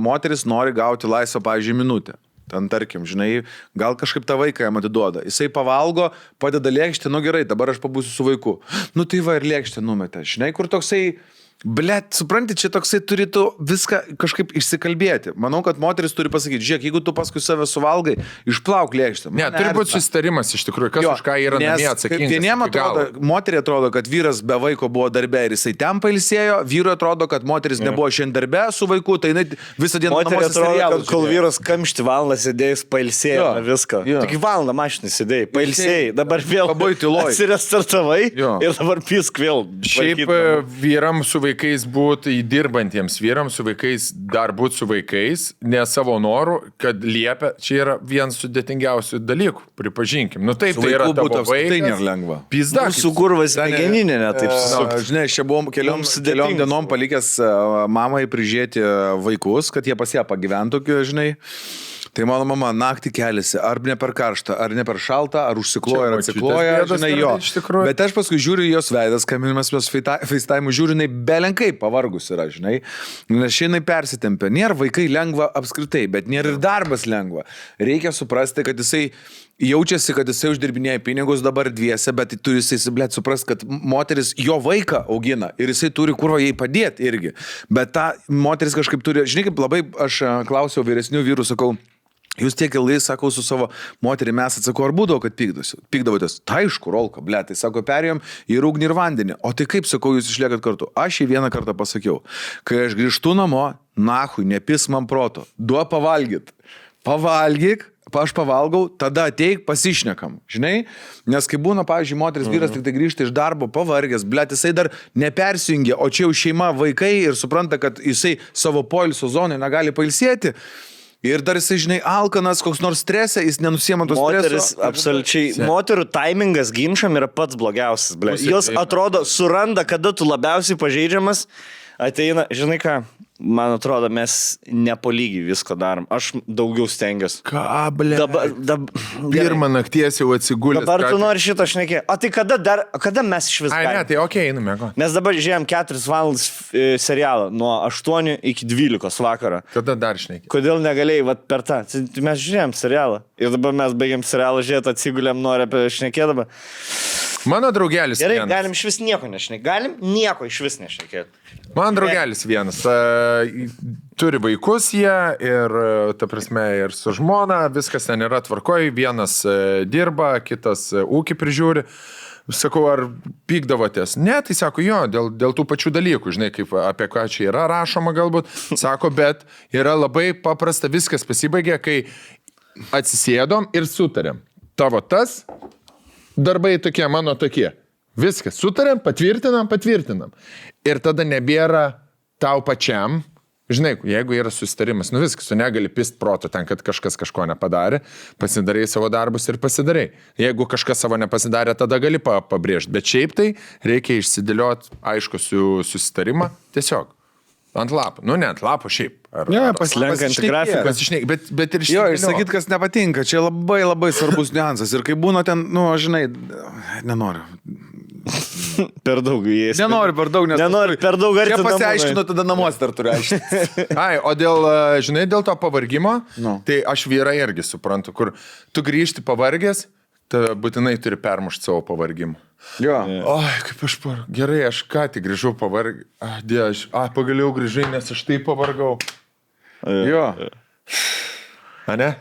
moteris nori gauti laisvą, pavyzdžiui, minutę. Ten, tarkim, žinai, gal kažkaip tą vaiką jam atiduoda. Jisai pavalgo, padeda lėkštę, nu gerai, dabar aš pabūsiu su vaiku. Nu tai va ir lėkštę numetė. Žinai, kur toksai Blet, supranti, čia toksai turėtų viską kažkaip išsikalbėti. Manau, kad moteris turi pasakyti, žiūrėk, jeigu tu paskui save suvalgai, išplauk lėkštę. Ne, turi būti susitarimas iš tikrųjų, kas už ką yra namie atsakingas. Vieniem atrodo, moteriai atrodo, kad vyras be vaiko buvo darbe ir jisai ten pailsėjo, vyrui atrodo, kad moteris nebuvo šiandien darbe su vaiku, tai visą dieną moteriai atrodo, kad kol vyras kamšti valandą sėdėjus pailsėjo viską. Tik valandą mašinį sėdėjai, pailsėjai, dabar vėl atsirestartavai ir dabar pisk vėl. Šiaip vyram su vaikais būti įdirbantiems vyrams, su vaikais dar būti su vaikais, ne savo norų, kad liepia, čia yra vienas sudėtingiausių dalykų, pripažinkim. Nu taip, tai yra tavo vaikas. Tai nėra lengva. Pizda. Su kurvas smegeninė, ne taip susukti. Žinai, aš čia buvom keliom dienom palikęs mamai prižiūrėti vaikus, kad jie pas ją pagyventų, žinai. Tai mano mama naktį keliasi, ar ne per karštą, ar ne per šaltą, ar užsikloja, ar atsikloja, žinai, jo. Bet aš paskui žiūriu jos veidas, kaminimas mes FaceTime žiūriu, jinai belenkai pavargus yra, žinai, nes šiandien persitempia. Nėra vaikai lengva apskritai, bet nėra ir darbas lengva. Reikia suprasti, kad jisai jaučiasi, kad jisai uždirbinėja pinigus dabar dviese, bet turi jisai, blėt, suprasti, kad moteris jo vaiką augina ir jisai turi kurva jai padėti irgi. Bet ta moteris kažkaip turi, žinai, kaip labai aš klausiau vyresnių vyrų, sakau, jūs tiek ilgai, sakau, su savo moterį mes atsakau, ar būdavo, kad pykdavotės? Tai aišku, Rolka, ble, tai sako, perėjom į ugnį ir vandenį. O tai kaip, sakau, jūs išliekat kartu? Aš jį vieną kartą pasakiau, kai aš grįžtu namo, nahui, nepis man proto, duo pavalgyt. Pavalgyk, aš pavalgau, tada ateik, pasišnekam, žinai? Nes kai būna, pavyzdžiui, moteris vyras tik tai grįžta iš darbo, pavargęs, blėt, jisai dar nepersijungia, o čia jau šeima, vaikai ir supranta, kad jisai savo poilsio zonai negali pailsėti. Ir dar jisai, žinai, alkanas, koks nors stresė, jis nenusiema tos streso. Moteris, absoliučiai, moterų taimingas ginčam yra pats blogiausias, ble. Jos atrodo, suranda, kada tu labiausiai pažeidžiamas, ateina, žinai ką, man atrodo, mes nepolygiai visko darom. Aš daugiau stengiuosi. Ką, ble? Pirmą nakties jau atsigulęs. Dabar tu nori šitą šnekėti. O tai kada mes iš vis galim? Ai, ne, tai okei, einame. Mes dabar žiūrėjom 4 valandas serialą nuo 8 iki 12 vakarą. Kada dar šnekėti? Kodėl negalėjai per tą? Mes žiūrėjom serialą. Ir dabar mes baigiam serialą žiūrėti, atsigulėm, nori apie šnekėti dabar. Mano draugelis gerai, vienas. galim iš vis nieko nešnekėti. Galim nieko iš vis nešnekėti. Man draugelis vienas. Turi vaikus jie ir, ta prasme, ir su žmona, viskas ten yra tvarkoj, vienas dirba, kitas ūkį prižiūri. Sakau, ar pykdavotės? Ne, tai sako, jo, dėl tų pačių dalykų, žinai, kaip apie ką čia yra rašoma galbūt. Sako, bet yra labai paprasta, viskas pasibaigė, kai atsisėdom ir sutarėm. Tavo tas, darbai tokie, mano tokie. Viskas, sutarėm, patvirtinam. Ir tada nebėra tau pačiam. Žinai, jeigu yra susitarimas, nu viskas, tu negali pist proto ten, kad kažkas kažko nepadarė, pasidarai savo darbus ir pasidarai. Jeigu kažkas savo nepasidarė, tada gali pabrėžti. Bet šiaip tai reikia išsidėlioti aišku susitarimą tiesiog. Ant lapų. Nu, ne ant lapų šiaip. Ne, paslenkant grafiką. Bet ir jo, išsakyt, kas nepatinka. Čia labai labai svarbus niuansas. Ir kai būna ten, nu, žinai, nenoriu. Per daug įėjęs. Nenoriu per daug, nes... Nenoriu per daug arti. Čia pasiaiškinu, tada namuose dar turiu aiškinti. Ai, o žinai, dėl to pavargimo, tai aš vyrai irgi suprantu, kur tu grįžti pavargęs, tai būtinai turi permušti savo pavargimą. Jo. Oi, kaip aš gerai, aš ką tik grįžau pavargį. Pagaliau grįžai, nes aš taip pavargau. Jo. A ne?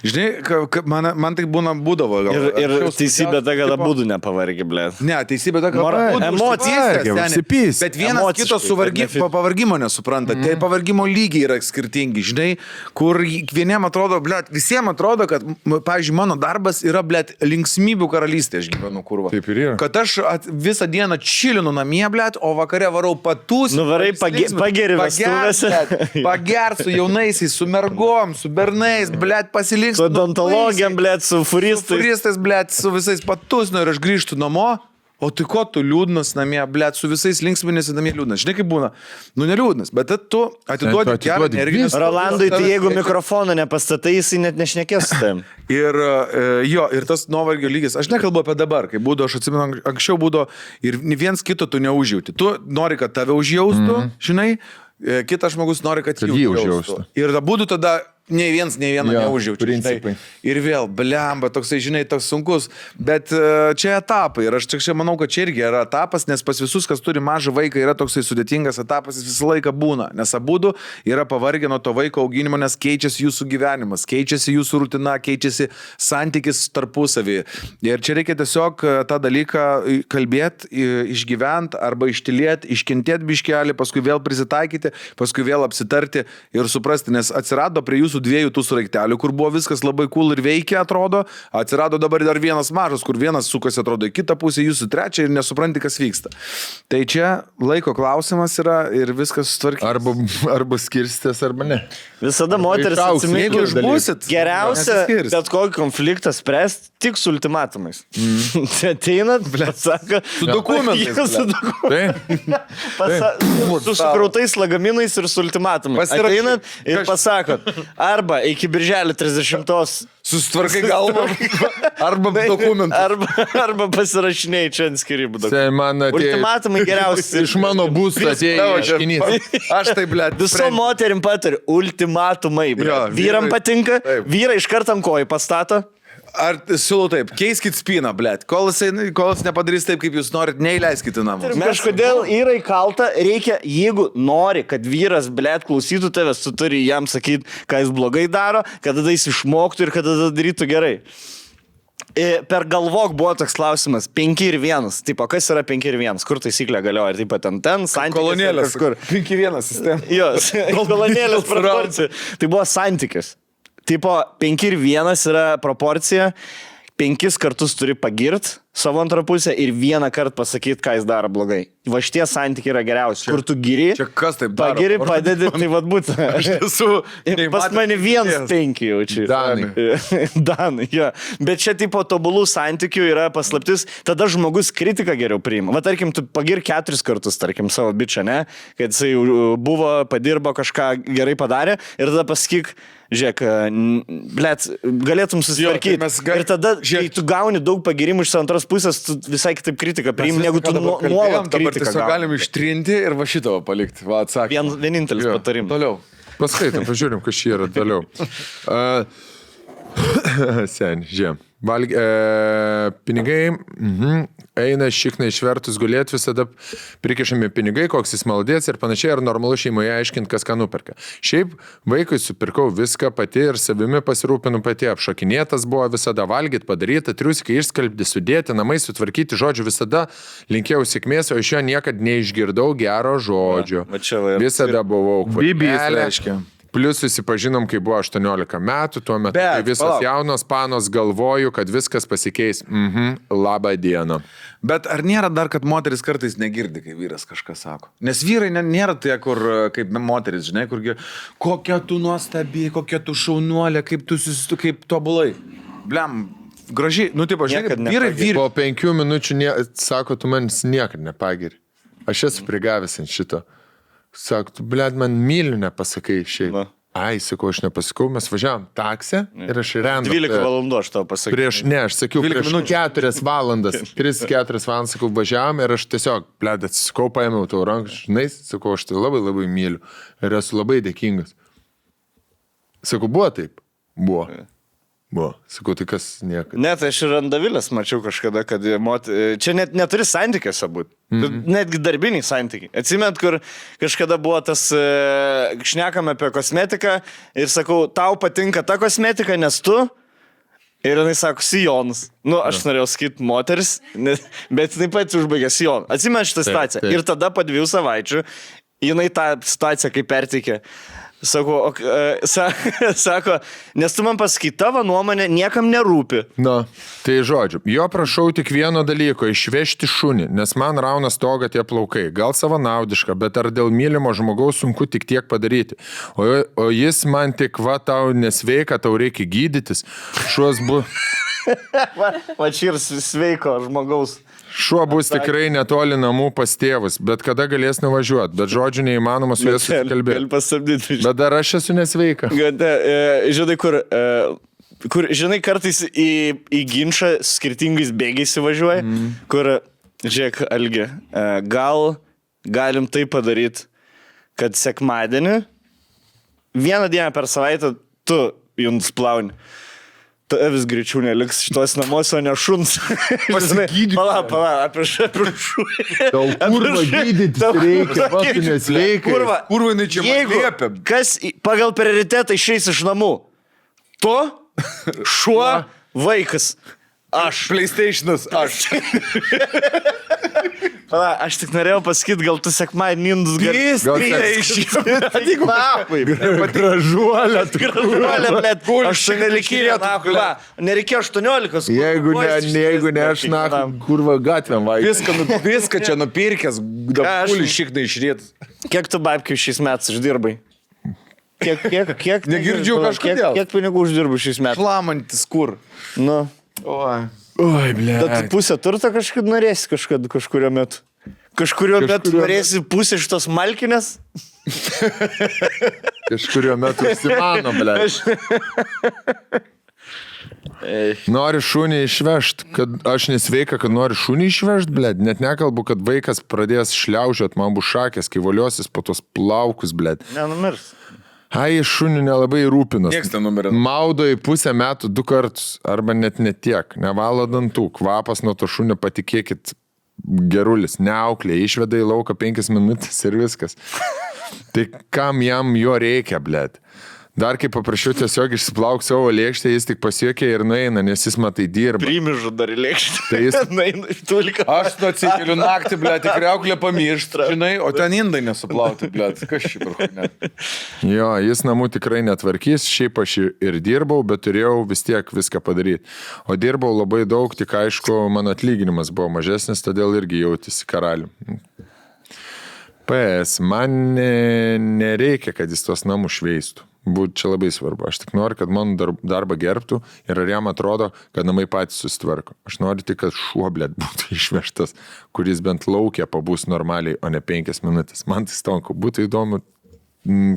Žinai, man tai būdavo. Ir teisybė ta, kad abudu nepavargi, ble. Ne, teisybė ta, kad emocijas. Bet vienas kito pavargimo nesupranta. Tai pavargimo lygiai yra skirtingi, žinai, kur vieniem atrodo, ble, visiems atrodo, kad, pavyzdžiui, mano darbas yra, ble, linksmybių karalystė, aš gyvenu kurva. Taip ir yra. Kad aš visą dieną čilinu namie, ble, o vakare varau patus. Nuvarai pageri vestuvėse. Pagert su jaunaisiais, su mergom, su bernais, ble, pasilinksminti. Su odontologijam, blėt, su furistais. Su furistais, blėt, su visais patusnu ir aš grįžtu namo, o tai ko tu liūdnas namie, blėt, su visais linksminėsi namie liūdnas. Žinai, kaip būna? Nu, neliūdnas, bet tu atiduodi gerą energiją. Rolandui, tai jeigu mikrofoną nepastatai, jisai net nešnekės su tavim. Ir jo, ir tas nuovargio lygis, aš nekalbu apie dabar, kai būdavo, aš atsimenu, anksčiau būdavo ir viens kito tu neužjauti. Tu nori, kad tave užjaustų, žinai, kitas žmogus nori, kad jį užjaustų. Ir būdų tada nei vieną neužjaučiu. Principai. Ir vėl, blemba, toksai, žinai, toks sunkus. Bet čia etapai. Ir aš čia manau, kad čia irgi yra etapas, nes pas visus, kas turi mažą vaiką, yra toksai sudėtingas etapas, jis visą laiką būna. Nes abudu yra pavargę nuo to vaiko auginimo, nes keičiasi jūsų gyvenimas, keičiasi jūsų rutina, keičiasi santykis tarpusavį. Ir čia reikia tiesiog tą dalyką kalbėti, išgyventi arba ištilėti, iškentėti biškelį, paskui vėl prisitaikyti, paskui vėl apsitarti ir suprasti, nes atsirado prie jūsų dviejų tų sraigtelių, kur buvo viskas labai cool ir veikia, atrodo, atsirado dabar dar vienas mažas, kur vienas sukasi, atrodo, į kitą pusę, jūsų trečią ir nesupranti, kas vyksta. Tai čia laiko klausimas yra ir viskas sutvarkyti. Arba skirstės, arba ne. Visada moteris Jeigu išbūsit, geriausia, bet kokį konfliktą spręsti tik su ultimatumais. Ateinat, sako, su dokumentais. Su sukrautais lagaminais ir su ultimatumais. Ateinat ir pasakot, arba iki birželio 30-os susitvarkai galvą, arba dokumentus. Arba pasirašinėjai čia ant skirybų. Ultimatumai geriausi. Iš mano būsto atėjo ieškinys. Aš tai, blėt, visom moterim patariu, ultimatumai. Vyram patinka, vyrai iš karto ant kojų pastato. Ar siūlau taip, keiskit spyną, blėt. Kol jis nepadarys taip, kaip jūs norit, neįleiskit į namus. Kažkodėl yra įkalta, reikia, jeigu nori, kad vyras, blėt, klausytų tavęs, tu turi jam sakyti, ką jis blogai daro, kad tada jis išmoktų ir kad tada darytų gerai. Per galvok buvo toks klausimas, 5 ir 1. Tipo, kas yra 5 ir 1? Kur taisyklė galioja? Ir taip pat ten, santykis. Kolonėlės. 5-1 sistema. Jos, kolonėlės proporcija. Tai buvo santykis. Tipo, 5 ir 1 yra proporcija, 5 kartus turi pagirt savo antrą pusę ir 1 kartą pasakyti, ką jis daro blogai. Va šitie santykiai yra geriausi. Kur tu giri, čia kas taip daro? Pagiri, padedi, tai vad būtų. Aš esu... Pas mane 1-5 jaučiu. Danai, jo. Bet čia tipo tobulų santykių yra paslaptis, tada žmogus kritiką geriau priima. Va tarkim, tu pagir 4 kartus, tarkim, savo bičią, ne? Kad jisai buvo, padirbo, kažką gerai padarė ir tada pasakyk, žiūrėk, blėt, galėtum susitvarkyti. Ir tada, kai tu gauni daug pagirimų iš antros pusės, tu visai kitaip kritiką priimi, negu tu nuolat kritiką gauni. Galim ištrinti ir va šito palikti. Va, atsakymą. Vienintelis patarimas. Toliau. Paskaitom, pažiūrim, kas čia yra toliau. Seni, žiūrėjom. Pinigai, eina šikna išvertus gulėti, visada prikišami pinigai, koks jis maldės ir panašiai, ar normalu šeimoje aiškinti, kas ką nuperka. Šiaip vaikui supirkau viską pati ir savimi pasirūpinu pati, apšokinėtas buvo visada valgyti, padaryti, triusikai išskalbti, sudėti, namai sutvarkyti, žodžiu, visada linkėjau sėkmės, o iš jo niekad neišgirdau gero žodžio. Visada buvau kvapelė. Plius susipažinom, kai buvo 18 metų, tuo metu visas jaunos panos galvoju, kad viskas pasikeis. Labą dieną. Bet ar nėra dar, kad moteris kartais negirdi, kai vyras kažką sako? Nes vyrai nėra tie, kur kaip moteris, žinai, kurgi, kokia tu nuostabi, kokia tu šaunuolė, kaip tobulai. Blem, gražiai, nu taip, žinai, kad vyrai. Po 5 minučių sako, tu manis niekad nepagiri. Aš esu prigavęs ant šito. Sako, tu, blėd, man myliu nepasakai šiaip. Ai, sakau, aš nepasakau, mes važiavam taksę ir aš rendu. 12 valandų aš tau pasakiau. Aš sakiau, prieš 4 valandas, 3-4 valandas, sakau, važiavam ir aš tiesiog, blėd, atsisakau, paėmiau tau ranką, žinai, sakau, aš tai labai labai myliu ir esu labai dėkingas. Sakau, buvo taip? Buvo. Sakau, tai kas niekada. Net aš ir Andavilės mačiau kažkada, kad čia net neturi santykiuose būti. Netgi darbiniai santykiai. Atsimint, kur kažkada buvo tas, šnekame apie kosmetiką ir sakau, tau patinka ta kosmetika, nes tu. Ir jinai sako, sijonas. Nu, aš norėjau sakyti moteris, bet jinai pati užbaigė sijoną. Atsimint šitą situaciją. Ir tada po 2 savaičių jinai tą situaciją kaip perteikė. Sako, nes tu man pasakai, tavo nuomonė niekam nerūpi. Na, tai žodžiu, jo prašau tik vieno dalyko, išvežti šunį, nes man rauna stogą tie plaukai. Gal savanaudiška, bet ar dėl mylimo žmogaus sunku tik tiek padaryti. O jis man tik, va, tau nesveika, tau reikia gydytis. Šuos Va čia ir sveiko žmogaus. Šuo bus tikrai netoli namų pas tėvus, bet kada galės nuvažiuoti, bet žodžiu neįmanoma su juos susikalbėti. Bet dar aš esu nesveika. Žinai, kur žinai, kartais į ginčą skirtingais bėgiais įvažiuoja, kur, žiūrėk, Algi, galim tai padaryti, kad sekmadienį, vieną dieną per savaitę tu jums plauni. Tu vis greičiau neliks šitos namuose, o ne šuns. Pasigydyk. Pala, apie šū. Tau kurva gydytis reikia, va, tu nesveikai. Kurva, jinai čia man Jeigu liepia. kas pagal prioritetą išeis iš namų, tu, šuo, vaikas. Aš. PlayStation'as, aš. Pala, aš tik norėjau pasakyti, gal tu sekmadienį indus Gražuolė. Gražuolė, blėt, 18 nereikėjo 18. Jeigu ne aš kurva gatvėm vaikai. Viską čia nupirkęs, dapulį šiknai išrėt. Kiek tu babkių šiais metais uždirbai? Kiek? Negirdžiu kažkodėl. Kiek pinigų uždirbai šiais metais? Šlamantis kur? Nu. Oi. Oi, ble. Bet pusę turto kažkaip norėsi kažkurio metu. Kažkurio metu norėsi pusę šitos malkinės? Kažkurio metu įsimano, ble. Nori šunį išvežt, kad aš nesveika, kad nori šunį išvežt, ble. Net nekalbu, kad vaikas pradės šliaužiot, man bus šakės, kai voliosis po tos plaukus, ble. Nenumirs. Ai, šunių nelabai rūpinas. Nieks nenumirė. Maudo į pusę metų 2 kartus, arba net netiek. Nevalo dantų, kvapas nuo to šunio, patikėkit, gerulis, neauklė, išveda į lauką 5 minutės ir viskas. Tai kam jam jo reikia, blėt? Dar kaip paprašiau tiesiog išsiplauk savo lėkštę, jis tik pasiekė ir nueina, nes jis matai dirba. Primižu dar į lėkštę. Tai jis... Nueina iš tulika. Aš tu atsikeliu naktį, ble, tik reuklę pamiršt, žinai, o ten indai nesuplauti, ble. Kas šį parūnė? Jo, jis namų tikrai netvarkys, šiaip aš ir dirbau, bet turėjau vis tiek viską padaryti. O dirbau labai daug, tik aišku, mano atlyginimas buvo mažesnis, todėl irgi jautėsi karalių. PS, man nereikia, kad jis tos namus šveistų. Būtų čia labai svarbu. Aš tik noriu, kad mano darbą gerbtų ir ar jam atrodo, kad namai patys susitvarko. Aš noriu tik, kad šuo, blėt, būtų išvežtas, kuris bent laukia pabūs normaliai, o ne 5 minutės. Man tai stonku, būtų įdomu,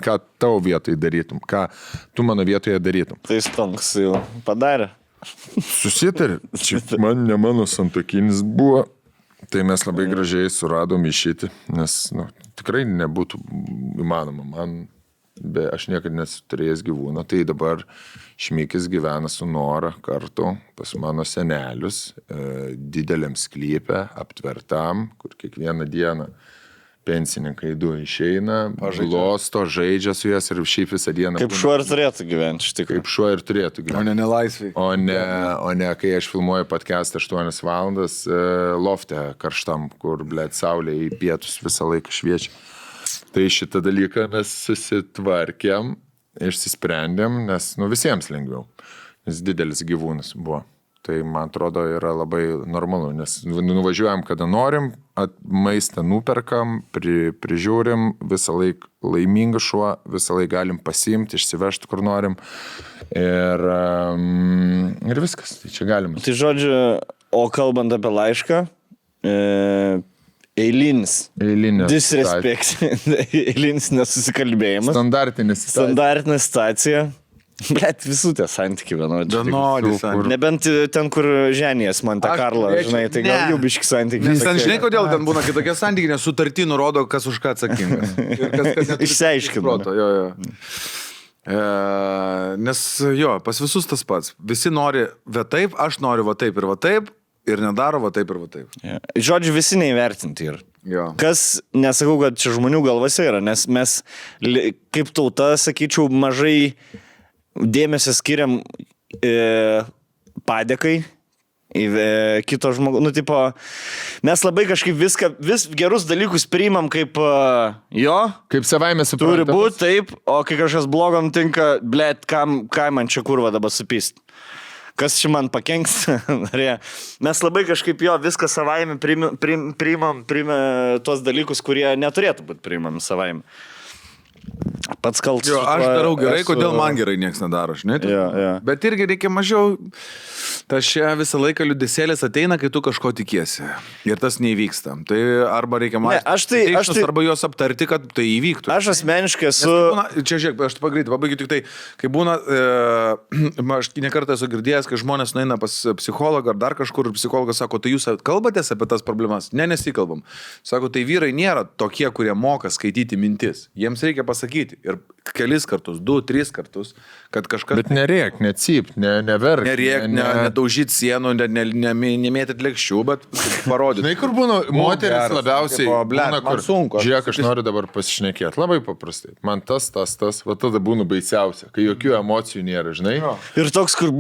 ką tavo vietoje darytum, ką tu mano vietoje darytum. Tai stonks jau padarė. Susitarė, čia man ne mano santuokinis buvo, tai mes labai gražiai suradom išeiti, nes tikrai nebūtų įmanoma. Aš niekada nesu turėjęs gyvūną, tai dabar Šmikis gyvena su Nora kartu pas mano senelius, dideliam sklype, aptvertam, kur kiekvieną dieną pensininkai 2 išeina, glosto, žaidžia su jas ir šiaip visą dieną. Kaip šuo ir turėtų gyventi, iš tikrųjų. Kaip šuo ir turėtų gyventi. O ne nelaisviai. O ne, kai aš filmuoju podcastą 8 valandas lofte karštam, kur, blėt, saulė į pietus visą laiką šviečia. Tai šitą dalyką mes susitvarkėm, išsisprendėm, nes visiems lengviau, nes didelis gyvūnas buvo. Tai man atrodo yra labai normalu, nes nuvažiuojam kada norim, maistą nuperkam, prižiūrim, visą laiką laimingas šuo, visą laiką galim pasiimti, išsivežti kur norim ir viskas, tai čia galima. Tai žodžiu, o kalbant apie laišką, eilinis. Disrespect. Eilinis nesusikalbėjimas. Standartinė situacija. Blet, visų tie santykiai vienodi. Nebent ten, kur ženijas Monte Carlo, žinai, tai gal jau biški santykiai. Nes ten žinai, kodėl ten būna kitokie santykiai, nes sutartį nurodo, kas už ką atsakingas. Išsiaiškinu. Nes jo, pas visus tas pats. Visi nori va taip, aš noriu va taip ir nedaro va taip ir va taip. Žodžiu, visi neįvertinti yra. Jo. Kas, nesakau, kad čia žmonių galvose yra, nes mes kaip tauta, sakyčiau, mažai dėmesio skiriam padėkai kito žmogaus. Tipo, mes labai kažkaip vis gerus dalykus priimam kaip jo. Kaip savaime suprantama. Turi būti taip, o kai kažkas blogam tinka, blėt, kam man čia kurva dabar supist. Kas čia man pakenks. Mes labai kažkaip jo viską savaime priimam tuos dalykus, kurie neturėtų būti priimami savaime. Pats kaltas. Jo, aš darau gerai, kodėl man gerai nieks nedaro, žinai. Jo. Bet irgi reikia mažiau, Tas čia visą laiką liūdesėlis ateina, kai tu kažko tikiesi. Ir tas neįvyksta. Tai arba reikia mąstyti, arba juos aptarti, kad tai įvyktų. Aš asmeniškai esu... Čia žiūrėk, aš pagreitai pabaigiu tik tai, kai būna, aš nekartą esu girdėjęs, kai žmonės nueina pas psichologą ar dar kažkur ir psichologas sako, tai jūs kalbatės apie tas problemas? Ne, nesikalbam. Sako, tai vyrai nėra tokie, kurie moka skaityti mintis. Jiems reikia pasakyti. Ir kelis kartus, 2-3 kartus, kad kažkas... Bet nerėk, necyp, neverk. Nerėk, nedaužyt sienų, nemėtyt lėkščių, bet parodyti. Žinai, kur būna moteris labiausiai, būna, kur sunku. Žiūrėk, aš noriu dabar pasišnekėti. Labai paprastai. Man tas, va tada būna baisiausia, kai jokių emocijų nėra, žinai. Ir toks, kur,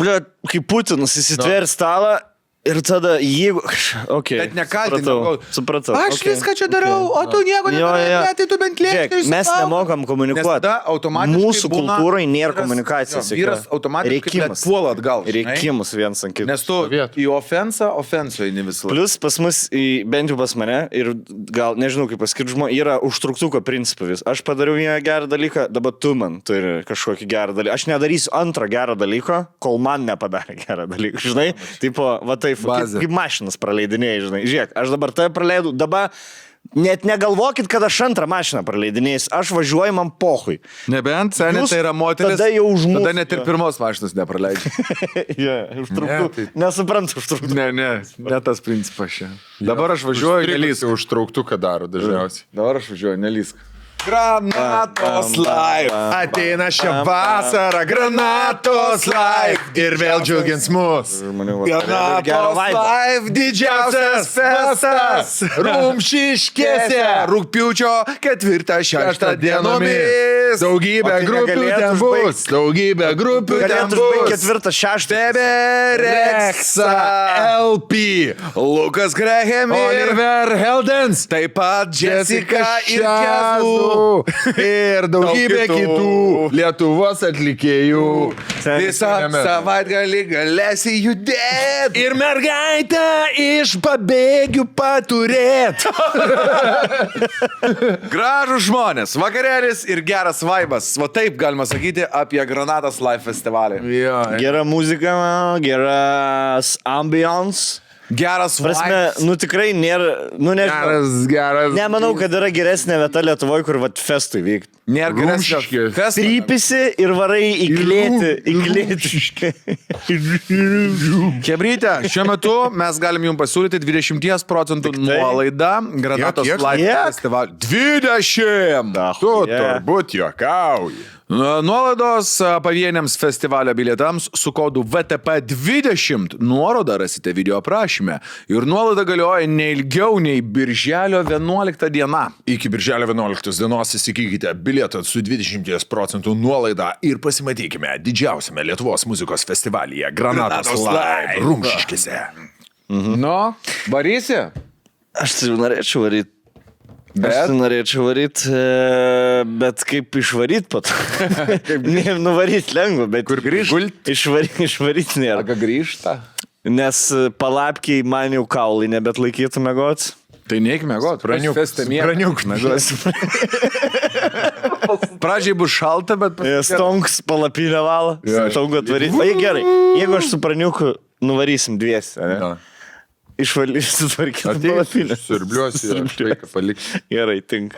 kaip Putinas įsitvėrė stalą. Ir tada, jeigu... Okay, bet nekaltinau. Supratau. Aš viską čia darau, o tu nieko nedarai, tai tu bent lėkti. Mes nemokam komunikuoti. Mūsų kultūrai nėra komunikacijos. Vyras automatiškai puola atgal. Reikimus viens ant kito. Nes tu į ofensą eini visą laiką. Plus pas mus, bent jau pas mane, ir gal nežinau kaip pasakyti žmonės, yra užtruktuko principas. Aš padariau vieną gerą dalyką, dabar tu man turi kažkokį gerą dalyką. Aš nedarysiu antrą gerą dalyką, kol man nepadarė gerą dalyką. Žinai, tipo, va taip. Kaip mašinas praleidinėjai, žinai. Žiūrėk, aš dabar tave praleidau, dabar net negalvokit, kad aš antrą mašiną praleidinėjus, aš važiuoju man pohui. Nebent, senė, tai yra moteris, tada jau užmūs. Tada net ir pirmos mašinos nepraleidžia. Užtruktų. Nesuprantu užtruktų. Ne tas principas čia. Dabar aš važiuoju, nelysk. Užtrauktų, ką daro dažniausiai. Dabar aš važiuoju, nelysk. Granatos live. Ateina šią vasarą, Granatos live. Ir vėl džiugins mus. Granatos live, didžiausias festas. Rumšiškėse. Rugpjūčio 4-6 dienomis. Daugybė grupių ten bus. Daugybė grupių ten bus. 4-6. Bebereksa. LP. Lukas Graham. Oliver Heldens. Taip pat Jessica ir Kezu. Ir daugybė kitų Lietuvos atlikėjų. Visą savaitgalį galėsi judėti. Ir mergaitę iš pabėgių paturėt. Gražus žmonės, vakarėlis ir geras vaibas. Va taip galima sakyti apie Granatos Live festivalį. Gera muzika, geras ambience. Geras vaibas. Nu tikrai nėra, geras. Nemanau, kad yra geresnė vieta Lietuvoje, kur vat festui vykti. Nėra geresnė festui. Trypisi ir varai įklėti. Chebryte, šiuo metu mes galim jums pasiūlyti 20% nuolaidą Granatos Live festivalį. 20! Tu turbūt juokauji. Nuolaidos pavieniams festivalio bilietams su kodu VTP20 nuorodą rasite video aprašyme ir nuolaida galioja neilgiau nei birželio 11 diena. Iki birželio 11 dienos įsigykite bilietą su 20% nuolaida ir pasimatykime didžiausiame Lietuvos muzikos festivalyje Granatos Live Rumšiškėse. Nu, varysi? Aš tai norėčiau varyti. Aš norėčiau varyti, bet kaip išvaryti pat? Nuvaryti lengva, bet kur grįžti? Išvaryti nėra. Ką grįžta? Nes palapkiai man jau kaulai nebet laikytų mėgot. Tai neik mėgot. Praniuk mėgot. Pradžiai bus šalta, bet... Stonks palapinę valą. Stonku atvaryti. O gerai, jeigu aš su praniuku nuvarysim dviesi, ne? Išvalysiu tvarkyti palapinę. Surbliuosi ir vaiką paliksiu. Gerai, tink.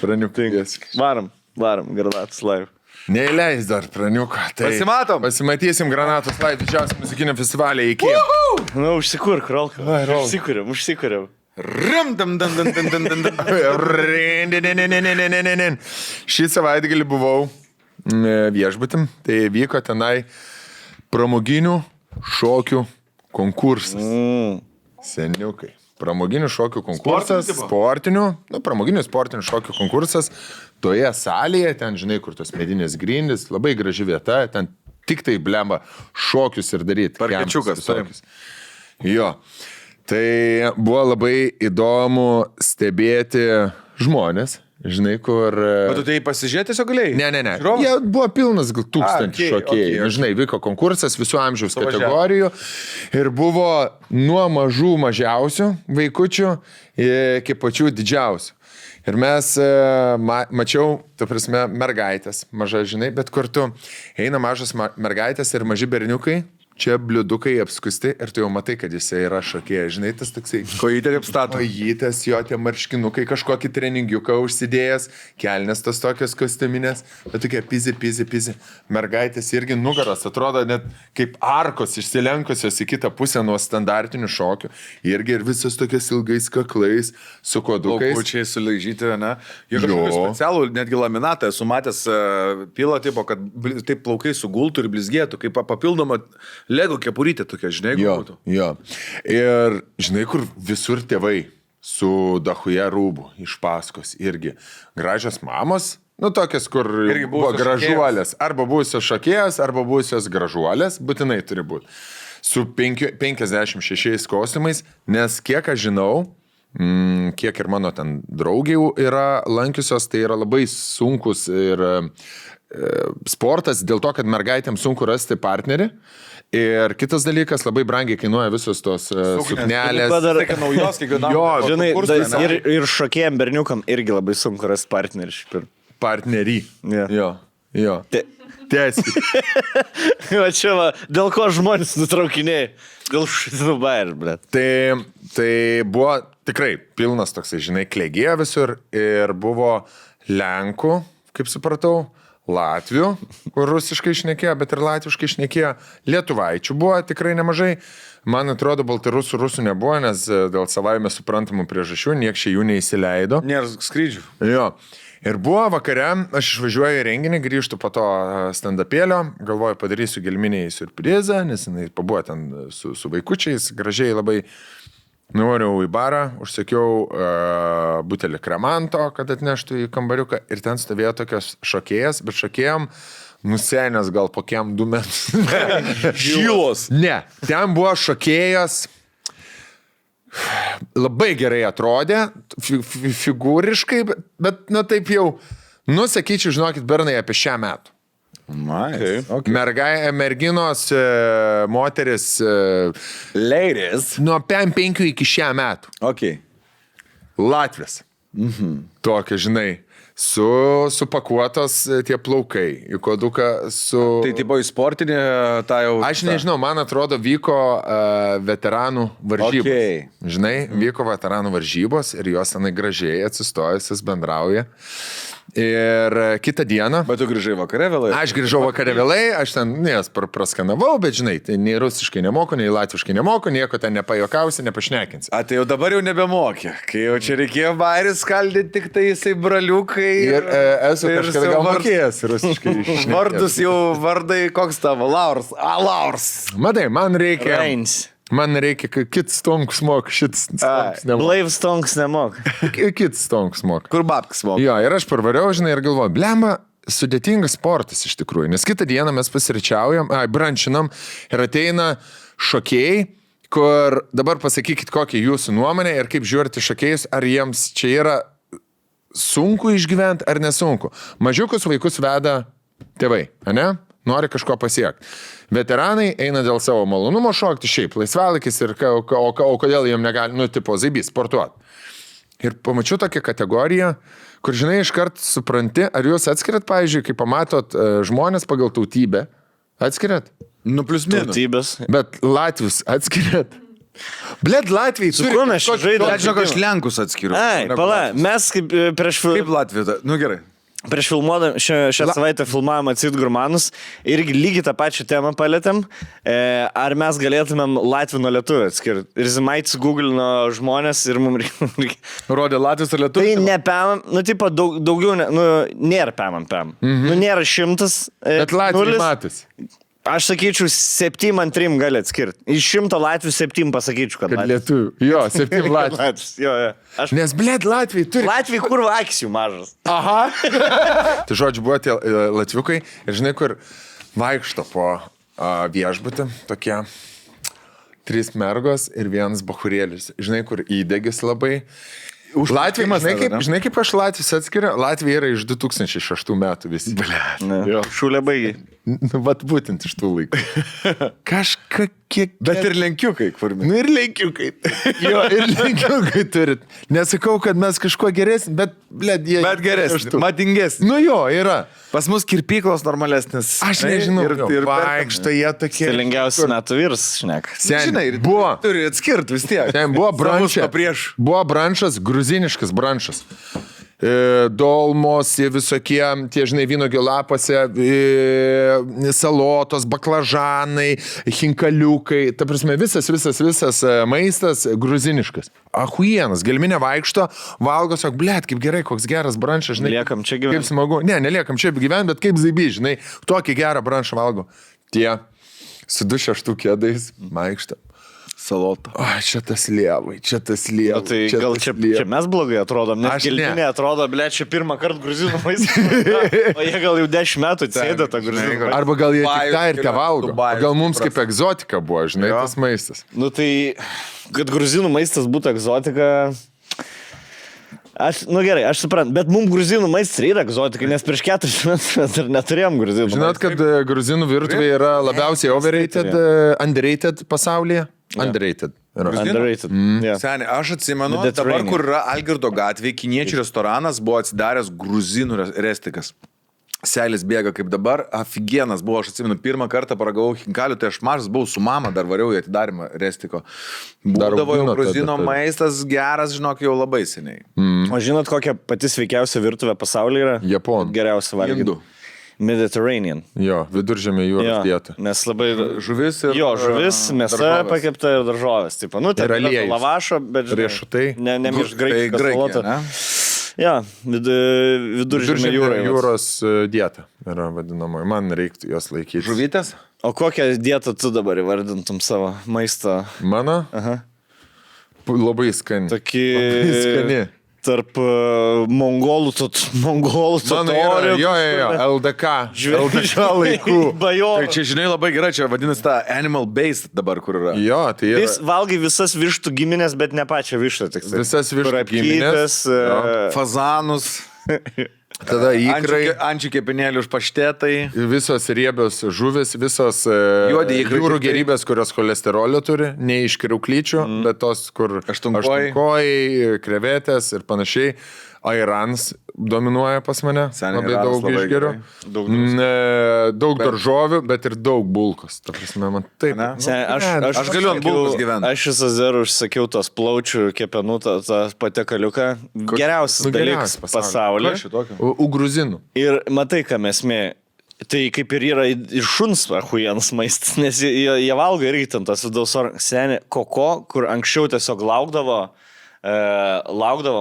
Praniukas. Varam, Granatos Live. Neįleis dar praniuką. Tai pasimatom. Pasimatysim Granatos Live didžiausiam muzikiniam festivalį iki. Nu, užsikurk, Rolka. Užsikuriam. Šį savaitgalį buvau viešbutim, tai vyko tenai pramoginių šokių konkursas. Seniukai. Pramoginių šokių konkursas, pramoginių sportinių šokių konkursas toje salėje, ten žinai, kur tos medinės grindys, labai graži vieta, ten tik tai blemba šokius ir daryti. Parkečiukas. Jo. Tai buvo labai įdomu stebėti žmonės, žinai, kur... Bet tu tai pasižiūrėti tiesiog galėjai? Ne. Jie buvo pilnas gal 1000 šokėjų. Žinai, vyko konkursas visų amžiaus kategorijų ir buvo nuo mažų mažiausių vaikučių iki pačių didžiausių. Ir mes mačiau, ta prasme, mergaitės, maža, žinai, bet kartu eina mažas mergaitės ir maži berniukai, čia bliudukai apskusti ir tu jau matai, kad jisai yra šokėjas. Žinai, tas toksai... Kojytė kaip stato. Kojytės, jo tie marškinukai, kažkokį treningiuką užsidėjęs, kelnes tos tokios kostiuminės, bet tokie pizi. Mergaitės irgi nugaras atrodo net kaip arkos išsilenkusios į kitą pusę nuo standartinių šokių. Irgi ir visas tokias ilgais kaklais, su kodukais. Laukučiai sulaižyti, ne? Jie kažkokį specialų, netgi laminatą esu matęs pilą tipo, kad taip plaukai sugultų ir blizgėtų, kaip papildoma Lego kepurytė tokia, žinai, būtų. Jo. Ir žinai, kur visur tėvai su dachuje rūbų iš paskos irgi. Gražios mamos, nu tokias, kur Irgi buvo buvusios gražuolės. Arba buvusios šokėjas, arba buvusios gražuolės, būtinai turi būti. Su 56 kostiumais, nes kiek aš žinau, kiek ir mano ten draugių yra lankiusios, tai yra labai sunkus ir sportas dėl to, kad mergaitėms sunku rasti partnerį. Ir kitas dalykas, labai brangiai kainuoja visos tos suknelės. Tai, kad naujos kiekvienam. Jo, Žinai, ir šokėjim berniukam irgi labai sunku rasti partnerį. Partnerį. Yeah. Jo. Tiesiai. Va čia va, dėl ko žmonės nutraukinėjai? Dėl šitų bairių, blėt. Tai buvo tikrai pilnas toksai, žinai, klėgėjo visur ir buvo Lenkų, kaip supratau, Latvių, kur rusiškai šnekėjo, bet ir latviškai šnekėjo. Lietuvaičių buvo tikrai nemažai. Man atrodo, rusų nebuvo, nes dėl savaime suprantamų priežasčių nieks čia jų neįsileido. Nėra skrydžių. Jo. Ir buvo vakare, aš išvažiuoju į renginį, grįžtu po to stand-upėlio, galvoju, padarysiu gelminiai siurprizą, nes jinai pabuvo ten su vaikučiais, gražiai labai. Nuvariau į barą, užsakiau butelį kremanto, kad atneštų į kambariuką ir ten stovėjo tokios šokėjas, bet šokėjom nusenęs gal po kiem 2 metus. Žilos. Ne, ten buvo šokėjas, labai gerai atrodė, figūriškai, bet nu taip jau, sakyčiau, žinokit, bernai apie 6 metų. Okay. Merginos, moteris, Ladies. nuo 5 iki 6 metų. Okay. Latvis. Tokia, žinai, supakuotos tie plaukai, į koduką su... Tai tipo į sportinį tą jau... Aš nežinau, man atrodo, vyko veteranų varžybos. Okay. Žinai, vyko veteranų varžybos ir jos tenai gražiai atsistojusios bendrauja. Ir kitą dieną... Bet tu grįžai vakare vėlai? Aš grįžau vakare vėlai, aš ten jas praskanavau, bet žinai, tai nei rusiškai nemoku, nei latviškai nemoku, nieko ten nepajokausi, nepašnekinsi. A, tai jau dabar jau nebemokė, kai jau čia reikėjo bairį skaldyti, tik tai jisai braliukai. Ir esu kažkada gal mokėjęs rusiškai. Vardus jau vardai, koks tavo? Laurs. Laurs. Matai, man reikia... Reins. Man reikia, kad kits stonks mok, šits stonks nemok. Blaiv stonks nemok. Kits stonks mok. Kur babkas mok? Jo, ir aš parvariau, žinai, ir galvoju, blemba, sudėtingas sportas iš tikrųjų, nes kitą dieną mes pasiričiaujam, brančinam ir ateina šokėjai, kur dabar pasakykit, kokia jūsų nuomonė ir kaip žiūrite šokėjus, ar jiems čia yra sunku išgyventi ar nesunku. Mažiukus vaikus veda tėvai, ane? Nori kažko pasiekti. Veteranai eina dėl savo malonumo šokti, šiaip laisvalakis ir o kodėl jiem negali, tipo zaibys, sportuoti. Ir pamačiau tokią kategoriją, kur, žinai, iškart supranti, ar jūs atskiriat, pavyzdžiui, kai pamatot žmonės pagal tautybę, atskiriat? Nu, plius minus. Tautybės. Bet latvius atskiriat? Bled, Latvijai Su kuo mes čia žaidėme? Bet žinok, aš Lenkus atskiriu. Ai, pala, mes kaip prieš... Kaip Latvija? Nu gerai. Prieš filmuodami, šią savaitę filmavome Acid Gurmanus, irgi lygiai tą pačią temą palėtėm, ar mes galėtumėm Latvijų nuo lietuvių atskirti. Ir Zimaits googlino žmonės ir mums reikia. Rodė Latvijos ar lietuvių? Tai ne pėmam, nu tipo daugiau, nėra pėmam. Nu nėra 100. Bet Latvijai matas. Aš sakyčiau, 7 ant 3 gali atskirti. Iš 100 Latvių 7 pasakyčiau, kad lietuvių. Jo, 7 Latvių. Jo. Nes, bled, Latvijai turi... Latvijai kur akis jų mažas. Aha. Tai žodžiu, buvo tie latviukai ir žinai, kur vaikšto po viešbutį, tokie 3 mergos ir 1 bachurėlis. Žinai, kur įdegis labai. Latvija, žinai, kaip aš Latvijos atskiriu? Latvija yra iš 2006 metų visi. Šūlė baigiai. Nu, vat būtent iš tų laikų. Kažką kiek... Bet ir lenkiukai, kur mes. Nu ir lenkiukai. Jo, ir lenkiukai turit. Nesakau, kad mes kažkuo geresni, bet, blėd, jie... Bet geresnis, madingesnis. Nu jo, yra. Pas mus kirpyklos normalesnis. Aš nežinau, ir vaikšto jie tokie... Stilingiausias metų vyras, šnek. Žinai, buvo... Turi atskirti vis tiek. Ten buvo brančas. Prieš. Buvo brančas, gruziniškas brančas. Dolmos, visokie, tie, žinai, vynuogių lapose, salotos, baklažanai, hinkaliukai, ta prasme, visas maistas gruziniškas. Ahuienas, gelminė vaikšto, valgo, sako, blėt, kaip gerai, koks geras brančas, žinai. Liekam čia gyventi. Kaip smagu. Ne, neliekam čia gyventi, bet kaip zaibi, žinai, tokį gerą brančą valgo. Tie su 2-6 kėdais vaikšto. Salota. O, čia tas lievai, čia tas lievai. Tai gal čia mes blogai atrodom, nes gelminė atrodo, ble, čia pirmą kartą gruzinų maistą. O jie gal jau 10 metų sėdė tą gruzinų maistą. Arba gal jie tik tą ir te valgo. Gal mums kaip egzotika buvo, žinai, tas maistas. Nu tai, kad gruzinų maistas būtų egzotika... Gerai, aš suprantu, bet mums gruzinų maistas yra egzotika, nes prieš 4 metus mes dar neturėjom gruzinų maistą. Žinot, kad gruzinų virtuvė yra labiausiai overrated, underrated pasaulyje? Underrated. Underrated. Yeah. Seniai, aš atsimenu, dabar kur yra Algirdo gatvė, kiniečių restoranas buvo atsidaręs gruzinų restikas. Selis bėga kaip dabar, afigienas buvo, aš atsimenu, pirmą kartą paragavau hinkalių, tai aš mažas buvau su mama, dar variau į atidarimą restiko. Būdavo jau gruzino maistas geras, žinok, jau labai seniai. O žinot, kokia pati sveikiausia virtuvė pasaulyje yra? Japonų. Geriausia valgyti. Indų. Mediterranean. Jo, viduržemė jūros dieta. Nes labai... Žuvis ir... Jo, žuvis, mėsa pakepta ir daržovės. Taip, nu, tai yra lavašo, bet... Riešutai. Ne iš graikiškos salota. Ja, viduržemė jūros dieta yra vadinamoji. Man reiktų jos laikyti. Žuvytės? O kokią dietą tu dabar įvardintum savo maistą? Mano? Aha. Labai skani. Tokį... Labai skani. Tarp mongolų totorių. Jo, LDK laikų. Tai čia, žinai, labai gerai, čia vadinasi ta animal based dabar, kur yra. Jo, tai yra. Jis valgai visas vištų giminės, bet ne pačią vištą. Visas vištų giminės. Fazanus. Tada įkrai. Ančių kepinėlių už paštetai. Visos riebios žuvis, visos jūrų gerybės, kurios cholesterolio turi, ne iš kriauklyčių, bet tos, kur aštunkojai, krevetės ir panašiai. Airans dominuoja pas mane, labai daug išgeriu. Daug daržovių, bet ir daug bulkos. Ta prasme, man taip. Aš galiu ant bulkos gyventi. Aš iš Azerų užsakiau tos plaučių kepenų, tą patekaliuką. Geriausias dalykas pasaulyje. Gruzinų. Ir matai, ką mes mė. Tai kaip ir yra ir šuns achuienas maistas, nes jie valgo irgi ten tas vidaus senė koko, kur anksčiau tiesiog laukdavo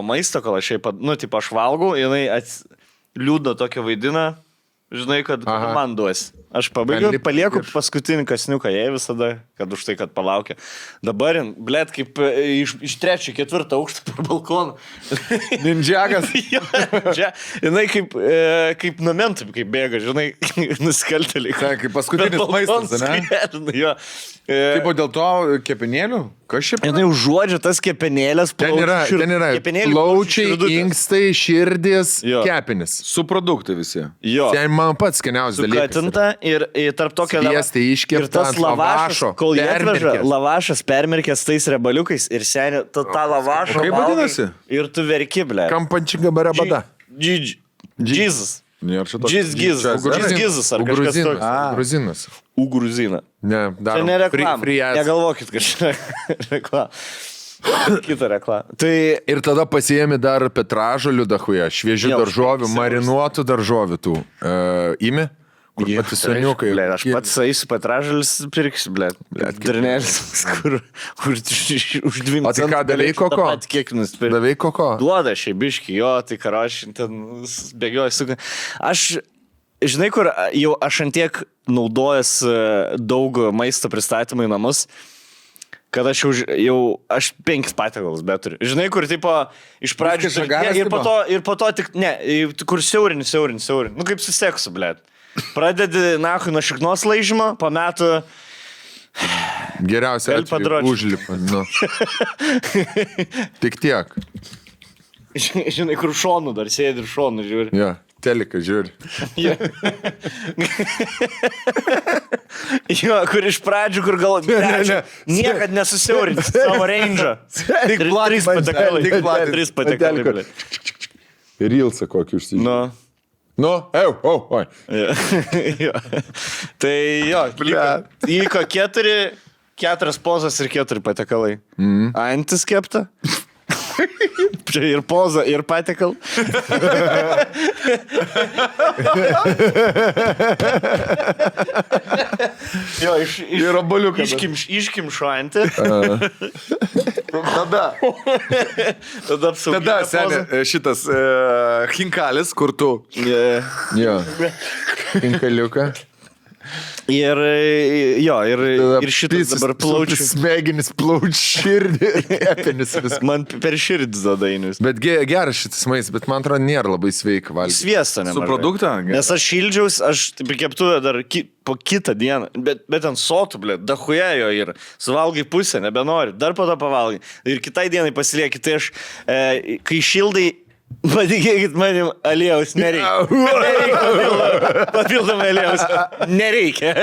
maisto, kol aš aš valgau, jinai liūdno tokia vaidina, žinai, kad man duos. Aš palieku paskutinį kasniuką jai visada, kad už tai, kad palaukia. Dabar, blėt, kaip iš 3-4 aukštą per balkoną. Ninjagas. Jinai kaip numentum, kaip bėga, žinai, nusikaltėliai. Kaip paskutinis maistas, ne? Kaip dėl to kepenėlių? Kas šiaip? Jinai užuodžia tas kepenėlės, ten yra plaučiai, inkstai, širdis, kepenis. Su produktai visi. Jo. Ten man pats skaniausias dalykas. Sukatinta ir tarp tokio ir tas lavašas, kol jie atveža, lavašas permirkęs tais rebaliukais ir seniai tą lavašą. Kaip vadinasi? Ir tu verki, ble. Kampančinga barabada. Jesus. Gizas ar kažkas toks. Gruzinas. Gruzina. Ne, dar. Čia ne reklama. Negalvokit, kad čia reklama. Kita reklama. Tai... Ir tada pasiėmė dar petražolių dahuja, šviežių daržovių, marinuotų daržovių tų. Imi? Kur pati seniukai. Aš pats eisiu petražolis pirksiu, Drinėlis, kur už 2 centų. O tai ką, davei koko? Kiek nusipirkti. Davei koko? Duoda šiai biški, jo, tai karoši, ten bėgioju. Aš, žinai, kur jau aš antiek naudojas daug maisto pristatymų į namus, kad aš aš 5 patiekalus beturiu. Žinai, kur tipo iš pradžių ir po to tik, ne, kur siaurini. Nu kaip su seksu, blėt. Pradedi, nuo šiknos laižymo, po metų... Geriausia užlipa. Nu. Tik tiek. Žinai, kur šonų dar sėdi ir šonų žiūri. Ja. Teliką žiūri. Jo, kur iš pradžių, kur gal... Niekad nesusiaurinti savo range'ą. Trys patekalai. Trys patekalai, ble. Rilsą kokį užsižiūrė. Nu. Oi. Jo. Tai jo, įvyko 4 pozas ir 4 patekalai. Antis kepta. Čia ir poza, ir patekal. Jo, Ir obuoliuką. Iškimšo antį. Tada, Tada seniai, šitas hinkalis, kur tu. Jo. Inkaliuką. Ir šitas dabar plaučių. Smegenis, plaučių širdį ir kepenis vis. Man per širdį zadainius. Bet geras šitas maistas, bet man atrodo nėra labai sveika valgyti. Sviestą nemažai. Su produktą? Nes aš šildžiaus, aš taip keptuvę dar po kitą dieną, bet ant sotų, blė, dahuja jo ir suvalgai pusę, nebenori, dar po to pavalgai. Ir kitai dienai pasilieki, tai aš, kai šildai, patikėkit manim, aliejaus nereikia. Papildomai aliejaus nereikia.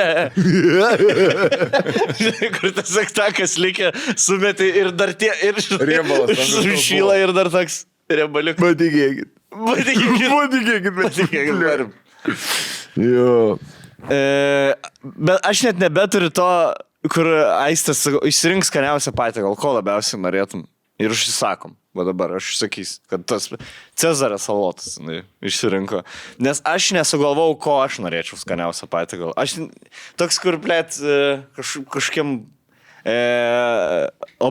Kur tas aktakas likia, sumetai ir dar tie, ir sušyla ir dar toks riebaliukas. Patikėkit. Jo. Bet aš net nebeturiu to, kur Aistas išsirinks skaniausią patiekalą, ko labiausiai norėtum. Ir užsisakom. Va dabar aš sakysiu, kad tas Cezaras salotas išsirinko. Nes aš nesugalvau, ko aš norėčiau skaniausią patiekalą. Aš toks, kur, blėt, kažkiem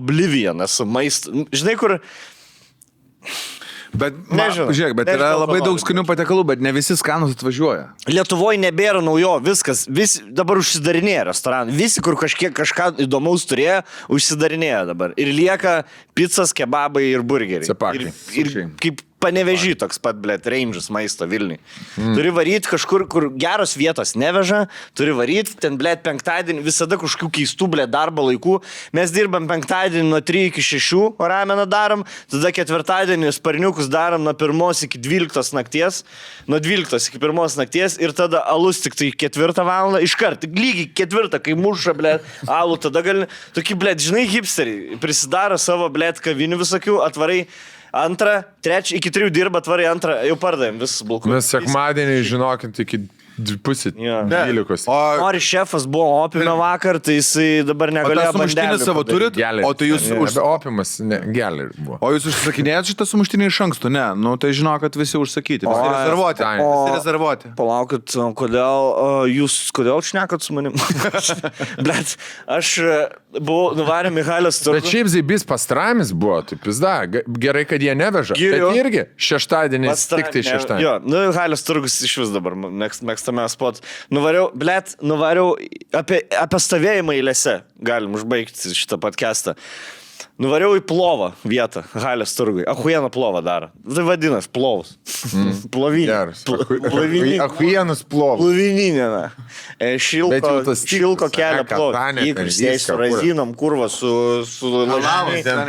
oblivion esu maisto. Žinai, kur... Bet, Nežinau. Žiūrėk, bet yra labai daug skanių patiekalų, bet ne visi skanus atvažiuoja. Lietuvoje nebėra naujo, viskas, dabar užsidarinėja restoranai. Visi, kur kažką įdomaus turėjo, užsidarinėja dabar. Ir lieka pizzas, kebabai ir burgeriai. Cepakai. Ir kaip Panevežį toks pat, blėt, range'as maisto Vilniui. Turi varyti kažkur, kur geros vietos neveža, turi varyti, ten, blėt, penktadienį, visada kažkokių keistų, blėt, darbo laikų. Mes dirbam penktadienį nuo 3 iki 6, o rameną darom, tada ketvirtadienį sparniukus darom nuo 1 iki 12 nakties, nuo 12 iki 1 nakties ir tada alus tik tai 4 valandą, iškart, lygiai 4, kai muša, blėt, alų, tada gali, tokie, blėt, žinai, hipsteriai, prisidaro savo, blėt, kavinių visokių, atvarai 2, 3, iki 3 dirba, atvarai 2, jau pardavėm visus bulkus. Mes sekmadienį, žinokint, iki 2:30. Nori šefas buvo opime vakar, tai jisai dabar negalėjo sumuštinį savo turit? Geliai. O tai jūs Opimas, ne, geliai buvo. O jūs užsakinėjat šitą sumuštinį iš anksto? Ne, nu tai žinau, kad visi užsakyti. Visi rezervuoti. Visi rezervuoti. Palaukit, kodėl šnekat su manim? Blet, aš buvau nuvarę Michailės turgų. Bet šiaip Zybys pastramis buvo, tai pizda, gerai, kad jie neveža. Giriu. Bet irgi šeštadienis, tik tai šeštadienis. Jo, Michailės turgus iš vis dabar mėgstame spot. Nuvariau apie stovėjimą eilėse, galim užbaigti šitą podcastą. Nuvariau į plovą vietą, Halės turgui. Ahuieną plovą daro. Tai vadinas plovus. Plovinė. Ahuienas plovas. Plovininė, na. Šilko kelio plovą. Įkursės su razinom, kurva, su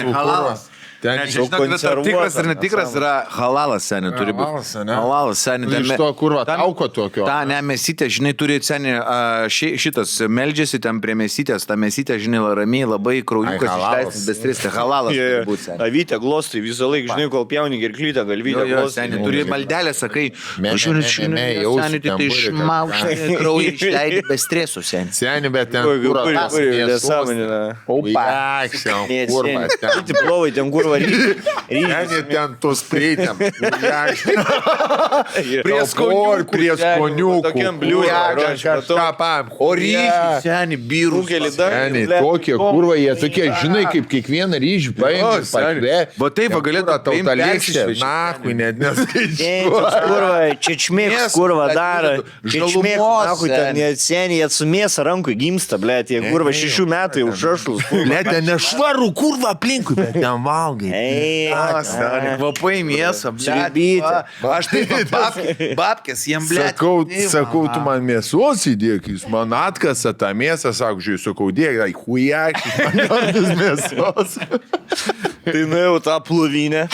Halalas. Tikras ir netikras yra halalas, seniai, turi būti. Halalas, seniai. Iš to kurva tauko tokio. Ta, ne, mesytė, žinai, turi, seniai, šitas meldžiasi ten prie mesytės, ta mesytė, žinai, ramiai, labai kraujukas išleistas, bestristi. Halalas turi būti, seniai. Avytė glostai visą laiką, žinai, kol pjauni gerklytę, galvytę glostai. Seniai, turi maldelę, sakai, seniai, tai išmaušai kraują išleidai be stresų, seniai. Seniai, bet ten kurva. Ten tos prieitėm. Prie skoniukų. Tokiam bliūdė. O ryžiai, seniai, birų. Seniai, tokie kurva, jie tokie, žinai, kaip kiekvieną ryžį paėmė. Va taip, galėtų tauta lėkštė. Nakui, net neskaičiuoju. Kurva, čečmėks, kurva daro. Čečmėks, nakui, ten seniai, jie su mėsa rankui gimsta, blėt, jie kurva 6 metų jau šašlus. Blėt, ten nešvarų kurva aplinkui, bet ten valgai. Kvapai mėsą, Sriubytė. aš taip, babkės, jiem blėt. Sakau, tu man mėsos įdėk, jūs man atkasa tą mėsą, sakau, dėk, hujakis, man mėsos. Tai nuėjau tą plovinę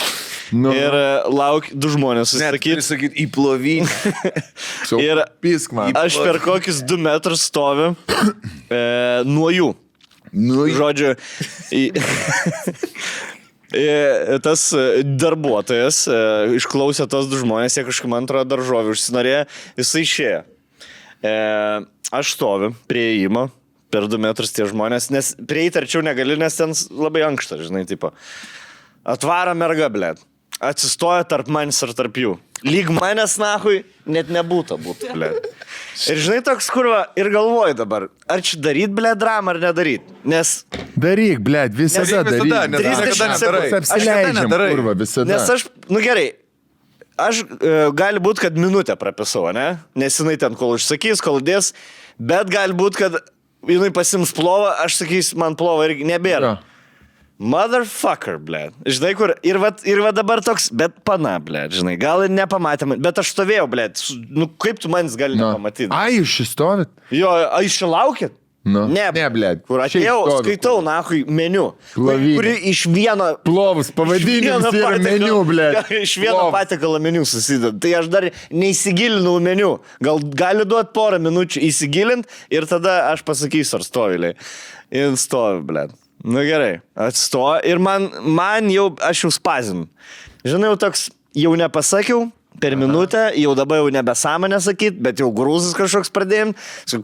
Nu. Ir lauk 2 žmonės Sakyti, susisakyti. į plovinę. Ir Pisk man. aš per kokius 2 metrus stoviu nuo jų. Nu, Žodžiu, tas darbuotojas išklausė tos 2 žmonės, jie kažkaip man atrodo daržovių užsinorėjo, jisai išėjo. Aš stoviu prie įėjimo, per 2 metrus tie žmonės, nes prieiti arčiau negali, nes ten labai ankšta, žinai, tipo. Atvaro merga, blėt. Atsistoja tarp manęs ir tarp jų. Lyg manęs, nahui, net nebūtų, blėt. Ir žinai, toks kurva, ir galvoju dabar, ar čia daryt, blėt, dramą ar nedaryt. Nes... Daryk, blėt, visada daryk. nes 30 sekundžių. Apsileidžiam, kurva, visada. Nes aš, nu gerai, aš gali būti, kad minutę prapisau, ne? Nes jinai ten kol užsakys, kol dės, bet gali būti, kad jinai pasims plovą, aš sakys, man plovą irgi nebėra. Jo. Motherfucker, blėt. Žinai, kur, ir va dabar toks, bet pana, blėt, žinai, gal ir nepamatėm, bet aš stovėjau, blėt, nu kaip tu manis gali nepamatyti? Ai, jūs šis stovit? Jo, aš čia laukit? Nu. Ne, blėt. Kur Šiaip atėjau, stovi. skaitau, nahui, meniu. Plovinė. Kuri iš vieno... Plovus, pavadinimas yra meniu, blėt. Iš vieno patiekalo meniu susideda. Tai aš dar neįsigilinau meniu. Gal gali duoti porą minučių įsigilinti ir tada aš pasakysiu, ar stoviliai. Ir stovi, blėt. Nu gerai, atstoja ir man jau, aš jau spazinu. Žinai, jau toks, jau nepasakiau per minutę, jau dabar jau nebesąmonę sakyt, bet jau grūzis kažkoks pradėjim.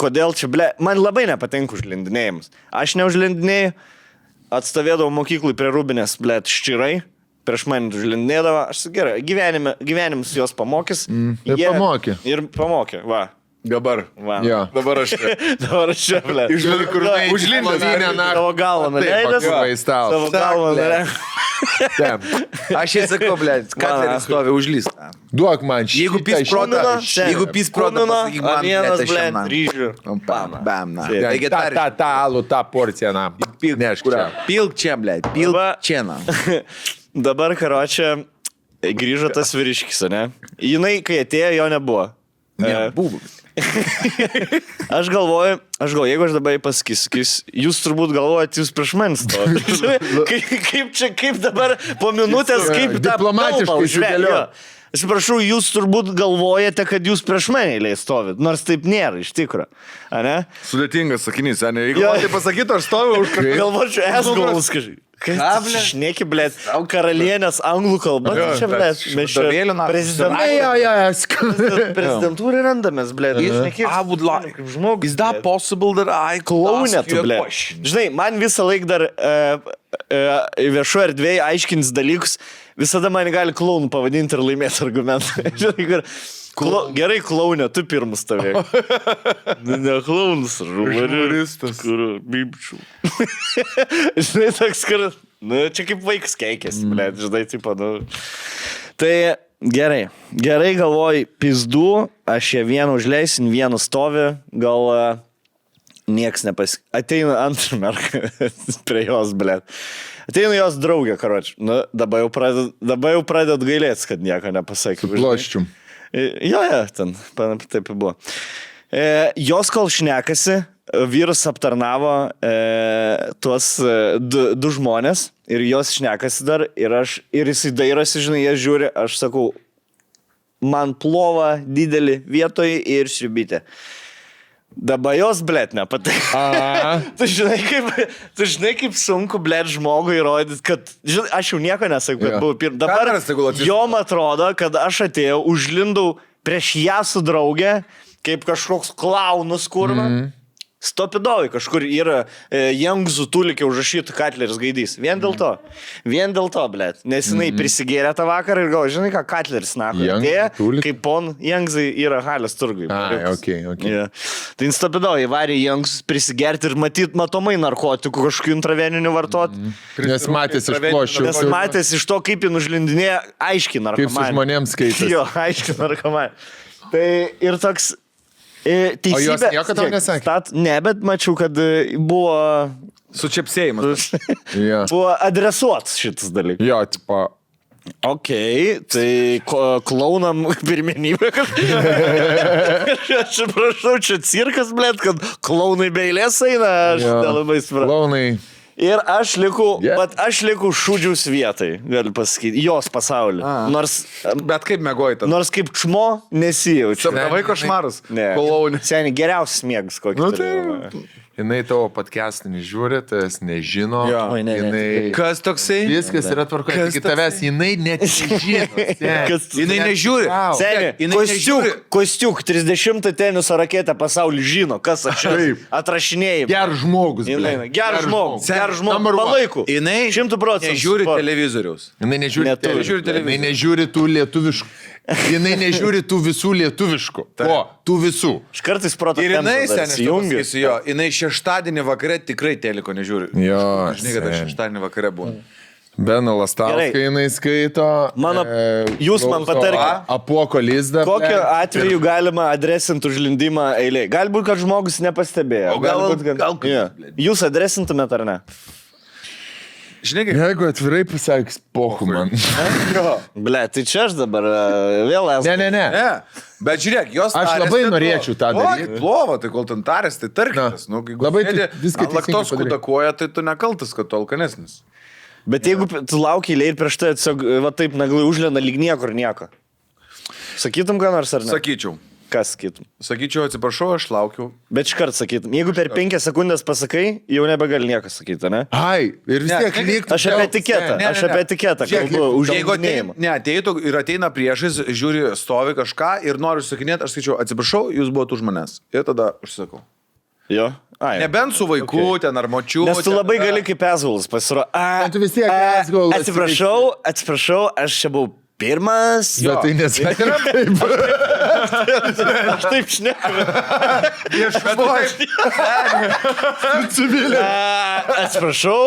Kodėl čia, ble, man labai nepatinka užlindinėjimus. Aš neužlindinėjau, atstovėdavau mokyklui prie Rūbinės, ble, ščirai. Prieš mane užlindinėdavo, aš sakiau, gerai, gyvenimus jos pamokys. Ir pamokė. Ir pamokė, va. Dabar. Va. Jo. Dabar aš čia. Dabar aš čia, ble. Užlindęs. Savo galvą nuleidęs. pakliuvai į stalą. Savo galvą nuleidęs. Aš jai sakau, blėt, Katleris stovi užlys. Duok man šitą. Jeigu pys protą, jeigu pys protą, pasakyk man, vienas, blėt, ble, aš jam. ryžių. Bam, na. Ta, Taigi tą alų, tą porciją, na. Nešk čia. Pilk čia, blėt, pilk Va. čia, na. Dabar, karočią, grįžo tas vyriškis, ne? Jinai, kai atėjo, jo nebuvo. Buvo. Aš galvoju, jeigu aš dabar pasakysiu, jūs turbūt galvojat, jūs prieš manęs stovite. Kaip dabar po minutės, kaip tą diplomatiškai kalbą užvėlio. sudėliot. Atsiprašau, jūs turbūt galvojate, kad jūs prieš mane eilėje stovit, nors taip nėra, iš tikro. Ane? Sudėtingas sakinys, ne? Jeigu Jo. man tai pasakytų, aš stoviu už kažką. Galvočiau, esgalus kažkaip. Šneki, blėt, karalienės anglų kalba. Jo, Čia, blėt, mes čia Vadovėlių na- prezidentūrai randamės, blėt. I would like. Žmogus. Is that possible that I could Klaunė ask tu, you a blėt. question? Žinai, man visą laiką dar viešo erdvėje aiškins dalykus, visada man gali klaunų pavadinti ir laimėti argumentą. Žinai, kur... Gerai, klaunė, tu pirmas stovėjai. Ne klaunas, žurnalistas. Kur, bibčių. Žinai, toks, kur... Nu, čia kaip vaikas keikėsi, blėt, žinai, tipo, nu... Tai gerai galvoju, pizdu, aš ją vieną užleisin, vieną stovi, gal nieks Ateina antrą merką prie jos, blėt. Ateina jos draugė, karoči. Nu, dabar jau pradedat gailėtis, kad nieko nepasakė. Ploščium. Jo, ten, taip ir buvo. Jos kol šnekasi, vyras aptarnavo tuos 2 žmonės ir jos šnekasi dar ir jisai dairosi, žinai, jie žiūri, aš sakau, man plova didelį vietoj ir šribytė. Dabar jos, blėt, nepatinka. Tu žinai, kaip sunku, blėt, žmogui įrodyti, kad, žinai, aš jau nieko nesakau, kad buvau pirmas. Dabar Kameras tegul atsisuka. jom atrodo, kad aš atėjau, užlindau prieš ją su draugė, kaip kažkoks klaunus kurva. Stopidovai kažkur yra Jangzų tulikė užrašytų Katleris gaidys. Vien dėl to, blėt. Nes jinai prisigėrė tą vakarą ir galvo, žinai ką, Katleris nako. Jangzų Atėjo, tulikė? kaip pon Jangzai yra Halės turgui. Ai, okei. Yeah. Tai stopidovai varė Jangzus prisigerti ir matomai narkotikų kažkokių intraveninių vartoti. Nes matėsi iš ploščių. Nes matėsi iš to, kaip jį užlindinėja, aiškiai Kaip narkomanė. su žmonėms skaitėsi. Jo, aiškiai narkomanė. Tai ir toks... Teisybė, O jos nieko tau nesakė? Ne, bet mačiau, kad buvo Sučiapsėjimas. Jo. Buvo adresuotas šitas dalykas. Jo, tipo. Ok, tai klaunam pirmenybę. Aš prašau, čia cirkas, blėt, kad klaunai be eilės eina, aš nelabai supratau. Klaunai. Ir aš liku šūdžiaus vietai, galiu pasakyti, jos pasaulį. Bet kaip mėgoji tada? Nors kaip čmo nesijaučiu. Sapnavai košmarus? Ne. Seniai, geriausias mėgas kokį. Jinai tavo podcastinį žiūri, tas nežino. Oi, ne. Kas toksai? Viskas yra tvarkoje. Tik tavęs jinai net nežino. Jinai nežiūri. Seniai, Kostiuk, 30 teniso raketę pasaulį žino, kas aš atrašinėjau. Geras žmogus. Geras žmogus. Palaikau. Jinai 100%. nežiūri televizoriaus. Jinai nežiūri tų lietuviškų. Jinai nežiūri tų visų lietuviškų. O, tų visų. Aš kartais proto Ir jinai, tempą seniai, jinai šeštadienį vakare tikrai teliko nežiūri. Jo, Žinai, kad aš šeštadienį vakare būnu. Beną Lastauską jinai skaito. Jūs man patarkite. Apuoko lizdą. Kokiu atveju galima adresinti užlindimą eilėje? Galbūt, kad žmogus nepastebėjo. Gal Jūs adresintumėt ar ne? Žinai, kaip... Jeigu atvirai pasakys, pohu man. Ble, tai čia aš dabar vėl esu. Ne. Bet žiūrėk, jos Aš labai norėčiau tą daryti. Plovo, tai kol ten tarės, tai tarkitės. Labai viską laktos kudakoja, tai tu nekaltas, kad tu alkanesnis. Bet jeigu tu lauki eilėje ir prieš tai tiesiog va taip naglai užlenda lyg niekur nieko. Sakytum ką nors ar ne? Sakyčiau. Kas sakytum? Sakyčiau, atsiprašau, aš laukiu. Bet iškart sakytum. Jeigu per 5 sekundės pasakai, jau nebegali nieko sakyti, ne? Ai, ir vis tiek liktų. Aš apie etiketą kalbu, užlindinėjimą. Ateitų ir ateina priešais, žiūri, stovi kažką ir noriu sakinėti, aš sakyčiau, atsiprašau, jūs buvote už manęs. Ir tada užsakau. Jo? Ai. Nebent su vaiku, ten ar močiu. Nes tu labai gali kaip esgulas pasirodo. Tu vis tiek esgulas. Atsiprašau, aš čia buvau pirmas. Bet tai nesakė taip. Aš taip šneku. Civilė. Atsiprašau.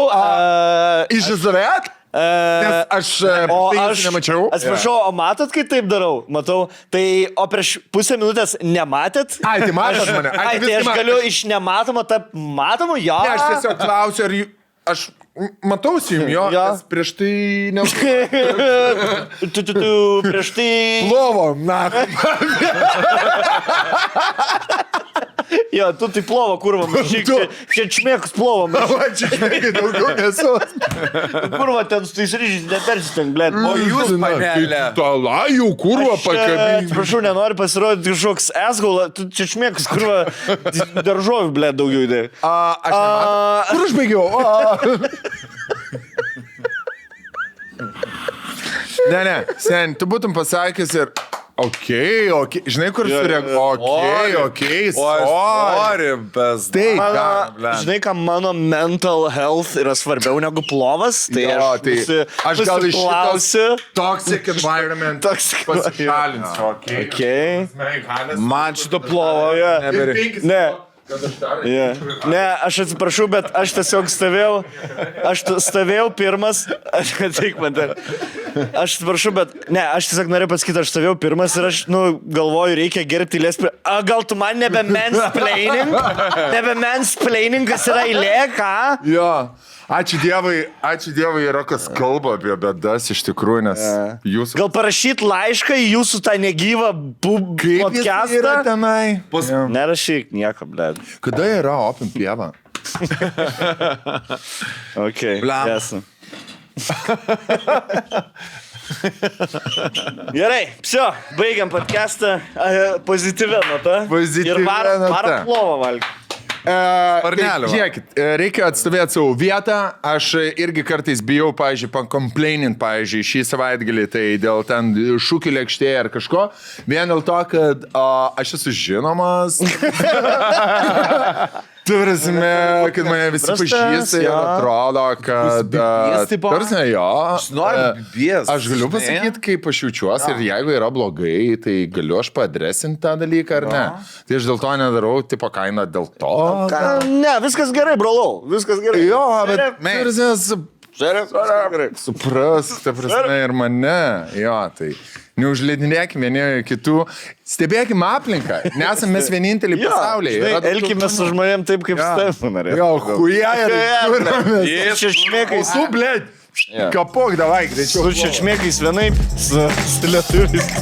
Iš Izraelio? Nes aš nemačiau. Atsiprašau, o matot, kai taip darau? Matau. Tai, o prieš pusę minutės nematėt? Ai, tai matot mane. Ai, tai aš galiu iš nematomo tą matomą, jo. Ne, aš tiesiog klausiu, ar aš matausi jums jo, nes prieš tai prieš tai... Plovo, na. Jo, tu tai plovo, kurva, mažyk, čia čmėkus plovo, mažyk. Čia čmėkai daugiau nesu. Kurva, ten su tais ryžiais nepersisteng, blėt. O jūs, panelė. Talajų, kurva, pakabinti. Prašau, nenori pasirodyti kažkoks esgaula, tu čia čmėkus, kurva, daržovių, blėt, daugiau idėjų. Aš nematau. Kur aš baigiau? Ne, sen, tu būtum pasakęs ir... Okei, žinai, kur sureaguoju. Okei, sorry, bez... Taip, žinai, ką mano mental health yra svarbiau negu plovas, tai aš gal iš šitos toxic environment pasišalinsiu. Man šito plovo neberi. Ne. Ne, aš atsiprašau, bet aš tiesiog stovėjau pirmas, aš atsiprašau, bet ne, aš tiesiog noriu pasakyti, aš stovėjau pirmas ir aš, galvoju, reikia gerbti eilės. Gal tu man nebe mansplaining, kas yra eilė, ką? Jo. Ačiū Dievui yra kas kalba apie bėdas iš tikrųjų, nes jūs... Gal parašyt laišką į jūsų tą negyvą podcastą? Kaip jis yra tenai? Nerašyk nieko, blėd. Kada yra Open pieva? Ok, esu. Gerai, baigiam podcastą pozityvę notą. Ir varam plovą valgyti. Žiūrėkit, reikia atstovėti savo vietą. Aš irgi kartais bijau, pavyzdžiui, pakomplainint, pavyzdžiui, šį savaitgalį, tai dėl ten šūkių lėkštėje ar kažko. Vien dėl to, kad aš esu žinomas. Turime, kad mane visi pažįsta ir atrodo, kad... Turime, jo. Aš galiu pasakyti, kaip aš jaučiuosi ir jeigu yra blogai, tai galiu aš paadresinti tą dalyką ar ne. Tai aš dėl to nedarau, tipo kainą dėl to. Ne, viskas gerai, brolau. Viskas gerai. Jo, bet turime supras, ta prasme, ir mane. Jo, tai... Neužleidinėkime vieni kitų, stebėkime aplinką, nesame mes vieninteliai pasaulyje. Elkime su žmonėm taip, kaip Stefan. Jo, huja ir Su čečmėkais. Su, blėd, kapok, davai, greičiau. Su čečmėkais vienaip, su lietuviais.